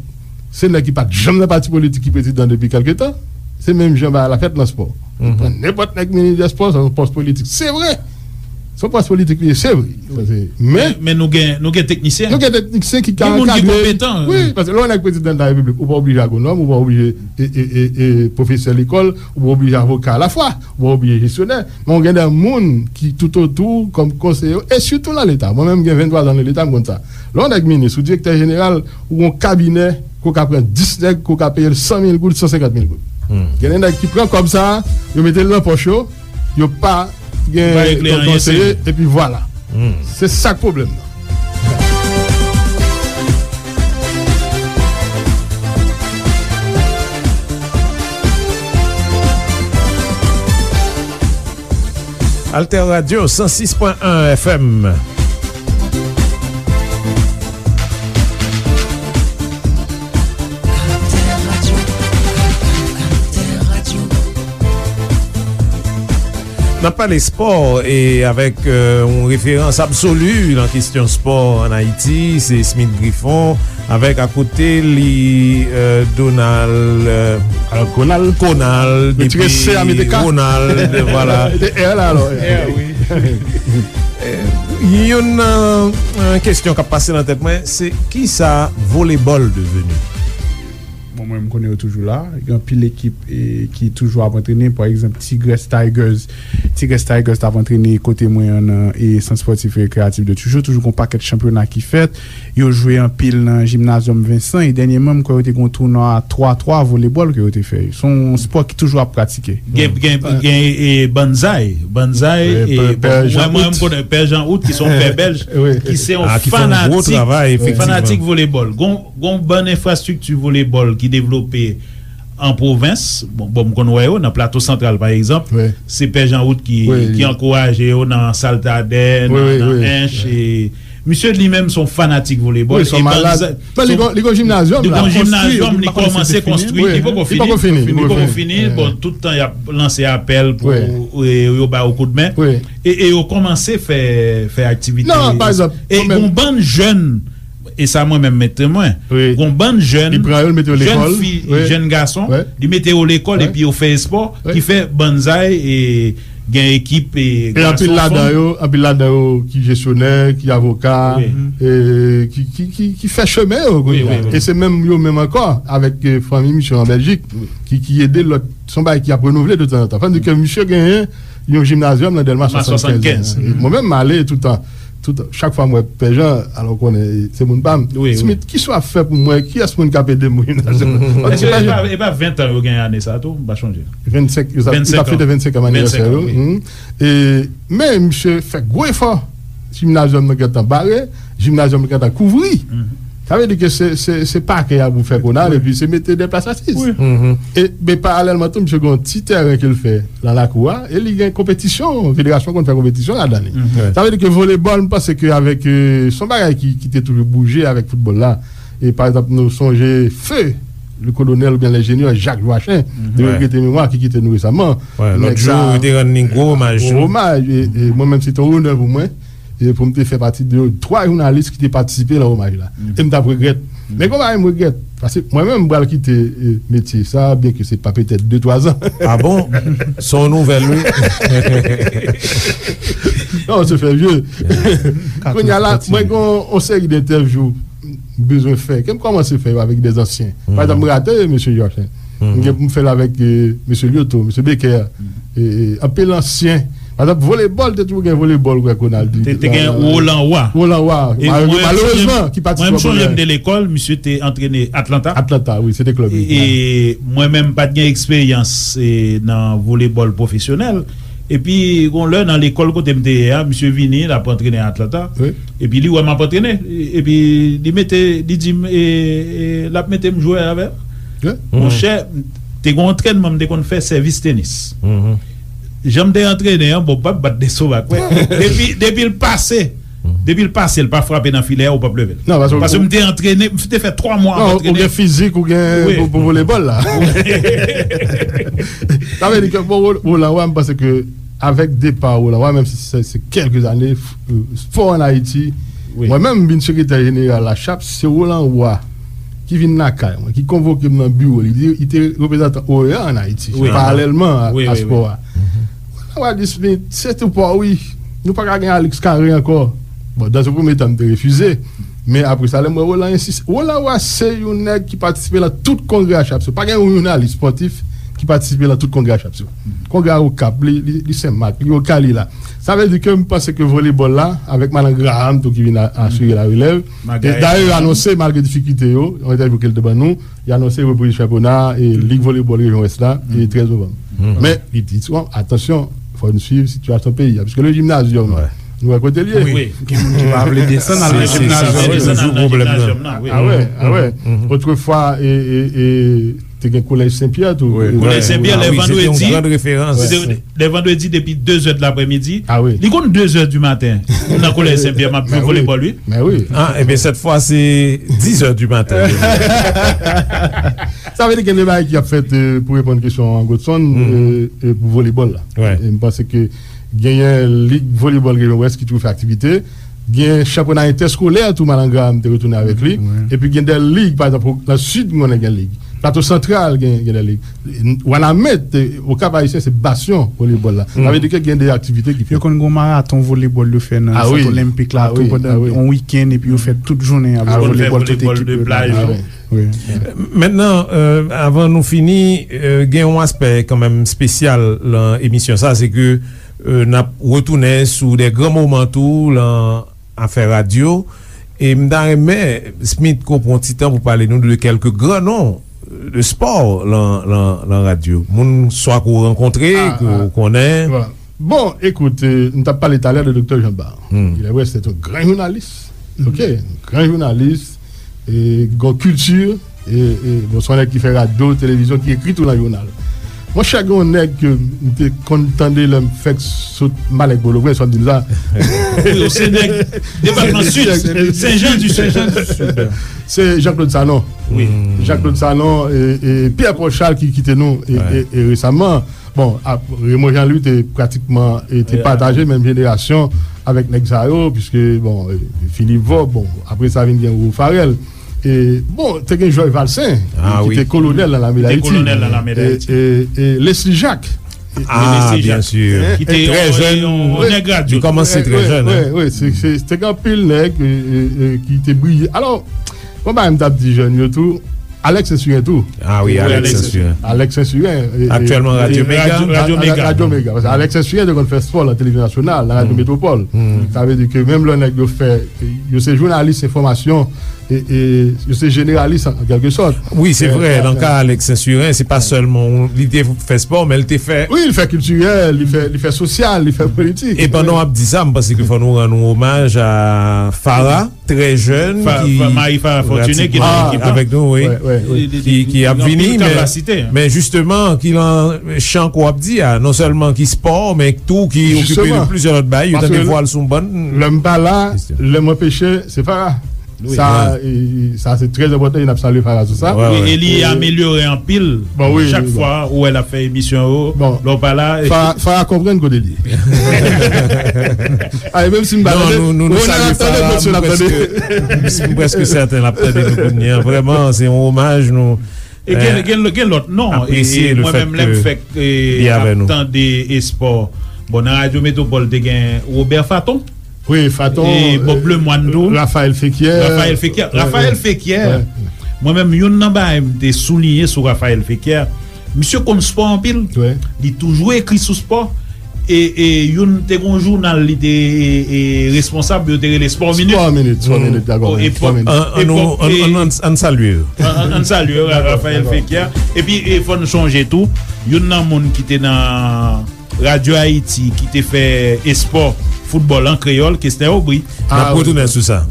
se nèg ki pa t janm nan pati politik ki prezidan depi kèlke tan. Se menm jan bagay la fèt nan spò. Yo pran nenpòt nèg minis dè spò, se yon pòs politik. Se vre. Se yon pòs politik li ye, se vre. Sa se, men, men nou gen, nou gen teknisyen. Nou gen teknisyen ki ka ankadre. Gen moun ki konpetan. Wi, paske lè yon nèg prezidan de la repiblik, ou pa oblije agwonòm, ou pa oblije, e, e, e, e, pwofesè lekòl, ou pa oblije avoka alafwa, ou pa oblije jesyonè. Men w gen de moun ki toutotou w kòm konseye w, e sitou nan Leta. Mwen menm, m gen venntwa zan nan Leta, m konn sa. Lè yon nèg minis ou direktè jeneral, ou gen yon kabinè, ke w ka pran dis nèg, ke w ka peye l san mil goud, san senkant mil goud. Gen de nèg ki pran kòb sa a, yo mete l nan pòch yo, yo pa gen kòm konseye, epi vwala. Se sa k pwoblèm nan. Alter Radio, san sis pwen en F M. N ap pale spò e avèk, euh, yon referans absoli nan kesyon spò ann Ayiti, se Smith Griffon, avèk akote li, euh, Donald, euh, Konald. Konald, epi Ronald, vwala. Youn nan, euh, kesyon k ap pase nan tèt mwen, se kisa volebòl deveni? Bon, mwen, m konnen yo toujou la. Gen anpil ekip, e, ki toujou ap antrene. Pa egzanp, Tigres Tigers. Tigres Tigers t ap antrene kote mwen an nan, e, Sant Spòtif e Rekreyatif de Tijo. Toujou gen yon pakèt chanpyona ki fèt. Yo jwe anpil nan Jimnazyòm Vensan. E dènyèman, m kwè yo te gen yon tounwa twa twa volebòl ke yo te fè. Se yon spò ki toujou ap pratike. Gen, gen, gen, e, Banzai. Banzai, e, bon, mwen, mwen, m konnen Pè Jan Out, ki se yon pè bèlj, ki se yon fanatik, fanatik volebòl. Gon Gon bann enfrastrikti volebòl ki devlope an pwovens. Bon, bon, m konn wè yo nan Plato Santral, pa egzanp. Se Pè Jan Out ki, ki ankouraje yo nan Saltadè, nan, nan Ench. E misye li menm se yon fanatik volebòl. Wi, se yon malad. Men li gon, li gon jimnazyòm la, li gon jimnazyòm, li kòmanse konstwi, li poko fini. Li poko fini. Bon, tout tan y ap lanse apèl pou, e, yo ba yo koudmen. E, e yo kòmanse fè, fè aktivite. Non, pa egzanp, e gon bann jèn E sa mwen menm mete mwen. Gon bann jèn, jèn fi, jèn gason, li mete yo lekòl epi yo fè espò, ki fè Banzai e gen ekip e gason, fanm. E anpil ladan yo, anpil ladan yo ki jesyonè, ki avoka, e ki, ki, ki, ki fè chemen yo kounye a. E se menm yo menm ankò avèk, e, fanmi misye an Bèljik ki, ki ede lòt. Se yon bagay ki ap renouvle de tanzantan. Fò n di ke misye genyen yon jimnazyòm nan Dèlma swasannkenz. Mwen menm, m ale toutan. Tout, chak fwa m wè Pè Jan, alò w konnen, se moun pa m. Smith, kisa w ap fè pou mwen? Kiyès moun k ap ede m? Paske e pa, e pa ven tan yo genyen ane sa a tou, m pa chonje. Vennsenk, yo t ap fete vennsenk an anivèsè yo. E, men misye fè gwo efò. Jimnazyòm nan gentan bare, jimnazyòm nan gentan kouvri. Sa vle di ke se, se, se pakè a pou fè Konal, epi se mete de plas asiz. E, men paralèlman tou, misye gen yon ti tèren ke l fè nan lakou a, e li gen konpetisyon, federasyon konn fè konpetisyon ladan li. Sa vle di ke volebòl, m panse ke avèk, e, se yon bagay ki, ki te toujou bouje avèk foutbòl la. E pa egzanp, nou sonje feu le colonel oubyen l'ingénieur Jacques Joachim, de regrete memwa, ki kite nou resaman. Lòt jou, yo te rann li gwo omaj. Gwo omaj. E, e mwen menm, se te yon onè pou mwen. E pou m te fè pati de twa jounalis ki te patisipe nan omaj la. E m t ap regrèt. Men konpa m regrèt. Paske mwen menm, m pral kite, e, metye sa, byenke se pa petèt de, twa zan. Ah bon? Se yon nouvèl, wi. Non, se fè vye. Kounye a la, mwen gen yon seri de entèvyou m bezwen fè. Ke m kòmanse fè yo avèk de zansyen. Pa egzanp, m rate mesye Georges. M gen pou m fè l avèk, e, mesye Lyoto, mesye Becker. E, e, anpil ansyen. Pa egzanp, volebòl, te toujou gen volebòl, kwè Konal di. Te, te gen Roland Roy. Roland Roy. E mwen, malerezman, ki pati. Mwen, m sonje m te lekòl, misye te antrene Atlanta. Atlanta, wi, se te klèb li. E mwen menm, m pa t gen eksperyans, e, nan volebòl pwofesyonèl. Epi, gon lè nan lekòl kote m te ye a, misye vini, l ap antrene Atlanta. Epi, li wè m ap antrene. Epi, li mete, li di m, e, e, l ap mete m jwe avè l. Monchè, te gon antrènman m te konn fè sèvis tenis. Jan m te antrene an, bon, m p ap bat de soba kwè. Depi, depi l pase, depi l pase, l pa frape nan filè a, ou p ap leve l. Non, paske m te antrene, m te fè twa mwa ap antrene. Non, ou gen fizik, ou gen pou, pou volebòl la. Sa vle di ke, bon, Roland Roy, m panse ke avèk depa Roland Roy, menm si se, se kèlke zane, f-, spò ann Ayiti, mwen menm, m vin sekretè jeneral la, chap, se Roland Roy ki vin lakay mwen, ki konvoke m nan biwo li. Li, li te reprezantan OEA ann Ayiti, paralèlman a, a spò a. Roland Roy di, Smith, se tou pa w, wi. Nou pa ka gen Alex Carré ankò. Bon, dans un premier temps, m te refize. Men apre sa, lè m wè Roland ensis-, Roland Roy se yon nèg ki patisipe nan tout kongrè a Chapso. Pa gen yon jounalis spòtif ki patisipe nan tout kongrè a Chapso. Kongrè a Okap, li, li, li Senmak, li Okap, li la. Sa vle di ke m panse ke volebòl la, avèk Madan Graham tou ki vin a-, asire larelèv. E dayè, yo anonse, malgre difikilte yo, yon entèvyou ke l te ban nou, yo anonse repriz chanpyona e Lig Volebòl Rejyon Wès la, e trèz novanm. Men, li di, bon, atansyon, fò n swiv sitiyasyon peyi a, piske le gymnasium, nou wè kote l ye. Wi, gen moun ki pa vle desann al nan gimnazyòm. Se toujou pwoblèm nan. Ah wè, ah wè. Otrefwa, e, e, e, te gen Kolèj Senpyè tou. Kolèj Senpyè, lè vandredi, lè vandredi depi de zè de laprèmidi. Li konn de zè di maten. Nan Kolèj Senpyè, m ap jwe volebòl, wi. Men wi. Ah, ebyen, sèt fwa, se dizè di maten. Sa vle di gen de bagay ki ap fèt, e, pou reponn kesyon an, Godson, e, e, pou volebòl la. E m panse ke genyen Lig Volebòl Rejyon Wès ki toujou fè aktivite. Gen chanpyona entèskolè tou, Madan Graham te retounen avèk li. Epi gen de lig, pa egzanp, nan Sid, m konnen gen lig. Plato Santral gen, gen de lig. Wanament, e, Okap Ayisyen, se basyon volebòl la. Sa vle di ke gen de aktivite ki fèt. Yo konn gen yon maraton volebòl yo fè nan Sant Olenpik la tou pandan yon wikenn, epi yo fè tout jounen ap jwe volebòl, tout ekip yo. Mentnan, e, avan nou fini, e, gen yon aspè kanmenm espesyal nan emisyon sa, se ke, e, n ap retounen sou de gran moman tou nan afè radyo. E m ta renmen, Smith, ke w pran ti tan pou pale nou de kèlke gran non de spò nan, nan, nan radyo. Moun swa ke w rankontre, ke w konnen. Bon, ekout, e, m t ap pale talè de Doktè Jean Bar. Il est vrai, c'est un grand journaliste. Ok, gran jounalis, e, gon kilti, e, e, bon, se yon nèg ki fè radyo, televizyon, ki ekri tou nan jounal. Monchè, gen yon nèg ke m te konn tande lè m fèk sot Malèk Pòtoprens, fò m di l sa. Wi, se nèg depatman Sid, Sen Jan di Sid. Se Jean Claude Sanon. Wi. Jean Claude Sanon e, e Pierre Paul Charles ki kite nou e, e, e resaman. Bon, ap, Raymond Jean Louis te pratikman, e, te pataje menm jenerasyon avèk nèg sa yo, piske, bon, e, Philippe Vorbe, bon, apre sa vin gen Roro Farel. E, bon, te gen Georges Valcin, ki te kolonèl nan lame Dayiti. Ki te kolonèl nan lame Dayiti. E, e, e Leslie Jacques. Ah, byen si. Ki te yon, yon nèg radyo. Li kòmanse trè jèn, wi, wi, se, se, te gen anpil nèg, e, e, e, ki te briye. Alò, bon, bagay m t ap di jèn yo tou, Alex Saint-Cyr tou. Ah wi, Alex Saint-Cyr. Alex Saint-Cyr, e, e, aktyèlman Radyo Mega. Radyo Mega. Radyo Mega. Paske Alex Saint-Cyr te konn fè spò nan televizyon nasyonal, nan Radyo Metropole. Sa vle di ke menm lè nèg yo fè, yo se jounalis enfòmasyon, e, e, yo se jeneralis an, an kèlke sòt. Wi, se vre, nan ka Alex Saint-Cyrin, se pa sèlman li te fè spò, men li te fè. Wi, li fè kiltirèl, li fè, li fè sosyal, li fè politik. E pandan w ap di sa, m panse ke fò nou rann yon omaj a Farah, trè jèn, ki Marie Farah Fortuné, ki nan ekip la avèk nou, wi, ki ap vini, men, men jisteman, ki nan chan ke w ap di a, non sèlman ki spò, men tou ki okipe de plizyè lòt bagay, yo tande vwa l sou yon bann kesyon. Lè m pa la, lè m anpeche, se Farah. Sa, e, e, sa se trè enpòtan, e n ap salye Farah sou sa. Wi, e li amelyore anpil. Chak fwa ou wè l ap fè emisyon yo, lè w pa la. Farah, Farah konprann kote l ye. Ay, menm si m pa tande, Ronald ap tande, Godson ap tande. M prèske sèten l ap tande nou kounye a. Vrèman, se yon omaj nou. E gen, gen, gen lòt non, e mwen menm lè m fèk, e, ap tande espò. Bon, nan Radyo Metwopòl te gen Robert Faton. Wi, Faton, e Bob Lemoine tou. Raphaël Fekyer. Raphaël Fekyer. Raphaël Fekyer. Mwen menm, youn nan bagay m te souliye sou Raphaël Fekyer, misye konn spò anpil. Li toujou ekri sou spò. E, e youn te gen yon jounal li te, e, e, responsab, yo te rele Sport Minute. Sport Minute, Sport Minute, dakò. An, an, an, an, an salye yo. An, an, an salye yo, Raphaël Fekyer. Epi, e, fò n sonje tou, youn nan moun ki te nan Radyo Ayiti ki te fè espò, foutbòl an kreyòl, Kester Aubry. N ap retounen sou sa.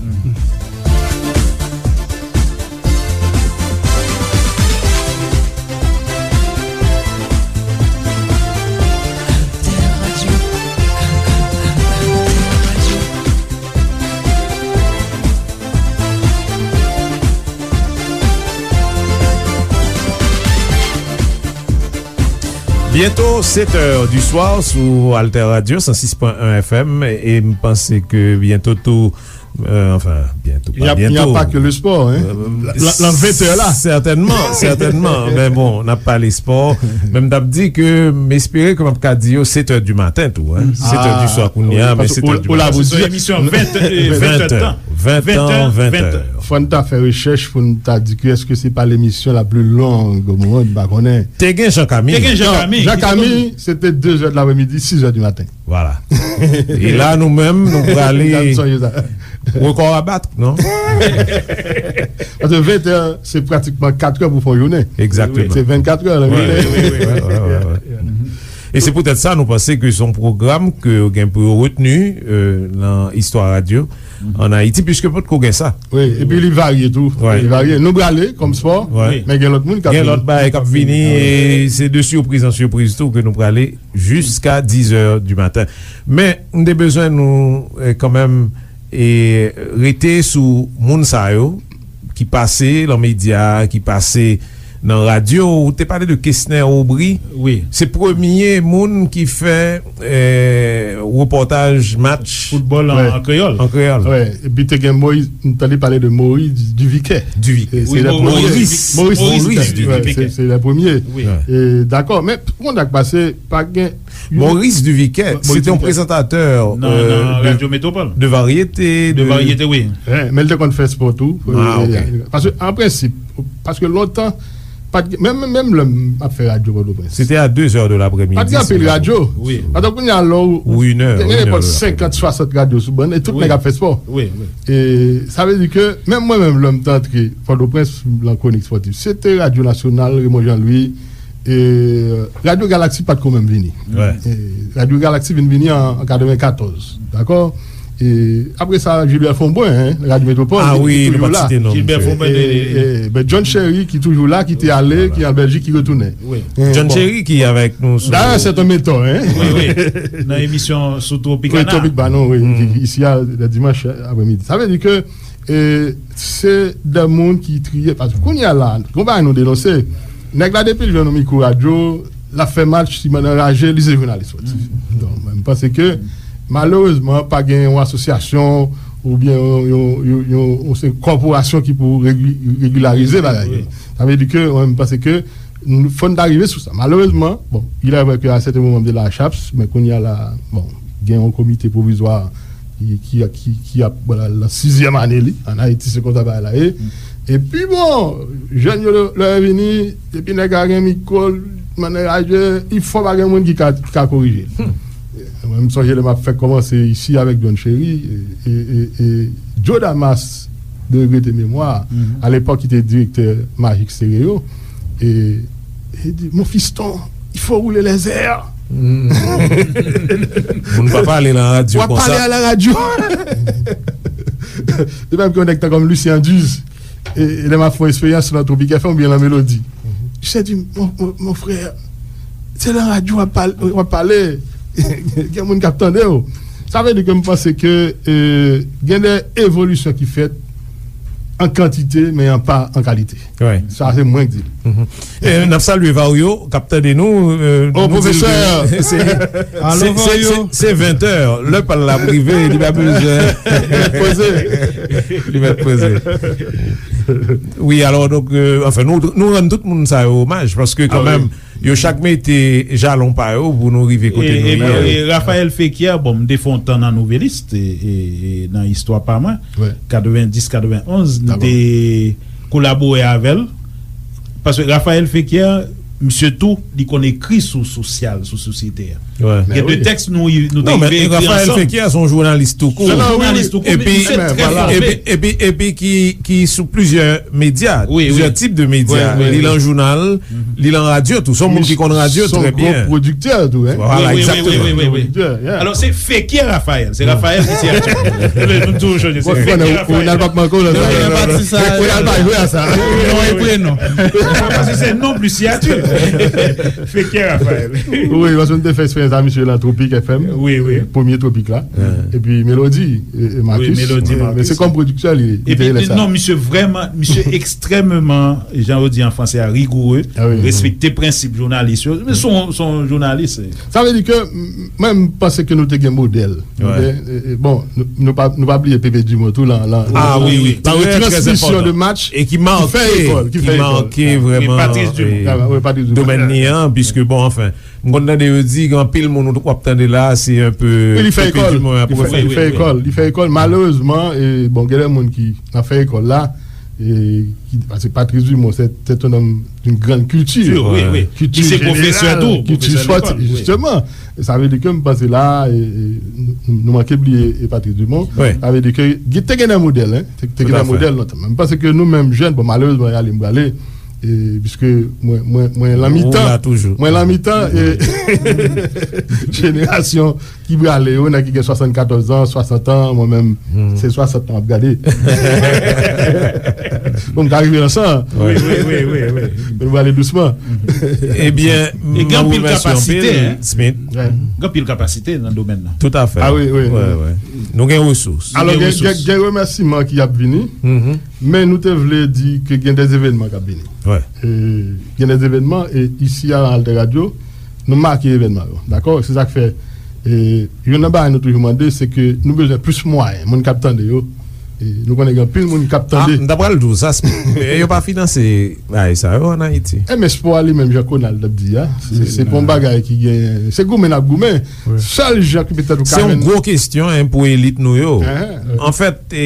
Byento sèt è di swa sou Alter Radio san sis pwen en F M, e m panse ke byento tou, e, anfen, byento, pa byento. Il n'y a, il n'y a pas que le sport, hein. Lan, lan ven è la. Sètènman, sètènman. Men bon, n ap pale spò. Men m t ap di ke m espere ke m ap ka di yo sèt è di maten tou, hein. Sèt è di swa kounye a, men sèt è di maten. Ou la pou di emisyon ven, e, ven è tan. Ven è, ven è. Fò n ta fè rechèch pou n ta di ke èske se pa lemisyon la pli long o mond, m pa konnen. Te gen Jean Camille. Te gen Jean Camille. Jean Camille, se te de zè de lapremidi, sis è di maten. Vwala. E la, nou menm, nou prale rekò a bat, non? Paske ven è, se pratikman kat è pou fè yon jounen. Egzakteman. Se vennkat è nan jounen. Wi, wi, wi, wi. E se poutèt sa, nou panse ke se yon pwogram ke yo gen pou yo retni, e, nan istwa radyo ann Ayiti, piske potko gen sa. Wi, epi li varye tou. Li varye. Nou prale kòm spò, men gen lòt moun k ap vini. Gen lòt bagay k ap vini, e se de sipriz an sipriz tou ke nou prale jiska diz è di maten. Men, m te bezwen nou, e, kanmenm, e, rete sou moun sa yo ki pase lan medya, ki pase nan radyo. Ou te pale de Kesner Aubry. Wi. Se premye moun ki fè, e, repòtaj match foutbòl an, an kreyòl. An kreyòl. Wi, epi te gen Moïse, m tande pale de Maurice Duviquet. Duviquet. E se le premye. Maurice. Maurice Duviquet. Wi, se, se le premye. Wi. E, dakò, men pou konn sa k pase, pa gen Maurice Duviquet, se te yon prezantatè, nan, e, nan de, Radyo Metwopòl. De varyete, de varyete, wi. Men l te konn fè spò tou. Paske, an prensip, paske lontan, pa t, menm, menm lè m ap fè radyo Pòtoprens. Se te a de zè de lapremidi, pa t gen anpil radyo. Wi. Atò kounye a lè w, ou gen nenpòt senkant, swasant radyo sou bann, e tout nèg ap fè spò. Wi, wi. E sa vle di ke, menm mwen menm, lè m te antre Pòtoprens, lan kwonik spòtif, se te Radyo Nasyonal, Raymond Jean Louis, E, Radyo Galaksi pa t ko menm vini. E, Radyo Galaksi vin vini an, an katrevenkatòz, dakò? E, apre sa, Gilbert Fombrun, en, Radyo Metwopòl, li, li toujou la. Gilbert Fombrun, e, e, ben, John Cherry ki toujou la, ki te ale, ki an Bèljik, ki retounen. John Cherry ki avèk nou sou. Dayè, c'est un mentor, en. Wi, wi. Nan emisyon sou Tropicana. Wi, Tropicana, wi, ki, ki isi a, le dimanch apremidi. Sa vle di ke E se de moun ki triye, paske kounye a la, gon bagay nou denonse. Nèg la, depi l jwenn yon mikwo radyo, l ap fè match, li anraje, li se jounalis spòtif. Donk, mwen, m panse ke, malerezman, pa gen yon asosyasyon oubyen yon, yon, yon, yon, yon, se kòporasyon ki pou regi-, regilarize bagay yo. Sa vle di ke, mwen, m panse ke, Nou, fò n ta rive sou sa. Malerezman, bon, il est vrai que à certains moments de la chaps, men kounye a la, bon, gen yon komite pwovizwa ki, ki, ki, ki ap, bon, la, lan sizyèm ane li. Ann Ayiti, se konsa bagay la ye. Epi, bon, jèn yo, lè, lè yo vini, epi nèg la gen mikwo, manniè radyo, il faut pa gen moun ki ka, ki ka korije l. Mwen, m sonje lè m ap fèk kòmanse isi avèk John Cherry, e, e, e, e Joe Damas, de regrete memwa, alepòk ki te direktè Magic Stereo, e, e di, Mon fiston, il faut rouler les airs. Moun pa pale nan radyo W ap konsa. Pale a la radyo. De menm ke yon nèg tan kòm Lucien Duze, e, e lè m ap fè yon eksperyans nan Tropic F M oubyen nan Melodi. Misye di, mon, mon, mon frè, se nan radyo w ap pale, w ap pale. Gen moun k ap tande w. Sa vle di ke m panse ke, e, gen de evolisyon ki fèt an kantite, men an pa an kalite. Sa se mwen k di l. E, n ap salye Vario k ap tande nou. E, Oh, nou di l pwofesè! Ke se, Alo, se, se, Vario. Se, se ventè. Lè pa l la rive, li pa bezwen. Poze. Li mèt poze. Wi, alò, donk, e, anfen, nou, nou rann tout moun sa yo omaj, paske Ah, kanmenm, wi. Yo chak mete jalon pa yo pou nou rive kote E, nou e, ye. e Raphaël Fekir, bon, m te fè yon tan nan Nouveliste, e, e, e nan istwa pa mwen, katrevenndis, katrevenonz, m te kolabore avè l. Paske Raphaël Fekir, misye tou, li konn ekri sou sosyal, sou sosyete a. Gen de tèks nou, nou te Non, men rive ekri Raphaël ansanm. Fekir se yon jounalis tou kou. Se yon jounalis tou kou, Epi, misye trè fòme. epi, epi, epi ki, ki sou plizyè medya, Wi, plizyè wi. tip de medya. Wi, wi, Li wi. lan jounal, li lan radyo tou. Se yon moun ki konn radyo Son trè gwo byen. Pwodiktè tou, hein? Voilà, Wi, wi, exactement. wi, wi, wi. Pwodiktè, yeah. Alò, se Fekir Raphaël. Se Raphaël ki siyati. Nou toujou chanje. Se Bon, Fekir Ronald, Raphaël. Ronald Patman Kolon. Non, non, non, non. Ronald pa jwe a sa. Non, e prenon. Paske se non plis siyati. Fekir Raphaël. Wi, paske nou te fè eksperyans a misye nan Tropic F M. Wi, wi. Premye Tropic la. Epi Melody, e, e Marcus. Wi, Melody, Men, Marcus. men se kòm pwodiktè li, li te Epi, rele sa. Non, misye vrèman, misye ekstrèmeman, jan yo di an franse a, rigoureux, Ah wi. Respekte prensip jounalis yo. Men se yon, se yon jounalis. Sa vle di ke, m, mwen, m panse ke nou te gen modèl. Nou te, e, e, bon, nou, nou pa, nou pa bliye Pepe Dumont tou lan, lan, Ah, wi, wi, la trè, trè retransmisyon enpòtan. De match E ki make, ki fè ekòl, ki ki fè ekòl. Make vrèman, Patrice Dumont. e, Ah, wi, Patrice Dumont. Domèn li an, piske, bon, anfen, m konn tande yo di, gen anpil moun w ap tande la, se un peu Wi, li fè Pepe ekòl. Dumont ap Li fè, pwofesè. li fè ekòl. Li fè ekòl. Malerezman, e, bon, gen de moun ki nan fè ekòl la, e, ki, paske Patrice Dumont, se, se un homme d'une grande culture. Wi, wi. Culture Li se pwofesè générale, tou, culture pwofesè sportive, lekòl, wi. Justement. E sa vle di ke m panse la, e, e, nou, nou manke bliye e Patrice Dumont. Wi. Sa vle di ke gen, te gen de modèl, hein. Te, te gen de modèl lontan. Men m panse ke nou menm jèn, bon, malerezman, y ale m prale, e, piske mwen, mwen, mwen lan mitan, Ou la toujou. Mwen lan mitan, e, jenerasyon ki prale yo, nèg ki gen swasannkatòz an, swasant an, mwen menm, se swasant an m ap gade. Bon, m ka rive nan san. Wi, wi, wi, wi, wi. Men nou prale dousman. Ebyen, E gen anpil kapasite, hein. Smith. Gen anpil kapasite nan domèn nan. Tout à fait. Ah wi, wi. Nou gen resous. Alò, gen, gen, gen remèsiman ki ap vini, men nou te vle di ke gen de evènman k ap vini. E, gen de evènman, e isi a Alter Radio, nou make evènman yo. Dakò? Se sa k fè, e, youn nan bagay nou toujou mande, se ke nou bezwen plis mwayen. Moun k ap tande yo, e, nou konnen gen anpil moun k ap tande. Ah, m ta pral di w sa, e yo pa finanse bagay sa yo an Ayiti. E men espò a li menm, jan Konald ap di a, se, se pa yon bagay ki gen, se goumen n ap goumen. Sèl jan ki petèt ou ka jwenn. Se yon gwo kesyon, en, pou elit nou yo. Anfèt, e,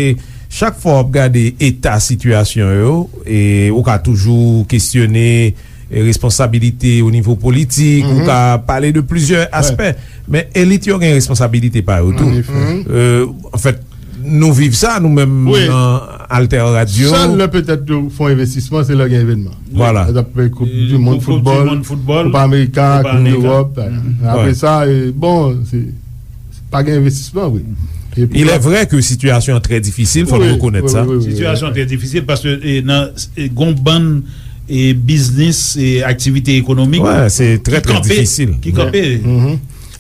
chak fwa w ap gade eta sitiyasyon yo, e, ou ka toujou kesyone, e, responsabilite o nivo politik, ou ka pale de plizyè aspè. Men elit yo gen responsabilite pa yo tou. E, anfèt, nou viv sa, nou menm nan Alter Radio. Sèl lè petèt yo fè yon envestisman, se lè gen evènman. Vwala. Koup di mond foutbòl, Koup Amerika, Koup Ewòp. Apre sa, e, bon, se, se pa gen envestisman vre. Il est vrai que sitiyasyon an trè difisil, fò n rekonèt sa. Sitiyasyon an trè difisil paske, e, nan, e, gon bann, e, biznis, e, aktivite ekonomik ki kanpe.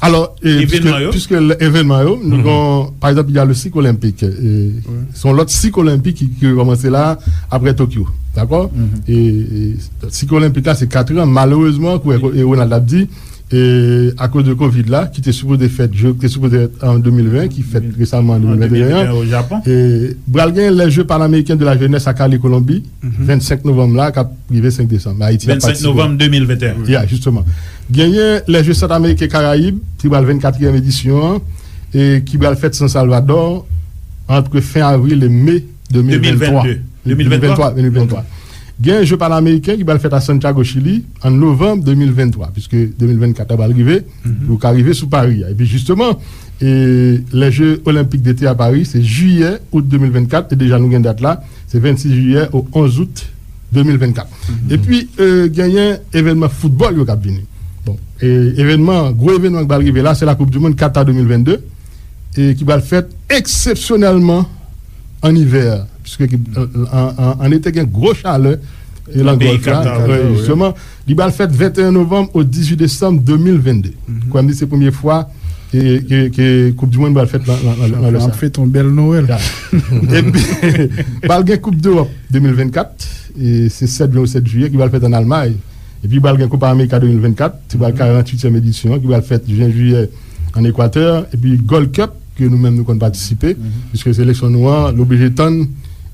Alò, e, piske, piske evènman yo, nou gon, pa egzanp, il y a le cycle olympique, e, se yon lòt sik olenpik ki, ki rekòmanse la, apre Tokyo, dakò? E, e, sik olenpik la, se kat an, malerezman, kou, e, Ronald ap di, e, akoz de Covid la, ki te sipoze fèt, je, te sipoze fèt an de mil ven, ki fèt resaman an de mil venteyen, e, pral gen les Jeux Panaméricains de la Jeunesse a Cali, Kolonbi, vennsenk novanm la, k ap rive senk desanm. Ayiti ap patisipe. Vennsenk novanm de mil venteyen. Ya, jisteman. Genyen les Jeux Centrafricains Caraïbes, ki pral vennkatriyèm edisyon an, e ki pral fèt San Salvador, ant fen avril e me de mil venntwa. De mil venntwa. De mil venntwa, de mil venntwa. Gen je panameriken ki pral fèt a Santiago, Chili, an novanm de mil venntwa, piske de mil vennkat la pral rive, pou yo ka rive sou Pari a. Epi jisteman, e, les Jeux Olympiques d'été à Paris, se jiyè, out de mil vennkat, e deja nou gen dat la, se vennsis jiyè o onz out de mil vennkat. Epi, e, genyen evènman foutbòl yo k ap vini. Bon, e, evènman, gwo evènman ki pral rive la, se la Coupe du Monde Qatar de mil vennde, e ki pral fèt eksepsyonèlman an ivè, piske ki, an, an, an, an ete gen gwo chalè, e, nan Gòlf la, Katar, wi, wi, jisteman. Li pral fèt venteyen novanm o dizuit desanm de mil vennde. Kwè m di se premye fwa ke, ke, ke Koup di Mond pral fèt nan, nan, nan, nan lè sa. N ap fete yon bèl Nwèl. Ya. Epi, pral gen Koup Dewòp de mil vennkat, e se sèt jen ou sèt jiyè ki pral fèt ann Almay. Epi pral gen Copa América de mil vennkat, se pral karanntuityèm edisyon an, ki pral fèt jen jiyè ann Ekwatè, epi Gold Cup, ke nou menm nou konn patisipe, piske seleksyon nou an, l oblije tann,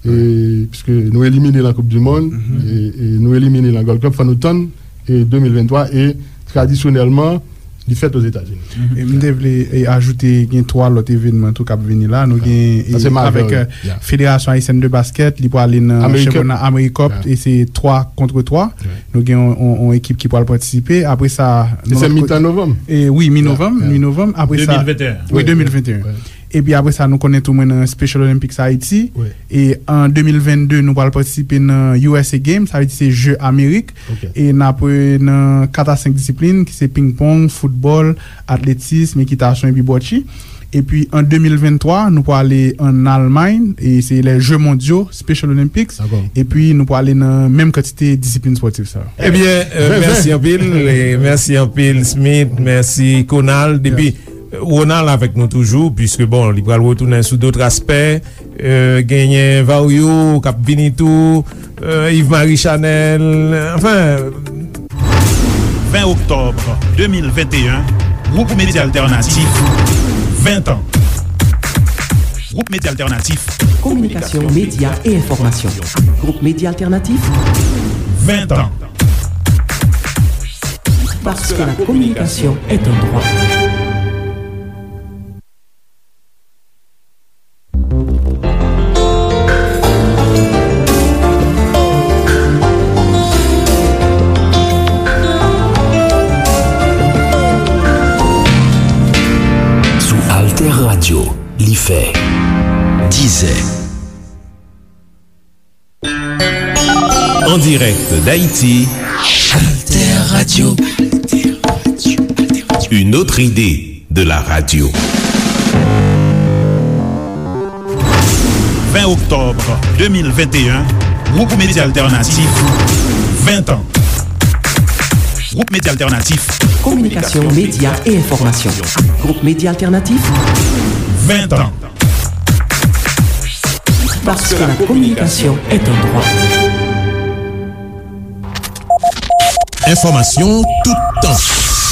e, piske nou elimine nan Koup di Mond, e, e nou elimine nan Gold Cup, fò nou tann, e, de mil venntwa, e tradisyonèlman, li fèt Ozetazini. E m te vle, e, ajoute, gen twa lòt evènman tou k ap vini la. Nou gen, e, avèk, e, Federasyon Ayisyèn de Baskèt, li prale nan chanpyona Amerikòp, e se twa kont twa. Nou gen yon, yon, yon ekip ki pral patisipe. Apre sa, e se mitan novanm? E, wi, mi novanm, mi novanm. Apre sa, de mil venteyen. Wi, de mil venteyen. Epi apre sa, nou konnen tou mwen nan Special Olympics Haiti. E an de mil vennde, nou pral patisipe nan U S A Games, sa vle di se Je Amerik. E n ap, e, nan kat a senk disiplin, ki se ping pong, foutbòl, atletism, ekitasyon epi bòchi. Epi an de mil venntwa, nou prale ann Almay, e se les Jeux Mondiaux, Special Olympics. Epi nou prale nan menm kantite disiplin spòtif sa yo. Ebyen, e, mèsi anpil, e, mèsi anpil, Smith, mèsi, Conald. Epi, e, Ronald avèk nou toujou, piske, bon, li pral retounen sou dòt aspè. E, genyen Vario k ap vini tou, e, Yves Marie Chanel, anfen. Ven oktòb de mil venteyen, Gwoup Medya Altènatif, ven tan. Gwoup Medya Altènatif. Communication, médias et information. Groupe Média Alternatif. Ven tan. Parce que la communication est un droit. Sou Alter Radio, li fè dizè. En direct d'Haïti, Alter Radio. Une autre idée de la radio. Ven oktòb de mil venteyen, Gwoup Medya Altènatif, ven tan. Gwoup Medya Altènatif. Communication, médias et information. Groupe Média Alternatif. Ven tan. Parce que la communication est un droit. Enfòmasyon toutan.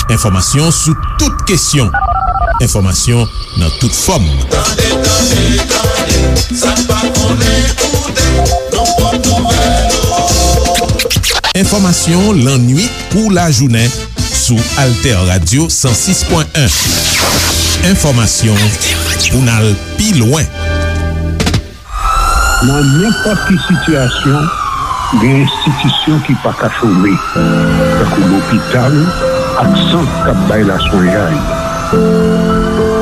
Enfòmasyon sou tout kesyon. Enfòmasyon nan tout fòm. Tande, tande, tande, sa n pa konnen koute, nan pwòp nouvèl yo. Enfòmasyon lannuit pou lajounen sou Alter Radio san sis pwen en. Enfòmasyon pou n al pi lwen. Nan nenpòt ki sitiyasyon, gen enstitisyon ki pa ka chome, tankou lopital ak sant k ap bay laswenyay.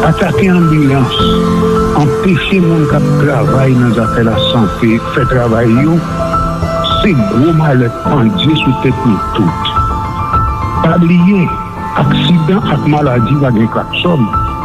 Atake anbilans, anpeche moun k ap travay nan zafè lasante fè travay yo, se gwo malè k pandye sou tèt nou tout. Pa bliye, aksidan ak maladi pa gen klaksòn.